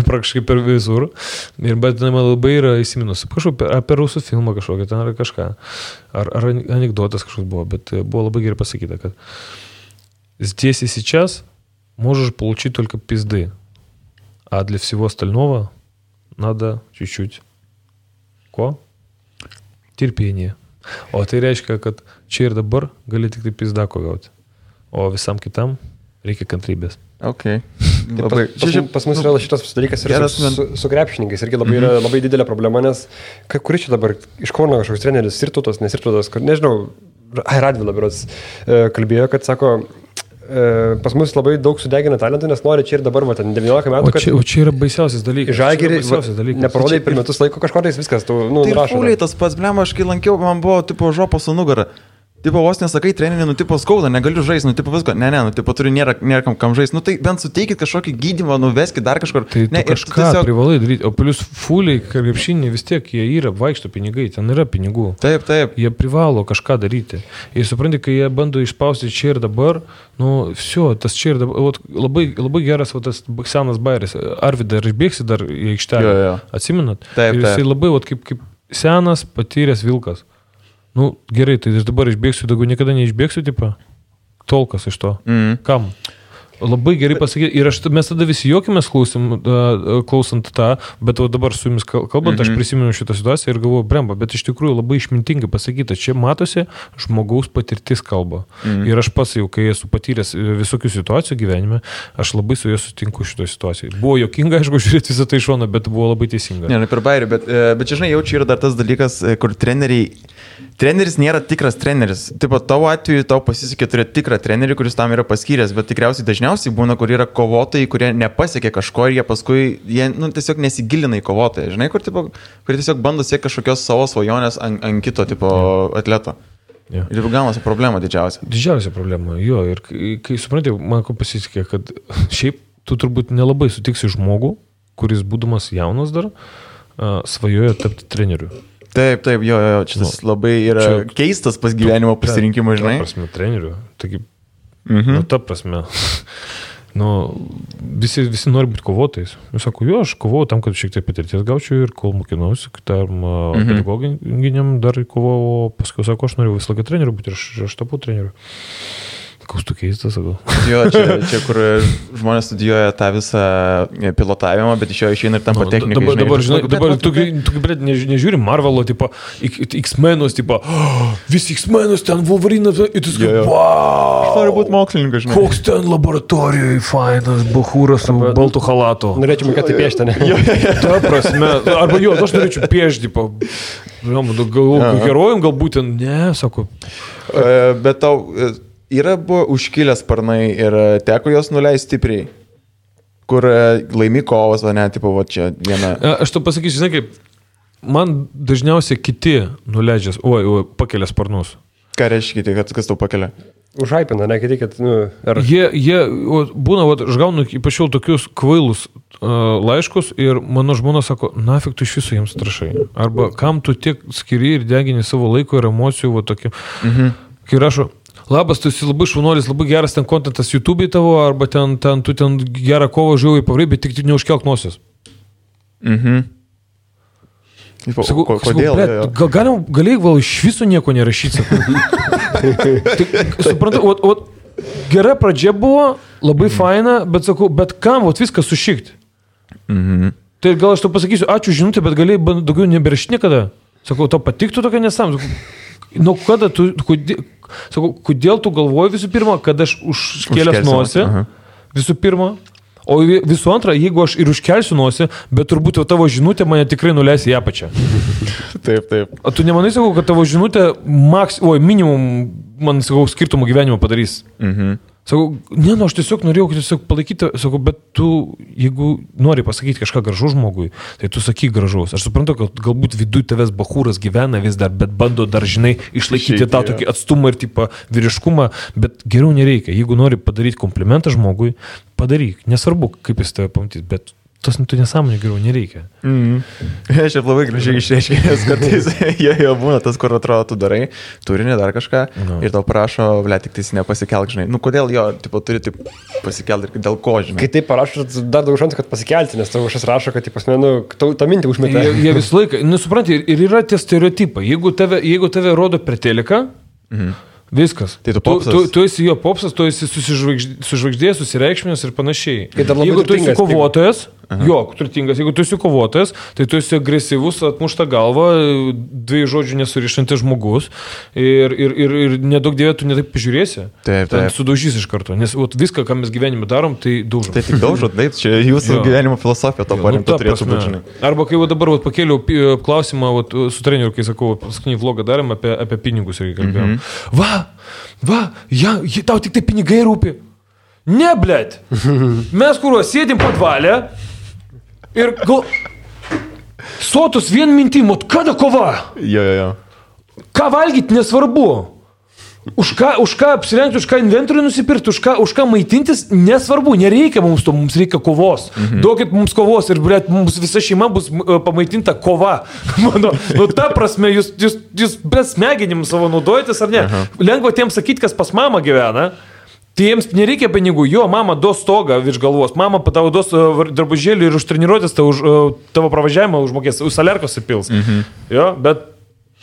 Praktiškai per visur. Bet man labai yra įsiminus. Apie rusų filmą kažkokią, ten ar kažką. Ar anekdotas kažkoks buvo, bet buvo labai gerai pasakyta, kad здесь и сейчас можешь получить только пизды, а для всего остального надо чуть-чуть терпение. O tai reiškia, kad čia ir dabar gali tik tai pizdako gauti, o visam kitam reikia kantrybės. Okay. Pas mus yra šitas dalykas ir su krepšininkais irgi labai yra labai didelė problema, nes kuris čia dabar iš Kauno kažkoks treneris, Sirtutas, nesirtutas, nežinau, Radvila berods kalbėjo, kad sako, pas mus labai daug sudegina talentų, nes nori čia ir dabar, ten 19 metų. O čia yra baisiausias dalykas. Žalgirį neparodai per metus laiko kažkodais viskas, tu nurašai. Tai Pauliai tas pats, blema, aš kai lankiau, man buvo tipo žopos su nugara. Tipo vos nesakai treninį, tipo skauda, negaliu žaisti, tipo visko. Ne, tipo turiu nėra kam žaisti. Tai bent suteikit kažkokį gydymą, nuveskit dar kažkur. Tai kažką tiesiog privalai daryti. O plius fuliai, krepšiniai vis tiek jie yra, vaikšto pinigai, ten yra pinigų. Taip. Jie privalo kažką daryti. Ir supranti, kai jie bando išspausti čia ir dabar, tas čia ir dabar, labai geras tas senas bairis. Arvydą, ar išbėgsi dar į aikštelę? Atsimenat? Taip. Ir jisai labai kaip senas, patyręs vilkas. Gerai, tai aš dabar išbėgsiu, daugiau niekada neišbėgsiu, tipo, tolkas iš to. Kam? labai gerai pasakyti. Ir mes tada visi juokimės klausant tą, bet dabar su jumis kalbant, aš prisimenu šitą situaciją ir galvoju, bremba, bet iš tikrųjų labai išmintingai pasakyta, čia matosi žmogaus patirtis kalba. Ir aš pats jau, kai esu patyręs visokių situacijų gyvenime, aš labai su juo sutinku šitoje situacijoje. Buvo juokinga, aišku, žiūrėti visą tai iš šono, bet buvo labai teisinga. Ne, per bairį, bet čia, žinai, jaučiu yra dar tas dalykas, kur treneris nėra tikras treneris. Taip pat tavo atveju tau pasisekė turėti tikrą trenerį, kuris tam yra paskyręs, bet tikriausiai dažniausiai būna, kur yra kovotojai, kurie nepasiekė kažko ir jie paskui, tiesiog nesigilina į kovotoją, žinai, kur tiesiog bando siekti kažkokios savo svajonės ant kito tipo atleto. Yeah. Ir gaunasi problema didžiausia. Didžiausia problema, jo, ir kai suprantate, man ko pasisekė, kad šiaip tu turbūt nelabai sutiksi žmogų, kuris būdamas jaunas dar, svajoja tapti treneriu. Taip, jo, čia tas labai yra keistas pas gyvenimo pasirinkimas, žinai. Ta prasme, treneriu. Taigi, ta prasme, visi nori būti kovotojais. Jūs sako, jo, aš kovojau tam, kad šiek tiek patirties gaučiau ir kol mokinausi, tam pedagoginiam dar kovojau, paskui sako, aš noriu visą laiką treneriu būti ir aš tapau treneriu. Koks tu keistas, sakau. Jo, čia kur žmonės studijuoja tą visą pilotavimą, bet iš jo išeina ir tampa technikai. Dabar tu nežiūri Marvelo, tipo, X-Menus, tipo, visi X-Menus, ten Wolverinas, ir tu sakai, wow! Aš noriu būti mokslininkas, žinai. Koks ten laboratorijoje fainas, bachūras su baltu halatu. Norėčiau mokėti piešti, ne? Ta prasme, arba jo, aš norėčiau piešti, tipo, herojum galbūt, ne, sako. Bet tau... Yra buvo užkilęs sparnai ir teko jos nuleisti stipriai, kur laimi kovas, o ne, tipo, va čia viena. Aš to pasakysiu, žinai, kaip, man dažniausiai kiti nuleidžias, pakelia sparnus. Ką reiškia kiti, kas tau pakelia? Užhaipina, ne, kiti, kad, Jie būna, aš gaunu ypač jau tokius kvailus laiškus ir mano žmona sako, nafik tu iš viso jiems trašai. Arba kam tu tiek skiri ir degini savo laiko ir emocijų, va tokiu. Kai rašo, labas, tu esi labai šaunuolis, labai geras ten kontentas YouTube'ai tavo, arba tu ten gerą kovą žiūrėjai pavarai, bet tik neužkelk nosies. Kodėl? Galėjai gal iš viso nieko nerašyti. Suprantu, gera pradžia buvo, labai faina, bet sakau, bet kam viską sušikti? Tai gal aš tau pasakysiu, ačiū žinutė, bet galėjai daugiau neberašyti niekada. Sakau, tau patiktų tokia nesam. Nu, kada tu, kodėl tu galvoji visų pirma, kad aš užkėlęs nosį, visų pirma, o visų antra, jeigu aš ir užkelsiu nosį, bet turbūt tavo žinutė mane tikrai nuleis į apačią. Taip. O tu nemanai, sakau, kad tavo žinutė minimum, man, sakau, skirtumo gyvenimo padarys? Sakau, aš tiesiog norėjau palaikyti, sakau, bet tu, jeigu nori pasakyti kažką gražu žmogui, tai tu sakyk gražaus. Aš suprantu, kad galbūt viduje tavęs bachūras gyvena vis dar, bet bando dar, žinai, išlaikyti tą tokį atstumą ir tipo vyriškumą, bet geriau nereikia. Jeigu nori padaryti komplimentą žmogui, padaryk. Nesvarbu, kaip jis tave pamatys, bet tas tu nesąmonė geriau nereikia. Aš jau labai gražiai išreiškėjęs, kartais jo būna tas, kur atrodo, tu darai, turinį dar kažką ir tau prašo, tik tais nepasikelk, žinai. Nu, kodėl jo, tipo, turi taip pasikelti ir dėl ko, žinai. Kai taip parašo, dar daug šansų, kad pasikelti, nes tavo kažkas rašo, kad, tą mintį užmetė. Jie visą laiką, nesupranti, ir yra tie stereotipai. Jeigu tave rodo per teleką, viskas. Tai tu esi jo popsas, tu esi sužvaigždėjęs, susireikšminęs ir panašiai. Jeigu tu esi kovotojas, turtingas, jeigu tu esi kovotojas, tai tu esi agresyvus, atmušta galva, dviejų žodžių nesurišantis žmogus ir nedaug dievė tu netaip pažiūrėsi. Taip. Sudaužys iš karto, nes viską, ką mes gyvenime darom, tai daužom. Tai tik daužot, taip, čia jūsų gyvenimo filosofija to paremta turėtų būti, žinai. Arba kai dabar pakėliau klausimą su treneriu, kai sakau, paskutinį vlogą darėm apie pinigus ir kalbėjom. Tau tik tai pinigai rūpi. Ne, blėt. Mes sėdim padvalę ir sotus vien mintim, kada kova? Jo. Ką valgyti nesvarbu. Už ką apsirengti, už ką inventorių nusipirkti, už ką maitintis, nesvarbu, nereikia mums to, mums reikia kovos. Duokit mums kovos ir, blėt, mums visa šeima bus pamaitinta kova. Ta prasme, jūs be smegenim savo naudojatės ar ne? Lengva tiems sakyti, kas pas mamą gyvena. Tai jiems nereikia pinigų, jo, mama duos stogą virš galvos, mama tavo duos drabužėlį ir už treniruotės tavo pravažiavimą užmokės, už salerkos įpils. Jo, bet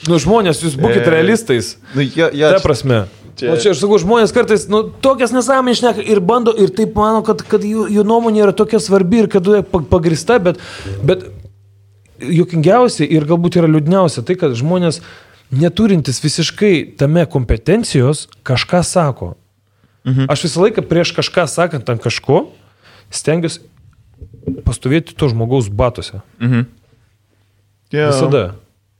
žmonės, jūs būkite realistais. Ta prasme. O čia aš sakau, žmonės kartais tokias nesąmonės šneka ir bando, ir taip mano, kad jų nuomonė yra tokia svarbi ir kad pagrįsta, bet juokingiausia ir galbūt yra liūdniausia tai, kad žmonės neturintis visiškai tame kompetencijos kažką sako. Aš visą laiką prieš kažką sakant ant kažko stengiuosi pastovėti to žmogaus batuose.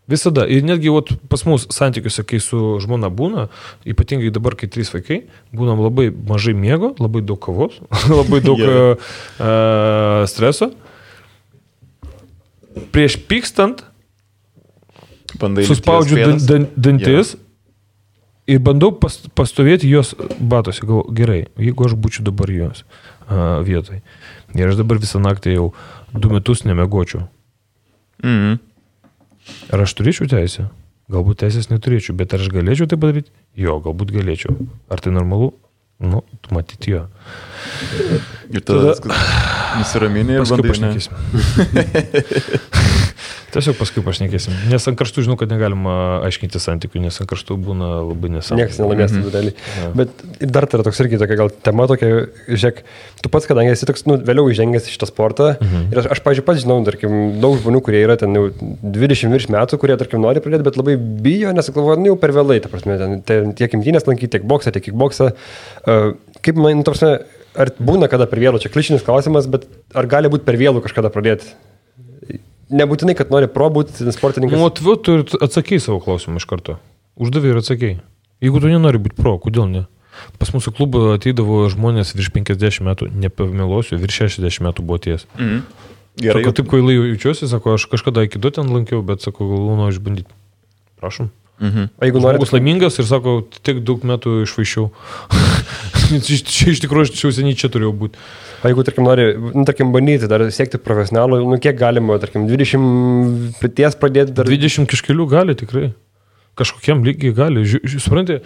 Visada. Ir netgi pas mus santykiuose, kai su žmona būna, ypatingai dabar, kai 3 vaikai, būnam labai mažai miego, labai daug kavos, labai daug streso. Prieš pykstant suspaudžiu dantis ir bandau pastovėti jos batuose. Galvoju, gerai, jeigu aš būčiau dabar jos vietoj. Ir aš dabar visą naktį jau 2 metus nemiegočiau. Ar aš turėčiau teisę? Galbūt teisės neturėčiau, bet ar aš galėčiau tai padaryti? Jo, galbūt galėčiau. Ar tai normalu? Nu, matyti jo. Ir tada nusiraminė ir bandai pašnekėsim. Tiesiog paskui pašnekėsim. Nes ant karštų žinau, kad negalima aiškinti santykių, nes ant karštų būna labai nesąmonė. Niekas nelaimės tų dalį. Bet dar tai yra toks irgi tokia gal tema tokia, žiūrėk, tu pats, kadangi esi toks, vėliau įžengęs į šitą sportą, ir aš pavyzdžiui, pats žinau, tarkim, daug žmonių, kurie yra ten jau 20 virš metų, kurie, tarkim, nori pradėti, bet labai bijo, nes galvoja, jau per vėlai, ta prasme, ten tiek imtynės lankyti, tiek boksą, tiek kickboksą. Kaip man, ta prasme, ar būna kada per vėlų, čia klišinis klausimas, bet ar gali būti per vėlų kažkada pradėti? Nebūtinai, kad nori būti sportininkas. Tu atsakei savo klausimą iš karto. Uždavė ir atsakei. Jeigu tu nenori būti pro, kodėl ne? Pas mūsų klubą ateidavo žmonės virš 50 metų, nepamelosiu, virš 60 metų buvo ties. Gerai. Sako, taip kvailai jaučiuosi, sako, aš kažkada iki 2 ten lankiau, bet sako, noriu išbandyti. Prašom. O jeigu nori... Žmogus laimingas ir sako, tiek daug metų išvaišiau. Čia iš tikrųjų, aš seniai čia turėjau būti. O jeigu, tarkim, nori, bandyti dar siekti profesionalų, kiek galima, tarkim, 20 ties pradėti dar... 20 kažkelių gali tikrai. Kažkokiam lygiai gali. Supranti,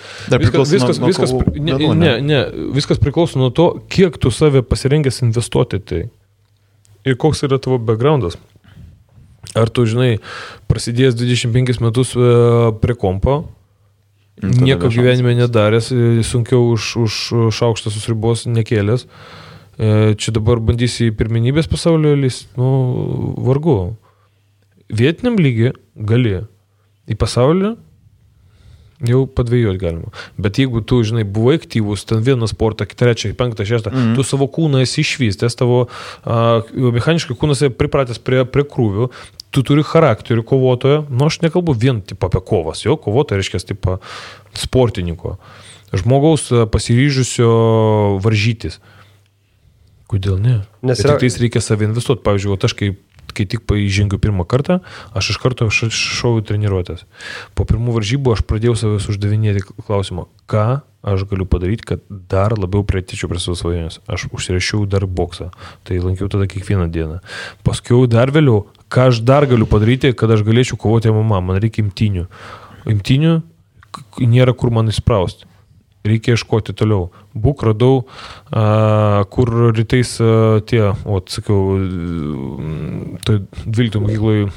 viskas priklauso nuo to, kiek tu save pasirengęs investuoti tai. Ir koks yra tavo backgroundas. Ar tu, žinai, prasidėjęs 25 metus prie kompo, nieko gyvenime nedaręs, sunkiau už šaukštą susribos nekėlęs, čia dabar bandysi į pirmenybės pasaulio lys, vargu. Vietiniam lygiai gali. Į pasaulį jau padvėjoti galima. Bet jeigu tu, žinai, buvai aktyvus, ten vieną sportą, 3, 5, 6, tu savo kūną esi išvystęs, tavo mechaniškai kūnas pripratęs prie krūvių, tu turi charakterį kovotojo, aš nekalbu vien tipo apie kovas, jo, kovotojo reiškia tipo sportininko, žmogaus pasiryžusio varžytis. Kodėl ne? Nes tik tais reikia savį investuoti. Pavyzdžiui, aš kai tik įžengiu pirmą kartą, aš iš karto šoviu treniruotės. Po pirmų varžybų aš pradėjau savęs uždavinėti klausimą, ką aš galiu padaryti, kad dar labiau priartėčiau prie savo svajonės. Aš užsirašiau dar boksą, tai lankiau tada kiekvieną dieną. Paskui dar vėliau, ką aš dar galiu padaryti, kad aš galėčiau kovoti MMA, man reikia imtynių. Imtynių nėra kur man įsprausti. Reikia ieškoti toliau. Būk radau, kur rytais sakiau, tai 12 mokykloje,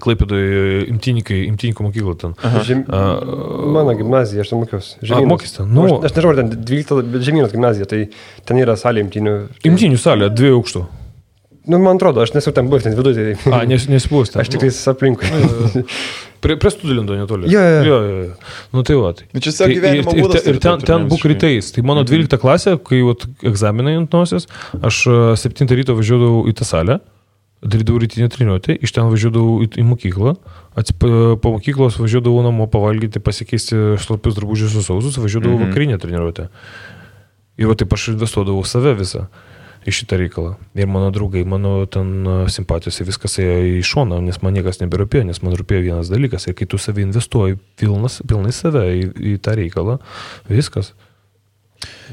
Klaipėdoje imtyniko mokykla ten. Mano gimnazija, aš ten mokiausi. Mokys ten? Aš nežinau, ten 12, bet Žemynos gimnazija, tai ten yra salė imtynių. Imtynių salė, 2 aukštų. Man atrodo, aš nesu ten buvęs, ten viduje. Nesibuvęs ten. Aš tik aplinkui. Prie Studilindo netoli. Jo. Tai va. Čia gyvenimo būdas. Ir ten būk rytais. Tai mano 12 klasė, kai egzaminai ant nosies, aš 7 ryto važiuodavau į tą salę, darydavau rytinę treniruotę, iš ten važiuodavau į mokyklą, po mokyklos važiuodavau namo pavalgyti, pasikeisti šlapius drabužius su sausus, važiuodavau vakarinę treniruotę. Ir va taip aš investuodavau save visą į šitą reikalą. Ir mano draugai, mano ten simpatijos ir viskas ėjo į šoną, nes man niekas neberūpėjo, nes man rūpėjo vienas dalykas. Ir kai tu save investuoji pilnai save į tą reikalą, viskas.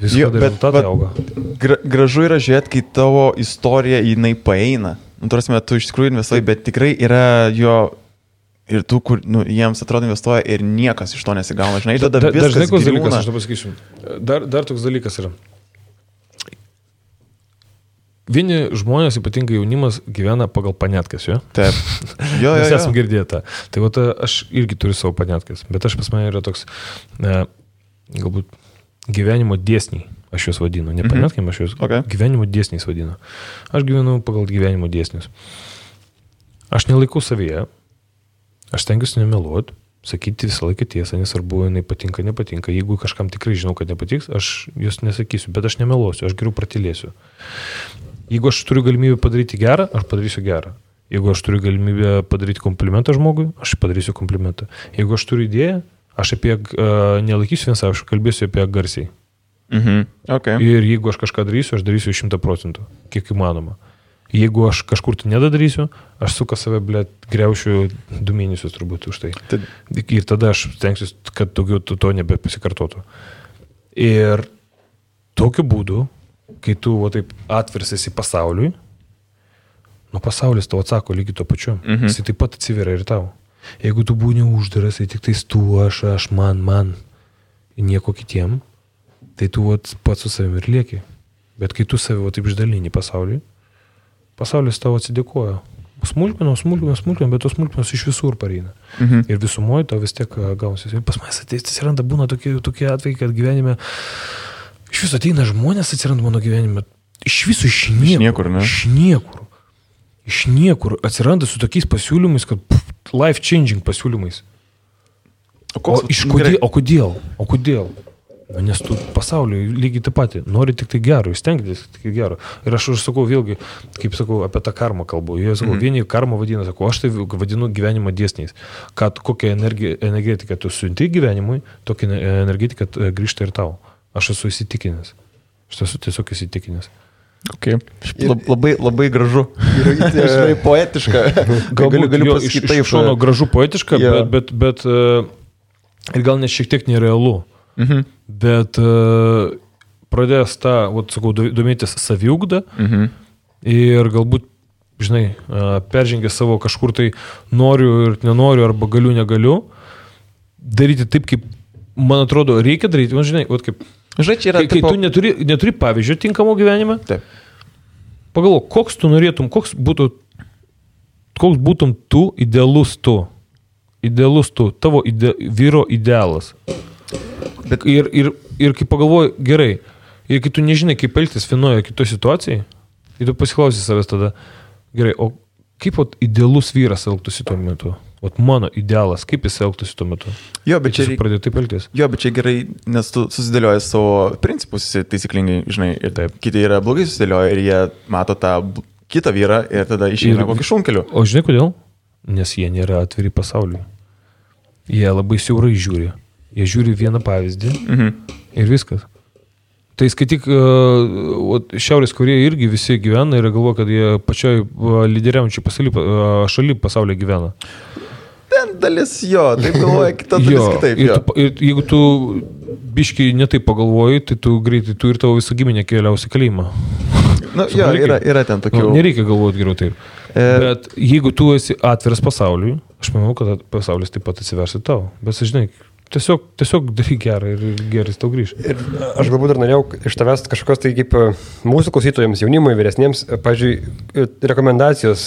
Rezultatai auga. Gražu yra žiūrėti, kai tavo istorija jinai paeina. Tu iš tikrųjų investuoji, bet tikrai yra jo ir tų, kur jiems atrodo investuoja ir niekas iš to nesigauna. Žinai, tada viskas dalykas, aš to pasakysiu. Dar toks dalykas yra. Vieni žmonės, ypatingai jaunimas, gyvena pagal paniatkas, jo? Taip. Mes esam girdėję tą. Tai aš irgi turiu savo paniatkas, bet pas mane yra toks, galbūt gyvenimo dėsniai, aš juos vadinu, nepanetkim, aš juos gyvenimo dėsniais vadinu. Aš gyvenu pagal gyvenimo dėsnius. Aš nelaikau savyje, aš stengiuosi nemeluoti, sakyti visą laiką tiesą, nesvarbu, jinai patinka, nepatinka. Jeigu kažkam tikrai žinau, kad nepatiks, aš jos nesakysiu, bet aš nemeluosiu, aš geriau pratylėsiu. Jeigu aš turiu galimybę padaryti gerą, aš padarysiu gerą. Jeigu aš turiu galimybę padaryti komplimentą žmogui, aš padarysiu komplimentą. Jeigu aš turiu idėją, aš apie nelaikysiu vien savo, aš kalbėsiu apie garsiai. Okay. Ir jeigu aš kažką darysiu, aš darysiu 100%, kiek įmanoma. Jeigu aš kažkur tai nedadarysiu, aš suka save, griaušiu 2 mėnesius turbūt už tai. Ir tada aš stengsiuosi, kad daugiau to nebepasikartotų. Ir tokiu būdu, kai tu taip atviras esi pasauliui, pasaulis tau atsako lygiai to pačiu. Jis taip pat atsiveria ir tau. Jeigu tu būni uždaras, tai tik tais tu, aš, man, nieko kitiem, tai tu pats su savimi ir lieki. Bet kai tu save taip išdalini pasauliui, pasaulis tau atsidėkoja. Smulkmenos, bet tos smulkmenos iš visur pareina. Ir visumoje tau vis tiek gausis. Ir pas manęs atsiranda, būna tokie atvejai, kad gyvenime iš viso ateina žmonės, atsiranda mano gyvenime. Iš viso iš niekur. Iš niekur atsiranda su tokiais pasiūlymais, kad life-changing pasiūlymais. O kodėl? Nes tu pasauliui lygiai taip patį, nori tik tai gero, stengtis tik tai gero. Ir aš sakau vėlgi, kaip sakau, apie tą karmą kalbu. Jie sakau, vieni karmą vadina, sakau, aš tai vadinu gyvenimo dėsniais. Kad kokią energetiką tu siunti gyvenimui, tokia energetika grįžta ir tau. Aš esu įsitikinęs. Aš esu tiesiog įsitikinęs. Okay. Labai gražu. Ir poetiška. Galiu pasakyti taip. Iš šono gražu poetiška, bet ir gal net šiek tiek nerealu. Bet pradėjęs tą, sakau, domėtis saviugdą ir galbūt, žinai, peržengęs savo kažkur tai noriu ir nenoriu, arba galiu, negaliu, daryti taip, kaip, man atrodo, reikia daryti. Man, žinai, kaip, kai tu neturi pavyzdžio tinkamo gyvenime, taip. Pagalvok, koks tu norėtum, koks būtum tu, idealus tu, tavo vyro idealas. Bet... Ir kai pagalvoji, gerai, ir kai tu nežinai, kaip elgtis vienoje kitoje situacijai, ir tu pasiklausi savęs tada, gerai, o kaip idealus vyras elgtųsi tuo metu? Mano idealas, kaip jis elgtųsi tuo metu? Jo, bet čia pradėjo taip elgtis. Jo, bet čia gerai, nes tu susidėlioji savo principus taisyklingai, žinai, ir taip, kiti yra blogai susidėlioja ir jie mato tą kitą vyrą ir tada išeina kokį šunkeliu. O žinai kodėl? Nes jie nėra atviri pasauliui. Jie labai siaurai žiūri. Jie žiūri vieną pavyzdį ir viskas. Tai skaityk, Šiaurės Korėja irgi visi gyvena ir galvoja, kad jie pačioj lyderiaujančiai šaly pasaulyje gyvena. Ten dalis jo, taip galvoja, kita dalis kitaip. Ir jeigu tu biškai netaip pagalvoji, tai tu greitai, tu ir tavo visą giminę keliausi kalėjimą. Yra ten tokių. Nereikia galvoti geriau taip. Bet jeigu tu esi atviras pasauliui, aš manau, kad pasaulis taip pat atsiversi tau. Bet žinai, tiesiog daryk gerą ir geras tau grįž. Ir aš galbūt dar norėjau iš tavęs kažkokios tai kaip mūsų klausytojams, jaunimui, vyresniems, pavyzdžiui, rekomendacijos,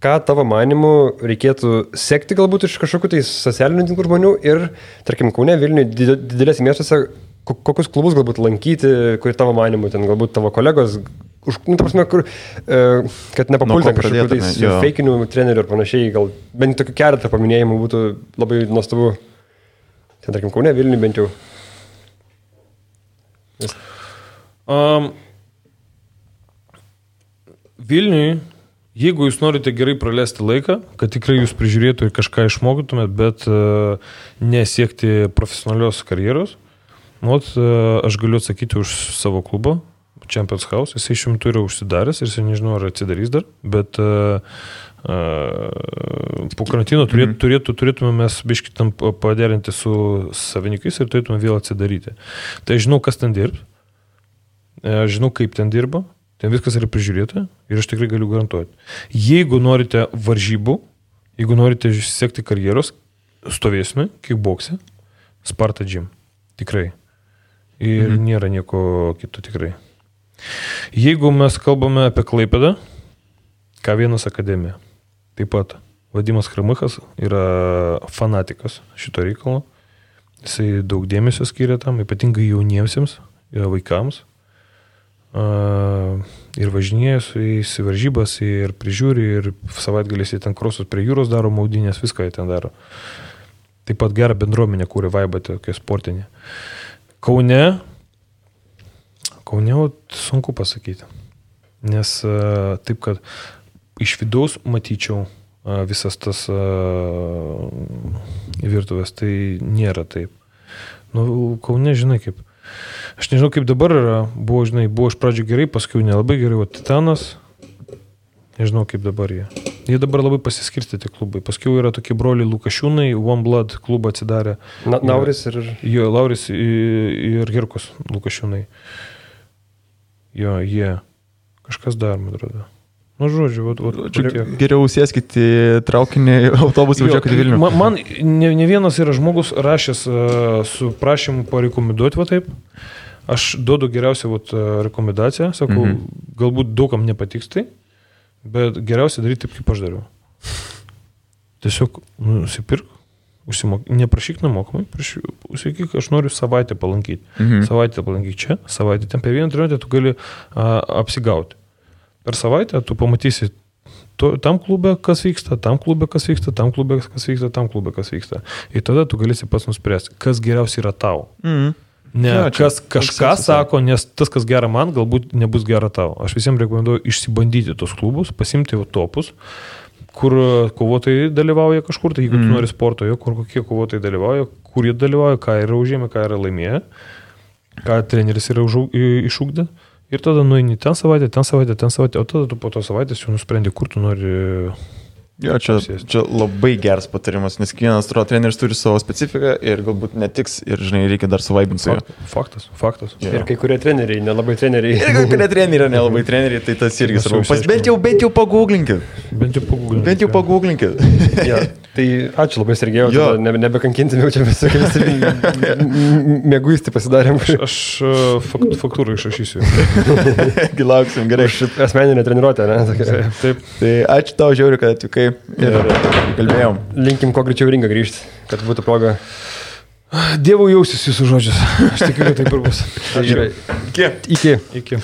ką tavo manimu reikėtų sekti galbūt iš kažkokių tai socialinių tinklų žmonių ir, tarkim, Kaune, Vilniuje, didelėse miestuose, kokius klubus galbūt lankyti, kur tavo manimu, ten galbūt tavo kolegos, ta prasme, kur, kad nepapulti kažkokių tais feikinių trenerių ir panašiai, gal bent tokių keletą paminėjimų būtų labai nuostabu. Ten, tarkim, Kaune, Vilniuje bent jau. Vilniuje, jeigu jūs norite gerai praleisti laiką, kad tikrai jūs prižiūrėtų ir kažką išmokytumėt, bet nesiekti profesionalios karjeros, aš galiu atsakyti už savo klubą, Champions House. Jisai šiuo metu yra užsidaręs ir jisai nežinau, ar atsidarys dar, bet po karantino turėtume mes biškį tam paderinti su savininkais ir turėtume vėl atsidaryti. Tai aš žinau, kas ten dirb, aš žinau, kaip ten dirba, ten viskas yra prižiūrėta ir aš tikrai galiu garantuoti. Jeigu norite varžybų, jeigu norite siekti karjeros, stovėsime, kickbokse, Sparta Gym. Tikrai. Ir nėra nieko kito tikrai. Jeigu mes kalbame apie Klaipėdą, K1 akademija. Taip pat Vadimas Kramichas yra fanatikas šito reikalo. Jisai daug dėmesio skiria tam, ypatingai jauniesiems, vaikams. Ir važinėja su jais į varžybas, ir prižiūri, ir savaitgaliais jie ten krosus prie jūros daro, maudynės, viską jie ten daro. Taip pat gerą bendruomenę kūrė vaibą tokia sportinė. Kaune sunku pasakyti, nes taip, kad iš vidaus matyčiau visas tas virtuvės, tai nėra taip. Kaune, žinai, kaip. Aš nežinau, kaip dabar yra. Buvo iš pradžių gerai, paskui nelabai gerai. O Titanas, nežinau, kaip dabar jie. Jie dabar labai pasiskirstyti klubai. Paskui yra tokie broliai Lukašiūnai, One Blood klubą atsidarė. Lauris ir... Jo, Lauris ir Girkus Lukašiūnai. Jo, jie. Kažkas dar, man atrodo. Žodžiu, geriau sėskite į traukinį, autobusą važiuokite Vilnių. Man ne vienas yra žmogus rašęs su prašymu parekomenduoti, va taip. Aš duodu geriausią rekomendaciją, sakau, galbūt daugam nepatiks tai, bet geriausia daryti taip, kaip aš dariau. Tiesiog nusipirk, neprašyk nemokamai, sakyk, aš noriu savaitę palankyti. Savaitę palankyti čia, savaitę ten per vieną treniruotę tu gali apsigauti. Per savaitę tu pamatysi tam klube, kas vyksta, tam klube, kas vyksta, tam klube, kas vyksta, tam klube, kas vyksta. Ir tada tu galėsi pats nuspręsti, kas geriausiai yra tau. Ne, kas kažką sako, nes tas, kas gera man, galbūt nebus gera tau. Aš visiems rekomenduoju išsibandyti tos klubus, pasimti topus, kur kovotojai dalyvauja kažkur, tai jeigu tu nori sporto, kur kokie kovotojai dalyvauja, kur jie dalyvauja, ką yra užėmę, ką yra laimėję, ką treneris yra išugdę. Ir tada nueini ten savaitę, o tada tu po to savaitės jau nusprendi, kur tu nori... Jo, čia labai geras patarimas, nes kiekvienas treneris turi savo specifiką ir galbūt netiks ir, žinai, reikia dar suvaibinti su juo. Faktas. Jo. Ir kai kurie treneriai, nelabai treneriai. Ir kai kurie treneriai, nelabai treneriai, tai tas irgi svarbu. Bent jau pagūglinkit. Bent jau pagūglinkit. Ja, tai ačiū labai, Sergejau, nebekankinti, jau čia visokiais mėguisti pasidarėm. Aš faktūrą išrašysiu. Gilauksim, gerai. Asmeninė treniruotė, ne? Taip. Tai ačiū tau, žiauriu, kad atvykai. Ir kalbėjom. Linkim kuo greičiau ringą grįžti, kad būtų proga. Dievo jausis jūsų žodžius. Aš tikiu, kad taip ir bus. Gerai. Iki. Iki.